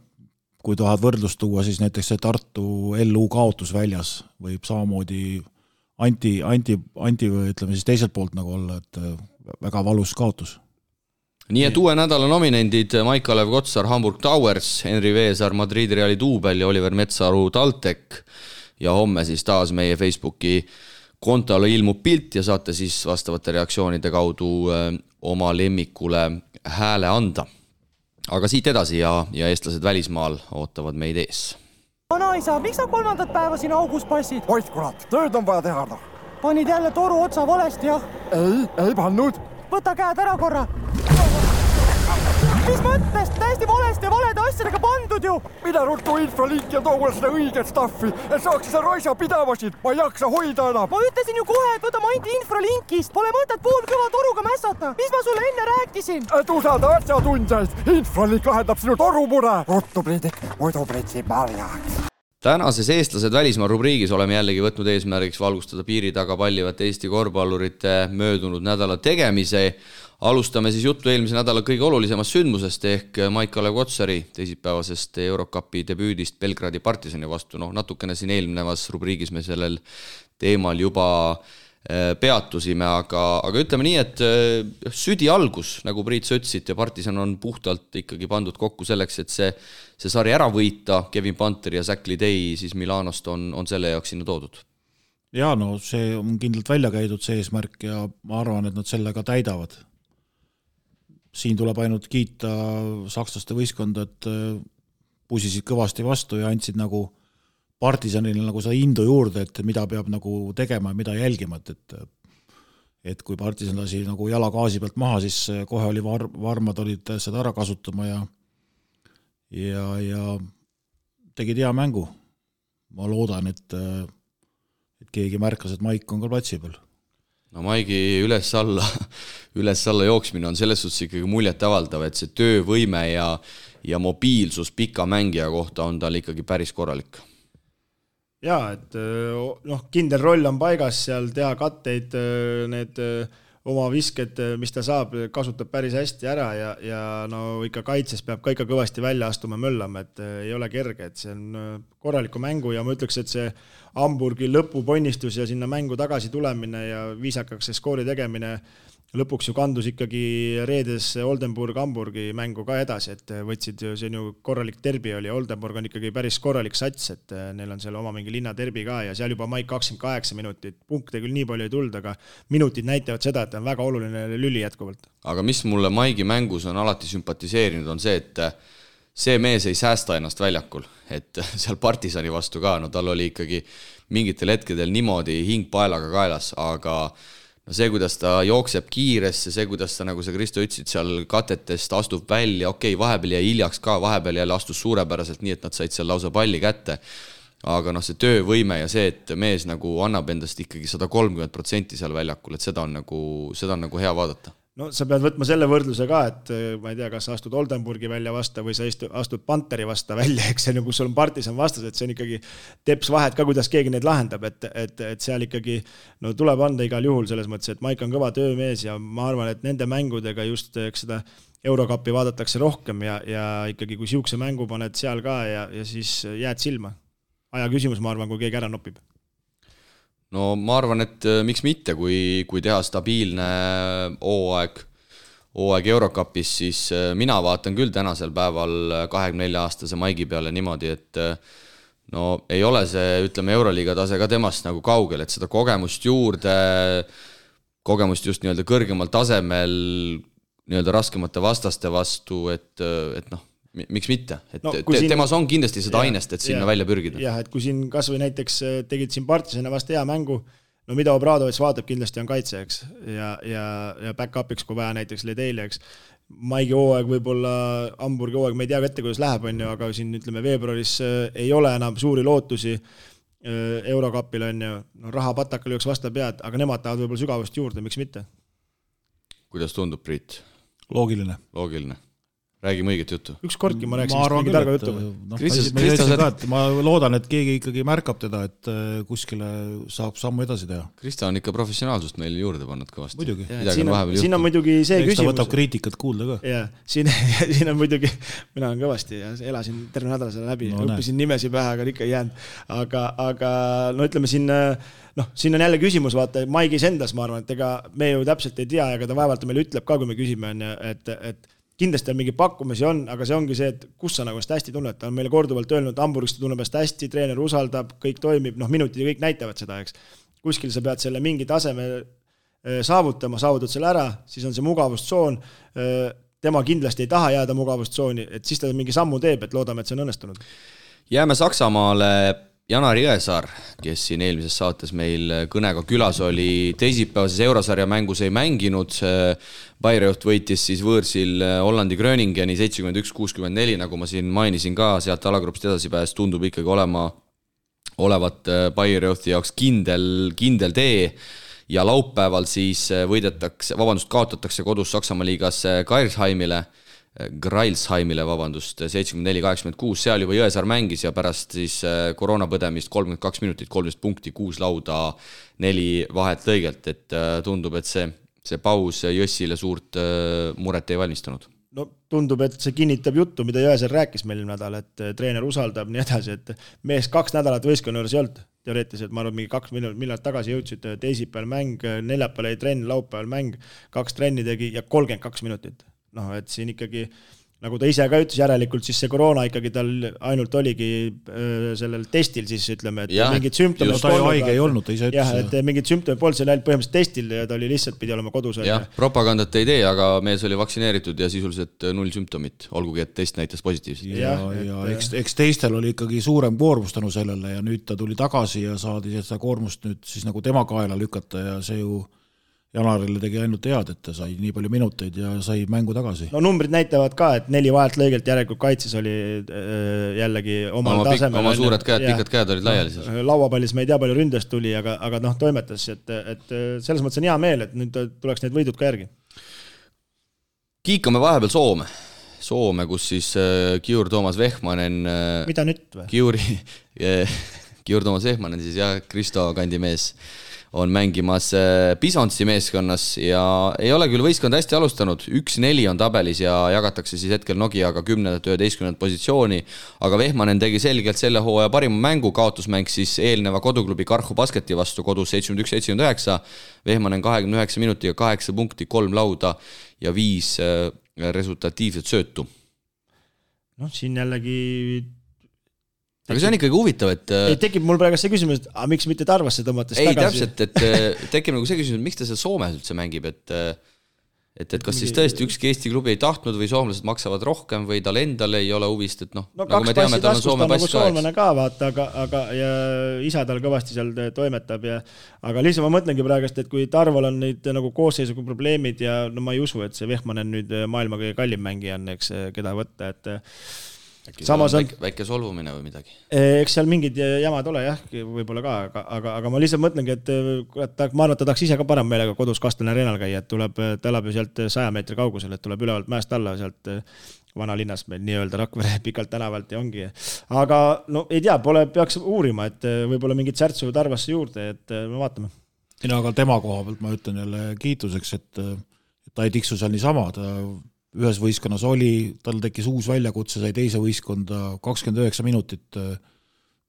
Kui tahad võrdlust tuua, siis näiteks see Tartu LU kaotus väljas võib samamoodi anti või ütleme siis teiselt poolt nagu olla, et väga valus kaotus. Nii et uue nädala nominendid Maik-Kalev Kotsar, Hamburg Towers, Henri Veesar, Madridi Reali duubel ja Oliver Metsaru TalTech ja homme siis taas meie Facebooki kontole ilmub pilt ja saate siis vastavate reaktsioonide kaudu oma lemmikule hääle anda. Aga siit edasi ja eestlased välismaal ootavad meid ees. Vanaisa, miks sa 3. päeva siin augus passid? Oid kurat, tööd on vaja teha. Panid jälle toru otsa valesti, jah? Ei pannud. Võta käed ära korra. Mis mõttes? Täiesti valesti ja valede asjadega pandud ju. Mida ruttu infralink ja too seda õiget staffi, et saaks seda roisa pidavasid. Ma ei jaksa hoida enam. Ma ütlesin ju kohe, et võta mainti infralinkist. Pole mõtet poolkõva toruga mässata. Mis ma sulle enne rääkisin? Et usalda asjatundjaid. Infralink lahendab sinu torumure. Ruttu Priidik, muidu pritsi marjaks. Tänases eestlased välismaa rubriigis oleme jällegi võtnud eesmärgiks valgustada piiri taga pallivate Eesti korvpallurite möödunud nädala tegemise. Alustame siis juttu eelmise nädala kõige olulisemast sündmusest ehk Maik-Kalev Kotsari teisipäevasest Eurocupi debüüdist Belgradi Partisani vastu. Natukene siin eelnevas rubriigis me sellel teemal juba peatusime, aga ütleme nii, et südi algus, nagu Priit sa ütlesid, ja Partisan on puhtalt ikkagi pandud kokku selleks, et see sari ära võita. Kevin Panter ja Zach Lidey siis Milanost on selle jaoks sinna toodud. Ja see on kindlalt välja käidud see eesmärk ja ma arvan, et nad selle ka täidavad. Siin tuleb ainult kiita sakslaste võistkonda, et pusisid kõvasti vastu ja andsid nagu Partisanile nagu seda indu juurde, et mida peab nagu tegema ja mida jälgima, et kui Partisan lasi nagu jala gaasi pealt maha, siis kohe oli varmad olid seda ära kasutama ja tegid hea mängu. Ma loodan, et keegi märkas, et Maik on ka platsi peal. No Maigi üles-alla jooksmine on selles suhtes ikkagi muljet avaldav, et see töövõime ja mobiilsus pika mängija kohta on tal ikkagi päris korralik. Jaa, et kindel roll on paigas seal, teha katteid, need oma visked, mis ta saab, kasutab päris hästi ära ja ikka kaitses peab ka ikka kõvasti välja astuma möllama, et ei ole kerge, et see on korraliku mängu ja ma ütleks, et see Hamburgi lõpuponnistus ja sinna mängu tagasi tulemine ja viisakaks see skoori tegemine lõpuks ju kandus ikkagi reedes Oldenburg-Hamburgi mängu ka edasi, et võtsid ju, see on ju korralik derbi oli, Oldenburg on ikkagi päris korralik sats, et neil on seal oma mingi linna derbi ka ja seal juba Maik 28 minutit, punkte küll nii palju ei tulnud, aga minutid näitavad seda, et on väga oluline lüli jätkuvalt. Aga mis mulle Maigi mängus on alati sümpatiseerinud, on see, et see mees ei säästa ennast väljakul, et seal Partisani vastu ka, no tal oli ikkagi mingitel hetkedel niimoodi hing paelaga kaelas, aga no see, kuidas ta jookseb kiiresse, see, kuidas ta, nagu sa Kristo ütlesid, seal katetest astub välja, okei, vahepeal jäi hiljaks ka, vahepeal jälle astus suurepäraselt nii, et nad said seal lausa palli kätte, aga noh, see töövõime ja see, et mees nagu annab endast ikkagi 130% seal väljakul, et seda on nagu hea vaadata. No sa pead võtma selle võrdluse ka, et ma ei tea, kas sa astud Oldenburgi välja vasta või sa astud Panteri vasta välja, eks see, kus sul on Partisan vastas, et see on ikkagi teps vahet ka, kuidas keegi neid lahendab, et seal ikkagi no tuleb anda igal juhul selles mõttes, et Maik on kõva töömees ja ma arvan, et nende mängudega just seda Eurokapi vaadatakse rohkem ja ikkagi kui siukse mängu paned seal ka ja siis jääd silma. Aja küsimus, ma arvan, kui keegi ära nopib. No ma arvan, et miks mitte, kui teha stabiilne hooaeg Eurokapis, siis mina vaatan küll tänasel päeval 24-aastase Maigi peale niimoodi, et no ei ole see, ütleme, Euroliiga tase ka temast nagu kaugel, et seda kogemust juurde, kogemust just nii-öelda kõrgemal tasemel, nii-öelda raskemate vastaste vastu, et noh, miks mitte, et no, temas on kindlasti seda ainest, et sinna välja pürgida. Jah, et kui siin kas või näiteks tegid siin Partisana vasta hea mängu, no mida Obradovic vaatab kindlasti on kaitse, eks, ja back-upiks, kui vaja näiteks Ledeili, eks. Maigi hooaeg, võib-olla Hamburgi hooaeg, me ei tea ette, kuidas läheb, on ju, aga siin ütleme veebruaris ei ole enam suuri lootusi Eurokapil, on ju, no raha patakal jooks vasta pead, aga nemad tahavad võib-olla sügavust juurde, miks mitte? Kuidas tundub, Priit? Loogiline. Räägime õiget juttu. Üks kordki ma rääksin mingi targa juttu. Ma loodan, et keegi ikkagi märkab teda, et kuskile saab sammu edasi teha. Krista on ikka professionaalsust meil juurde pannud kõvasti. Muidugi. Siin on muidugi see küsimus. Ta võtab kriitikat kuulda ka. Ja, siin on muidugi, mina olen kõvasti ja elasin terve nädala selle läbi, õppisin nimesi pähe, aga ikka ei jäänud. Aga no ütleme siin on jälle küsimus, vaata, Maigis endas, ma arvan, et ega me ju täpselt ei tea, aga ta vaevalt meile ütleb ka, kui me küsime, et kindlasti on mingi pakkumisi on, aga see ongi see, et kus sa nagu hästi tunned. Ta on meile korduvalt öelnud, Hamburgist tunneb hästi, treener usaldab, kõik toimib, minutid ja kõik näitavad seda, eks. Kuskil sa pead selle mingi taseme saavutama, saavutad selle ära, siis on see mugavustsoon. Tema kindlasti ei taha jääda mugavustsooni, et siis ta mingi sammu teeb, et loodame, et see on õnnestunud. Jääme Saksamaale. Janar Jõesaar, kes siin eelmises saates meil kõnega külas oli, teisipäevases Eurosarja mängus ei mänginud. Bayreuth võitis siis võõrsil Hollandi Gröningeni 71-64, nagu ma siin mainisin ka, sealt alagrupist edasi pääs tundub ikkagi olevat Bayreuthi jaoks kindel tee ja laupäeval siis kaotatakse kodus Saksamaa liigas Greilsheimile, 74-86, seal juba Jõesaar mängis ja pärast siis koroonapõdemist 32 minutit, 13 punkti, 6 lauda, 4 vahet lõigelt, et tundub, et see paus Jõssile suurt muret ei valmistanud. No tundub, et see kinnitab juttu, mida Jõesaar rääkis meil nädal, et treener usaldab nii edasi, et mees 2 nädalat võistkonna juures ei olnud teoreetiliselt, ma arvan, mingi 2 miljonit tagasi jõudsid, teisipäeval mäng, neljapäeval ei trenn, laupäeval mäng, 2 trenni tegi ja 32 minutit. Et siin ikkagi, nagu ta ise ka ütles, järelikult siis see koroona ikkagi tal ainult oligi sellel testil siis ütleme, et mingid sümptomid ta ju haige ei olnud, ta ise ütles. Jah, et mingid sümptomid polnud seal ainult põhimõtteliselt testil ja ta oli lihtsalt pidi olema kodus. Jah, propagandat ei tee, aga mees oli vaktsineeritud ja sisuliselt 0 sümptomit, olgugi et test näitas positiivselt. Ja eks teistel oli ikkagi suurem koormus tänu sellele ja nüüd ta tuli tagasi ja saadi seda koormust nüüd siis nagu tema kaela lükata ja see ju Janarile tegi ainult head, et ta sai nii palju minuteid ja sai mängu tagasi. No numbrid näitavad ka, et 4 vahelt lõigelt järelikult kaitses oli jällegi omal tasemel. Oma suured käed, pikad käed olid laiali. Lauapallis me ei tea palju ründest tuli, aga toimetas, et selles mõttes on hea meel, et nüüd tuleks need võidud ka järgi. Kiikame vahepeal Soome, kus siis Kiur Toomas Vehmanen... Mida nüüd või? Kiur Toomas Vehmanen siis ja Kristo kandimees on mängimas Bisontsi meeskonnas ja ei ole küll võistkond hästi alustanud, 1-4 on tabelis ja jagatakse siis hetkel Nokiaga 10-11 positsiooni, aga Vehmanen tegi selgelt selle hooaja parima mängu, kaotusmäng siis eelneva koduklubi Karhu Basketi vastu kodus 71-79, Vehmanen 29 minutiga 8 punkti, 3 lauda ja 5 resultatiivset söötu. Noh, siin jällegi aga see on ikkagi huvitav, et tekib mul praegu see küsimus, et miks mitte Tarvasse tõmmates tagasi? Ei, täpselt, et tekib nagu see küsimus, et miks ta seal Soomes üldse mängib, et kas siis tõesti ükski Eesti klubi ei tahtnud või soomlased maksavad rohkem või tal endal ei ole huvist, et noh, nagu me teame, tal on Soome pass soomlane ka, vaata, aga ja isa tal kõvasti seal toimetab aga lihtsalt ma mõtlengi praegust, et kui Tarval on neid nagu koosseisuga probleemid ja no ma ei usu, et see Vehmanen nüüd maailma kõige kallim mängija on, eks, keda võtta, et samas on väike solvumine või midagi. Eks seal mingid jamad ole jah, võib-olla ka, aga ma lihtsalt mõtlengi, et ma arvan, et ta tahaks ise ka parem meelega kodus Kastelne areenal käia, et ta elab ju sealt 100 meetri kaugusel, et tuleb ülevalt mäest alla sealt vanalinnas meil nii-öelda Rakvere pikalt tänavalt ja ongi. Aga no ei tea, peaks uurima, et võib-olla mingid särtsu Tarvasse juurde, et me vaatame. Aga tema koha pealt ma ütlen jälle kiituseks, et ta ei tiksu seal niisama, ta ühes võistkonnas oli, tal tekkis uus väljakutse, sai teise võistkonda 29 minutit,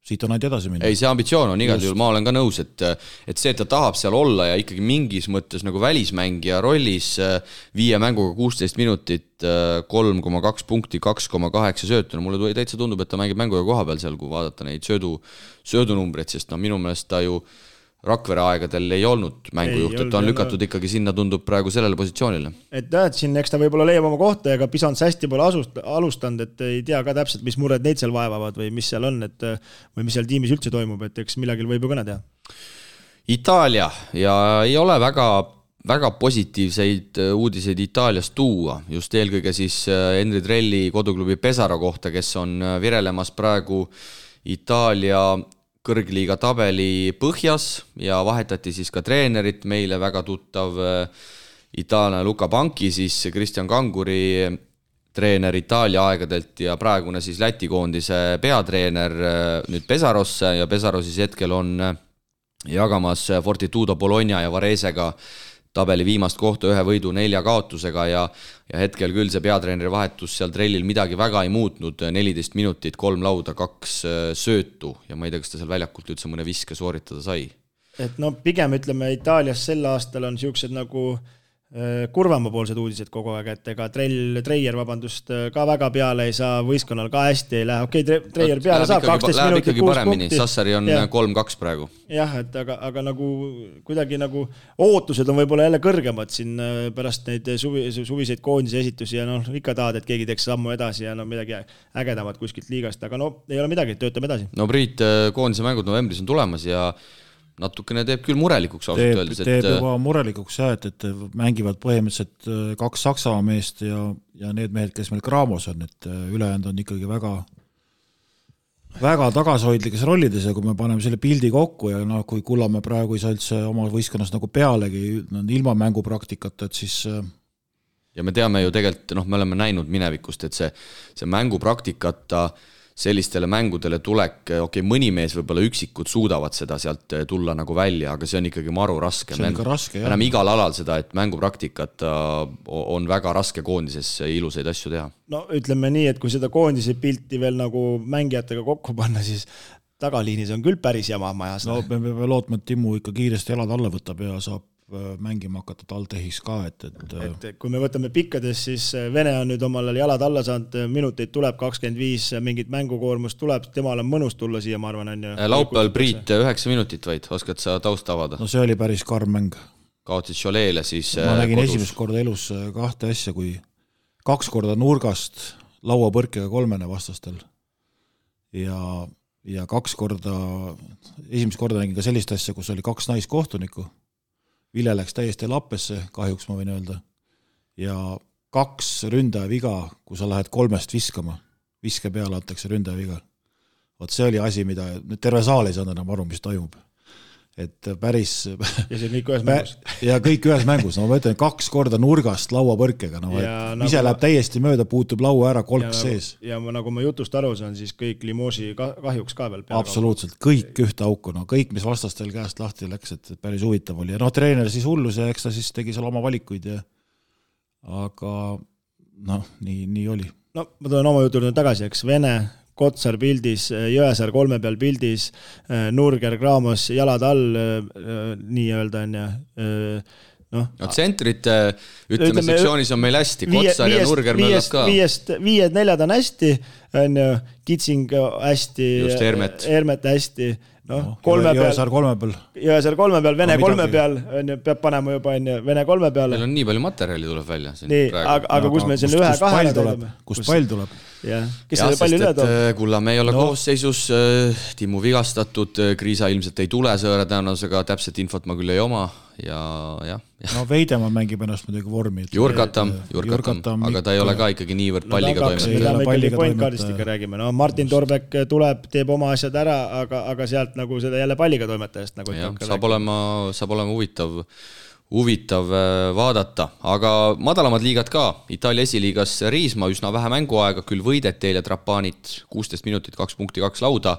siit on ainult edasi minna. Ei, see ambitsioon on igal juhul, ma olen ka nõus, et see, et ta tahab seal olla ja ikkagi mingis mõttes nagu välismängija rollis 5 mänguga 16 minutit, 3,2 punkti, 2,8 söötu, no mulle täitsa tundub, et ta mängib mänguga koha peal seal, kui vaadata neid söödunumbreid, sest no minu meelest ta ju Rakvere aegadel ei olnud mängujuht, et ta on lükatud ikkagi sinna, tundub praegu sellele positsioonile. Et siin eks ta võib-olla leiab oma kohta, ega Pisants hästi pole alustanud, et ei tea ka täpselt, mis mured neid seal vaevavad või mis seal on, või mis seal tiimis üldse toimub, et eks millegil võib ju kõne teha. Itaalia ja ei ole väga positiivseid uudiseid Itaaliast tuua, just eelkõige siis Henri Trelli koduklubi Pesaro kohta, kes on virelemas praegu Itaalia kõrgliiga tabeli põhjas ja vahetati siis ka treenerit, meile väga tuttav itaallane Luka Banki, siis Kristjan Kanguri treener Itaalia aegadelt ja praegune siis Läti koondise peatreener nüüd Pesarosse ja Pesaro siis hetkel on jagamas Fortitudo Bologna ja Varesega tabeli viimast kohta 1 võidu 4 kaotusega ja hetkel küll see peatreeneri vahetus seal Trellil midagi väga ei muutnud, 14 minutit, 3 lauda, 2 söötu ja ma ei tea, kas ta seal väljakult üldse mõne viske sooritada sai. Et no pigem ütleme Itaalias sel aastal on siuksed nagu kurvamapoolsed uudised kogu aeg, et ega Treier ka väga peale ei saa, võistkonnal ka hästi ei lähe, Treier peale saab 12 minutit 6 punkti. Sassari on 3-2 praegu. Jah, et aga nagu kuidagi nagu ootused on võib-olla jälle kõrgemad siin pärast neid suviseid koondise esitusi ja ikka tahad, et keegi teeks sammu edasi ja midagi ägedamat kuskilt liigast, aga ei ole midagi, töötame edasi. No Priit, koondise mängud novembris on tulemas ja natukene teeb küll murelikuks ausalt öeldes. Teeb juba murelikuks jah, et mängivad põhimõtteliselt 2 Saksamaa meest ja need mehed, kes meil Graamos on, et ülejäänud on ikkagi väga tagasihoidlikes rollides ja kui me paneme selle pildi kokku ja kui Kullamäe praegu ei saa üldse oma võistkonnas nagu pealegi ilma mängupraktikata, et siis ja me teame ju tegelikult, me oleme näinud minevikust, et see mängupraktikata sellistele mängudele tulek, mõni mees võib-olla üksikud suudavad seda sealt tulla nagu välja, aga see on ikkagi maru raske. See on ikka raske, jah. Näeme igal alal seda, et mängupraktikat on väga raske koondises ilusaid asju teha. No ütleme nii, et kui seda koondise pilti veel nagu mängijatega kokku panna, siis tagaliinis on küll päris jama majas. No me peame lootma, et Timmu ikka kiiresti jalad alla võtab ja saab mängima hakata Taltehis ka, et kui me võtame pikkades, siis Vene on nüüd omal jalad alla saanud, minuteid tuleb 25, mingit mängukoormust tuleb, temal on mõnus tulla siia, ma arvan, on ju. Laupäeval Priit 9 minutit vaid, oskad sa taust avada? No see oli päris karm mäng. Kaotsid Choleele siis ma nägin kodus. Esimest korda elus 2 asja, kui 2 korda nurgast lauapõrkega 3 vastastel ja 2 korda, esimest korda nägin ka sellist asja, kus oli 2 naiskohtunikku. Vile läks täiesti lappesse, kahjuks ma võin öelda, ja 2 ründaja viga, kui sa lähed 3 viskama, viske peale antakse ründaja viga. Vot see oli asi, mida terve saal ei saanud enam aru, mis toimub. et päris ja see kõik ühes mängus. Ja kõik ühes mängus, no ma ütlen 2 korda nurgast lauapõrkega, no ise läheb täiesti mööda, puutub laua ära, kolk sees. Ja nagu ma jutust aru saan, siis kõik Limoži kahjuks ka veel peale. Absoluutselt, kõik ühte auku, no kõik, mis vastastel käest lahti läks, et päris huvitav oli. Ja treener siis hullus ja eks ta siis tegi seal oma valikuid ja aga nii oli. No ma tulen oma jutu tagasi, eks Vene, Kotsar pildis, Jõesaar 3 peal pildis, Nurger, Graamos, jalad all, nii öelda on ja no tsentrite, ütleme sektsioonis on meil hästi, Kotsar ja Nurger möllab ka. 5-4 on hästi, on ju, Kitsing hästi, Hermet hästi, Jõesaar 3 peal. Jõesaar 3 peal, Vene 3 peal, peab panema juba Vene 3 peale. Meil on nii palju materjali tuleb välja. Nii, aga kus meil selle 1-2 tuleb? Kust pall tuleb? Kes selle palju üle toob? Kullamäe ei ole koosseisus, Timmu vigastatud, Kriisa ilmselt ei tule sõõra tõenäosusega, täpselt infot ma küll ei oma ja. No Veidemaa mängib ennast muidugi vormi. Jurkatam, aga ta ei ole ka ikkagi niivõrd palliga toimetada. Me ikkagi pointkaardist ikka räägime. No Martin Torbek tuleb, teeb oma asjad ära, aga sealt nagu seda jälle palliga toimetajast. Saab olema huvitav vaadata, aga madalamad liigad ka. Itaalia esiliigas Riisma üsna vähe mänguaega, küll võideti eile Trapanit 16 minutit, 2 punkti, 2 lauda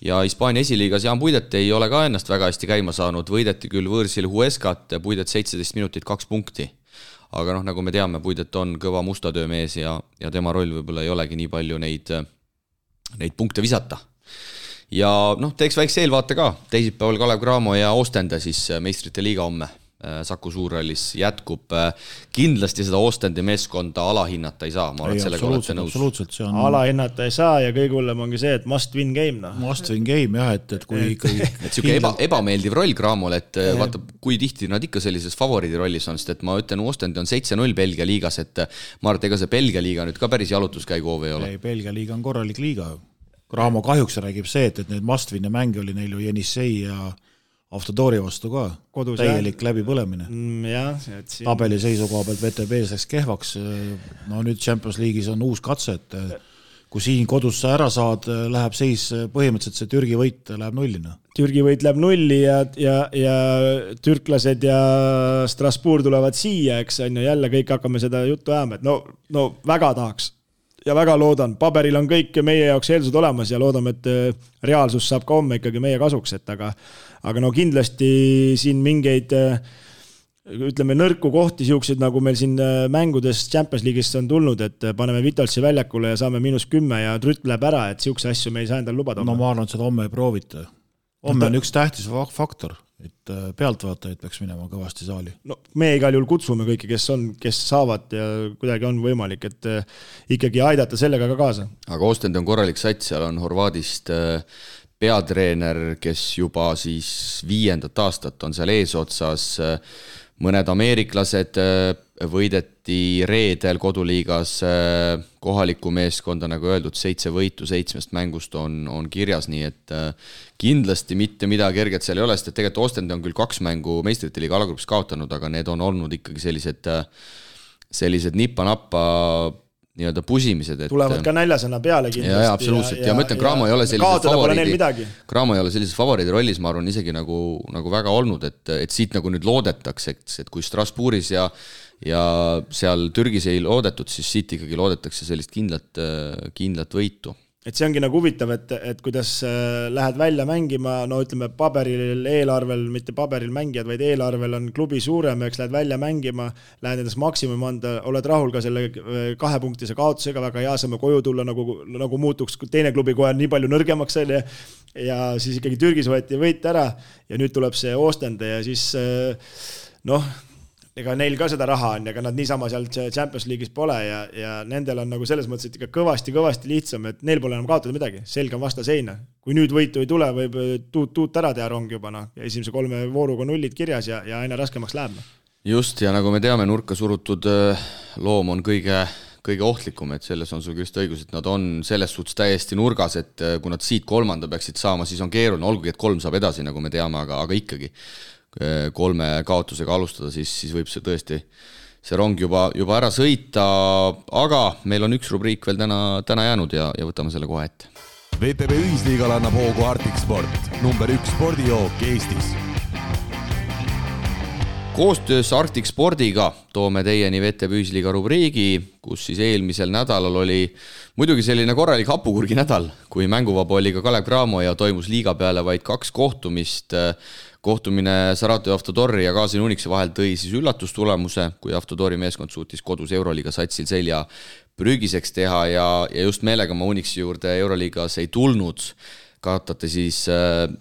ja Hispaania esiliigas Jaan Puidet ei ole ka ennast väga hästi käima saanud, võideti küll võõrsil Huescat, Puidet 17 minutit, 2 punkti. Aga nagu me teame, Puidet on kõva mustatöömees ja tema roll võib-olla ei olegi nii palju neid punkte visata. Ja teeks väikse eelvaate ka, teisipäeval Kalev Cramo ja Ostende siis meistrite liiga homme. Saku Suurrallis jätkub, kindlasti seda Ostendi meeskonda alahinnata ei saa, ma arvan, et sellega olete nõus. Alahinnata ei saa ja kõige hullem ongi see, et must win game. Must win game jah, et kui ikkagi et siuke ebameeldiv roll Cramole, et vaata, kui tihti nad ikka sellises favoriidi rollis on, sest et ma ütlen, Ostendi on 7-0 Belgia liigas, et ma arvan, et ega see Belgia liiga nüüd ka päris jalutuskäigu hoov ei ole. Ei, Belgia liiga on korralik liiga. Cramo kahjuks räägib see, et need must win mänge oli neil ju Jenissei ja Автодori vastu ka, kodus täielik läbipõlemine. Tabeli seisukoha pealt VTB läks kehvaks, no nüüd Champions League'is on uus katse, et kui siin kodus sa ära saad, läheb seis põhimõtteliselt see Türgi võit läheb nullina. Türgi võit läheb nulli ja türklased ja Strasbourg tulevad siia, eks on ju, jälle kõik hakkame seda juttu ajama, et no väga tahaks ja väga loodan, paberil on kõik meie jaoks eeldused olemas ja loodame, et reaalsus saab ka homme ikkagi meie kasuks, et aga no kindlasti siin mingeid, ütleme, nõrku kohti siuksed, nagu meil siin mängudes Champions League'ist on tulnud, et paneme Vitalsi väljakule ja saame -10 ja Trütt läheb ära, et siukse asju me ei saa endal lubada. No ma arvan, et seda homme ei proovita. Homme on üks tähtis faktor, et pealtvaatajaid peaks minema kõvasti saali. No me igal juhul kutsume kõiki, kes saavad ja kuidagi on võimalik, et ikkagi aidata sellega ka kaasa. Aga Ostend on korralik sats, seal on Horvaadist peatreener, kes juba siis 5. aastat on seal eesotsas, mõned ameeriklased, võideti reedel koduliigas kohaliku meeskonda, nagu öeldud, 7 võitu 7 mängust on kirjas, nii et kindlasti mitte midagi kerget seal ei ole, sest et tegelikult Ostend on küll 2 mängu meistrite liiga alagrupis kaotanud, aga need on olnud ikkagi sellised nippa-nappa nii-öelda pusimised. Tulevad ka näljasõna peale kindlasti. Ja absoluutselt. Ja ma ütlen, Cramo ei ole sellises favoriidi rollis, ma arvan, isegi nagu väga olnud, et siit nagu nüüd loodetakse, et kui Strasbourgis ja seal Türgis ei loodetud, siis siit ikkagi loodetakse sellist kindlat võitu. Et see ongi nagu huvitav, et kuidas lähed välja mängima, no ütleme paberil, eelarvel, mitte paberil mängijad, vaid eelarvel on klubi suurem, eks lähed välja mängima, lähed endast maksimum anda, oled rahul ka selle 2 punktise kaotusega, väga hea saame koju tulla, nagu muutuks teine klubi kohe nii palju nõrgemaks oli ja siis ikkagi Türgis võeti võit ära ja nüüd tuleb see Ostende ja siis ega neil ka seda raha on, ega nad niisama seal Champions League'is pole ja nendel on nagu selles mõttes, et ikka kõvasti lihtsam, et neil pole enam kaotada midagi, selge on vasta seina. Kui nüüd võitu ei tule, võib tuut ära teha rong juba, esimese 3 vooruga nullid kirjas ja aina raskemaks läheb. Just, ja nagu me teame, nurka surutud loom on kõige ohtlikum, et selles on sul just õigus, et nad on selles suhtes täiesti nurgas, et kui nad siit 3. peaksid saama, siis on keeruline, olgugi, et 3 saab edasi, nagu me teame, aga ikkagi 3 kaotusega alustada, siis võib see tõesti see rong juba ära sõita, aga meil on üks rubriik veel täna jäänud ja võtame selle kohe ette. VTB ühisliigal annab hoogu Arctic Sport, number 1 spordijook Eestis. Koostöös Arctic Spordiga toome teieni VTB Ühisliiga rubriigi, kus siis eelmisel nädalal oli muidugi selline korralik hapukurgi nädal, kui mänguvaba oli ka Kalev Cramo ja toimus liiga peale vaid 2 kohtumist. Kohtumine Saratov Avtodori ja Gazin Unixi vahel tõi siis üllatustulemuse, kui Avtodori meeskond suutis kodus Euroliiga satsil selja prügiseks teha ja just meelega ma Unixi juurde Euroliigas ei tulnud. Kaotate siis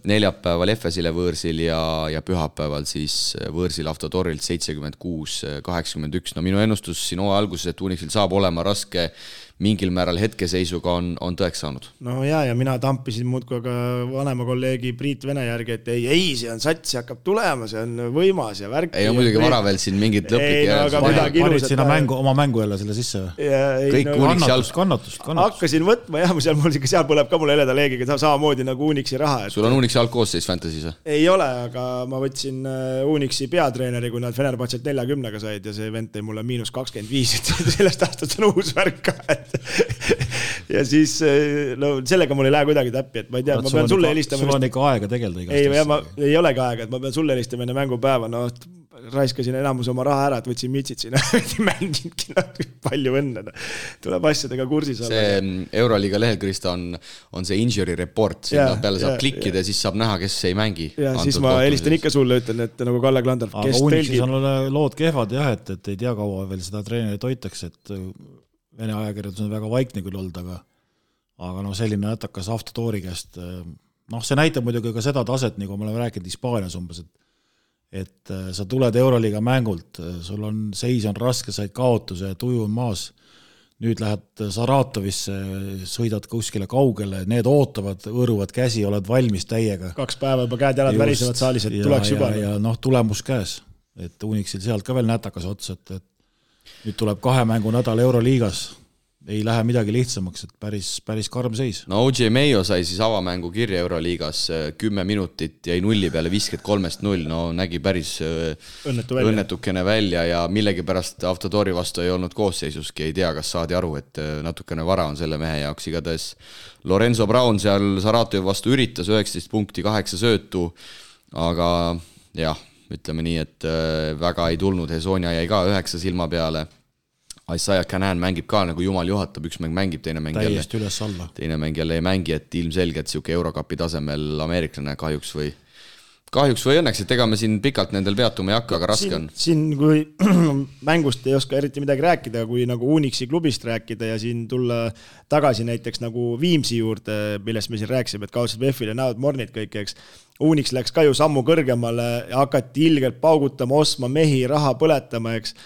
neljapäeval Efesile võõrsil ja pühapäeval siis võõrsil Avtodorilt 76-81. No minu ennustus siin hooaja alguses, et Unixil saab olema raske mingil määral hetkeseisuga on tõeks saanud. No ja mina tampisin muudkui ka vanema kolleegi Priit Vene järgi, et ei, see on sats, see hakkab tulema, see on võimas ja värk. Ei, on muidugi vara veel siin mingid lõplik panid sinna oma mängu jälle selle sisse või? Kõik Unixi kannatust. Hakkasin võtma ja seal põleb ka mul heleda leegiga samamoodi nagu Unixi raha. Sul on Unixi algkoosseis Fantasy's? Ei ole, aga ma võtsin Unixi peatreeneri, kui nad Fenerbahcelt 40-ga said ja see vend tõi mulle -25, et sellest aastast on uus värk ka, ja siis sellega mul ei lähe kuidagi täppi, et ma ei tea, ma pean sulle helistama. Sul on ikka aega tegelda igast. Ei olegi aega, et ma pean sulle helistama enne mängupäeva, raiskasin enamus oma raha ära, et võtsin mitsid sinna, mängingi palju õnne. Tuleb asjadega kursis olla. See Euroliiga lehel, Krista, on see injury report, sinna peale saab klikkida ja siis saab näha, kes ei mängi. Ja siis ma helistan ikka sulle, ütlen, et nagu Kalle Klandorf, kes Unixis on lood kehvad jah, et ei tea kaua veel seda treenerit hoitakse, et Vene ajakirjadus on väga vaikne küll olnud, aga selline nätakas Avtodori käest. See näitab muidugi ka seda taset, nagu me oleme rääkinud Hispaanias umbes, et sa tuled Euroliiga mängult, sul on seis on raske, said kaotuse, tuju on maas, nüüd lähed Saratovisse, sõidad kuskile kaugele, need ootavad, õõruvad käsi, oled valmis täiega. 2 päeva juba käed jalad värisevad saalis, et tuleks juba. Ja tulemus käes, et Unixil sealt ka veel nätakas ots, et nüüd tuleb 2 mängu nädal Euroliigas, ei lähe midagi lihtsamaks, et päris karm seis. No OJ Mayo sai siis avamängu kirja Euroliigas 10 minutit, jäi 0 peale 53-0, nägi päris õnnetukene välja ja millegipärast Avtodori vastu ei olnud koosseisuski, ei tea, kas saadi aru, et natukene vara on selle mehe jaoks igatahes. Lorenzo Brown seal Saratovi vastu üritas 19 punkti, 8 söötu, aga jah, ütleme nii, et väga ei tulnud, Hesonia jäi ka 9 silma peale. Isaiah Canan mängib ka nagu jumal juhatab, üks mäng mängib, teine mäng jälle ei mängi, et ilmselgelt siuke Eurocupi tasemel ameeriklane kahjuks või õnneks, et ega me siin pikalt nendel peatuma ei hakka, aga raske on. Siin kui mängust ei oska eriti midagi rääkida, kui nagu Unixi klubist rääkida ja siin tulla tagasi näiteks nagu Viimsi juurde, millest me siin rääksime, et kaotasid VF-il ja näod Mornid kõik, eks. Unix läks ka ju sammu kõrgemale ja hakati ilgelt paugutama, ostma mehi, raha põletama, eks.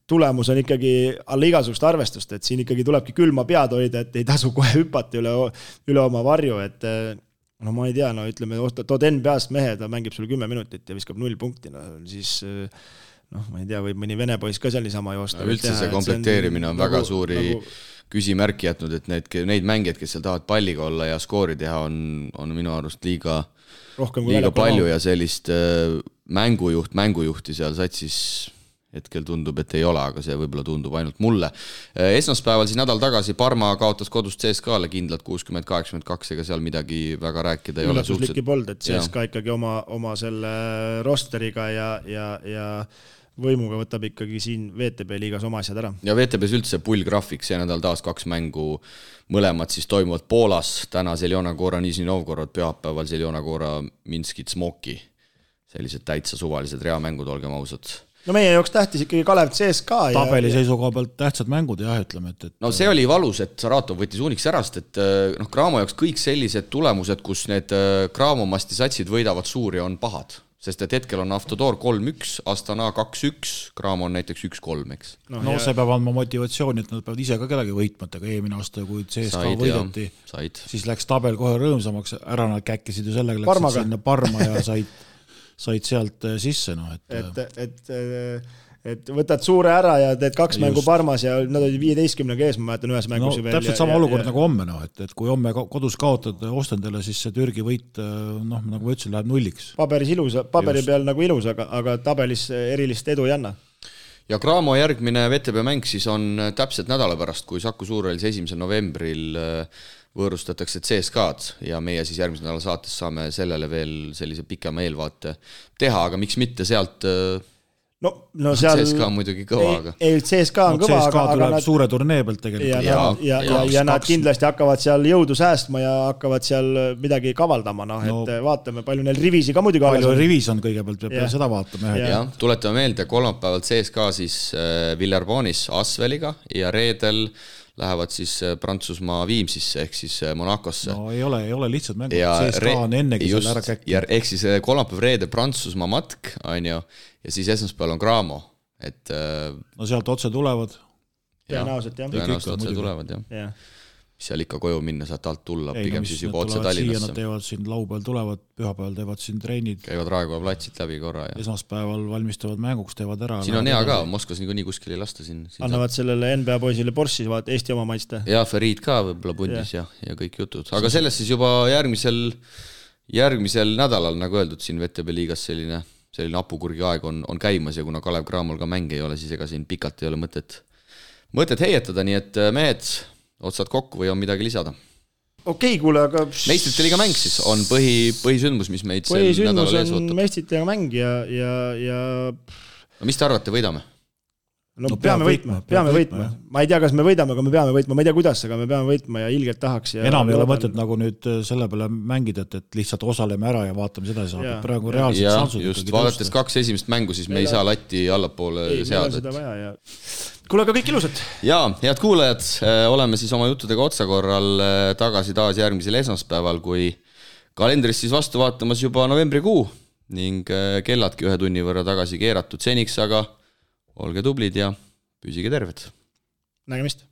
Tulemus on ikkagi alla igasugust arvestust, et siin ikkagi tulebki külma pead hoida, et ei tasu kohe hüpata üle oma varju, et ma ei tea, ütleme, tood NBA-st mehe, ta mängib sulle 10 minutit ja viskab 0 punkti, siis ma ei tea, võib mõni vene poiss ka seal niisama joosta. Üldse see komplekteerimine on väga suuri küsimärki jätnud, et neid mängijad, kes seal tahavad palliga olla ja skoori teha, on minu arust liiga palju ja sellist mängujuhti seal satsis hetkel tundub, et ei ole, aga see võib-olla tundub ainult mulle. Esmaspäeval siis nädal tagasi Parma kaotas kodust CSKA-le kindlalt 60-82, ega seal midagi väga rääkida ei ole. Üllatuslikki pold, et CSKA ikkagi oma selle rosteriga ja võimuga võtab ikkagi siin VTB liigas oma asjad ära. Ja VTB's üldse pullgraafik, see nädal taas 2 mängu, mõlemad siis toimuvad Poolas, täna Zeljona Gora Nižni Novgorod, pühapäeval Zeljona Gora Minskit Smoki. Sellised täitsa suvalised reamängud, olgem ausad. No meie jooks tähtis ikkagi Kalev CSKA. Tabeli seisukoha pealt tähtsad mängud, jah, ütleme. No see oli valus, et Saratov võttis Unix ärast, et Cramo jaoks kõik sellised tulemused, kus need Cramo masti satsid võidavad suuri, on pahad. Sest et hetkel on Avtodor 3-1, Astana 2-1, Cramo on näiteks 1-3, eks. See peab andma motivatsiooni, et nad peavad ise ka kedagi võitmatega eelmine aasta, kui CSKA võidati. Siis läks tabel kohe rõõmsamaks, ära nad käkkisid ju sellega, läksid sinna Parma ja said sealt sisse. Et võtad suure ära ja teed 2 mängu Parmas ja nad olid 15-ga ees, ma mäletan ühes mängus. Täpselt sama olukord nagu homme, et kui homme kodus kaotad Ostendele, siis see Türgi võit, nagu ma ütlesin, läheb 0-ks. Paberi peal nagu ilus, aga tabelis erilist edu ei anna. Ja Cramo järgmine VTB mäng siis on täpselt nädala pärast, kui Saku Suurhallis 1. novembril võõrustatakse CSKA-d ja meie siis järgmise nädala saates saame sellele veel sellise pikema eelvaate teha, aga miks mitte sealt no seal CSKA on muidugi kõva, aga ei, CSKA on kõva, CSKA tuleb nad, suure turnee pealt tegelikult. ja nad kindlasti hakkavad seal jõudu säästma ja hakkavad seal midagi kavaldama, et vaatame, palju neil rivisi ka muidugi palju rivis on kõigepealt, peab seda vaatama. Jah, tuletame meelde, kolmapäevalt CSKA siis Villarbonis Asveliga ja reedel lähevad siis Prantsusmaa Viimsisse ehk siis Monacosse. No ei ole lihtsalt mängud, CSKA on ennegi seal ära käkki. Ehk siis kolmapäev reede Prantsusmaa matk, on ju, ja siis esmaspäeval on Graamo. No sealt otse tulevad. Tõenäoliselt otse tulevad, jah. Seal ikka koju minna, saad alt tulla, pigem siis juba otse Tallinnasse. Nad teevad siin laupäeval tulevad, pühapäeval teevad siin treenid. Käivad Raekoja platsit läbi korra. Esmaspäeval valmistavad mänguks, teevad ära. Siin on hea ka, Moskvas nii kuskil ei lasta siin. Annavad sellele NBA poisile Borssi, vaat Eesti oma maiste. Ja Ferid ka võib-olla pundis ja kõik jutud. Aga sellest siis juba järgmisel nädalal, nagu öeldud, siin VTB liigas selline apukurgi aeg on käimas ja kuna Kalev Cramol ka mäng ei ole, siis ega siin pikalt ei ole mõtet heietada, nii et mehed otsad kokku või on midagi lisada? Okei, kuule, aga... Meistrite liiga mäng siis on põhisündmus, mis meid sel nädalal ees ootab. Meistrite liiga mäng ja... No mis te arvate, võidame? No peame võitma. Ma ei tea, kas me võidame, aga me peame võitma. Ma ei tea, kuidas, aga me peame võitma ja ilgelt tahaks. Ja enam ei ole mõtet nagu nüüd selle peale mängida, et lihtsalt osaleme ära ja vaatame seda saab. Praegu reaalselt sansud. Just, vaadates 2 esimest mängu, siis me ei saa latti allapoole seada. Kuule, aga kõik ilusad. Jaa, head kuulajad, oleme siis oma juttudega otsakorral tagasi taas järgmisel esmaspäeval, kui kalendris siis vastu vaatamas juba novembrikuu ning kelladki 1 tunni võrra tagasi keeratud seniks, aga olge tublid ja püsige terved. Nägemist.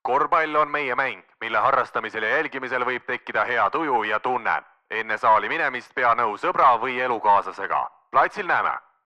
Korvpall on meie mäng, mille harrastamisel ja jälgimisel võib tekkida hea tuju ja tunne. Enne saali minemist pea nõu sõbra või elukaaslasega. Platsil näeme!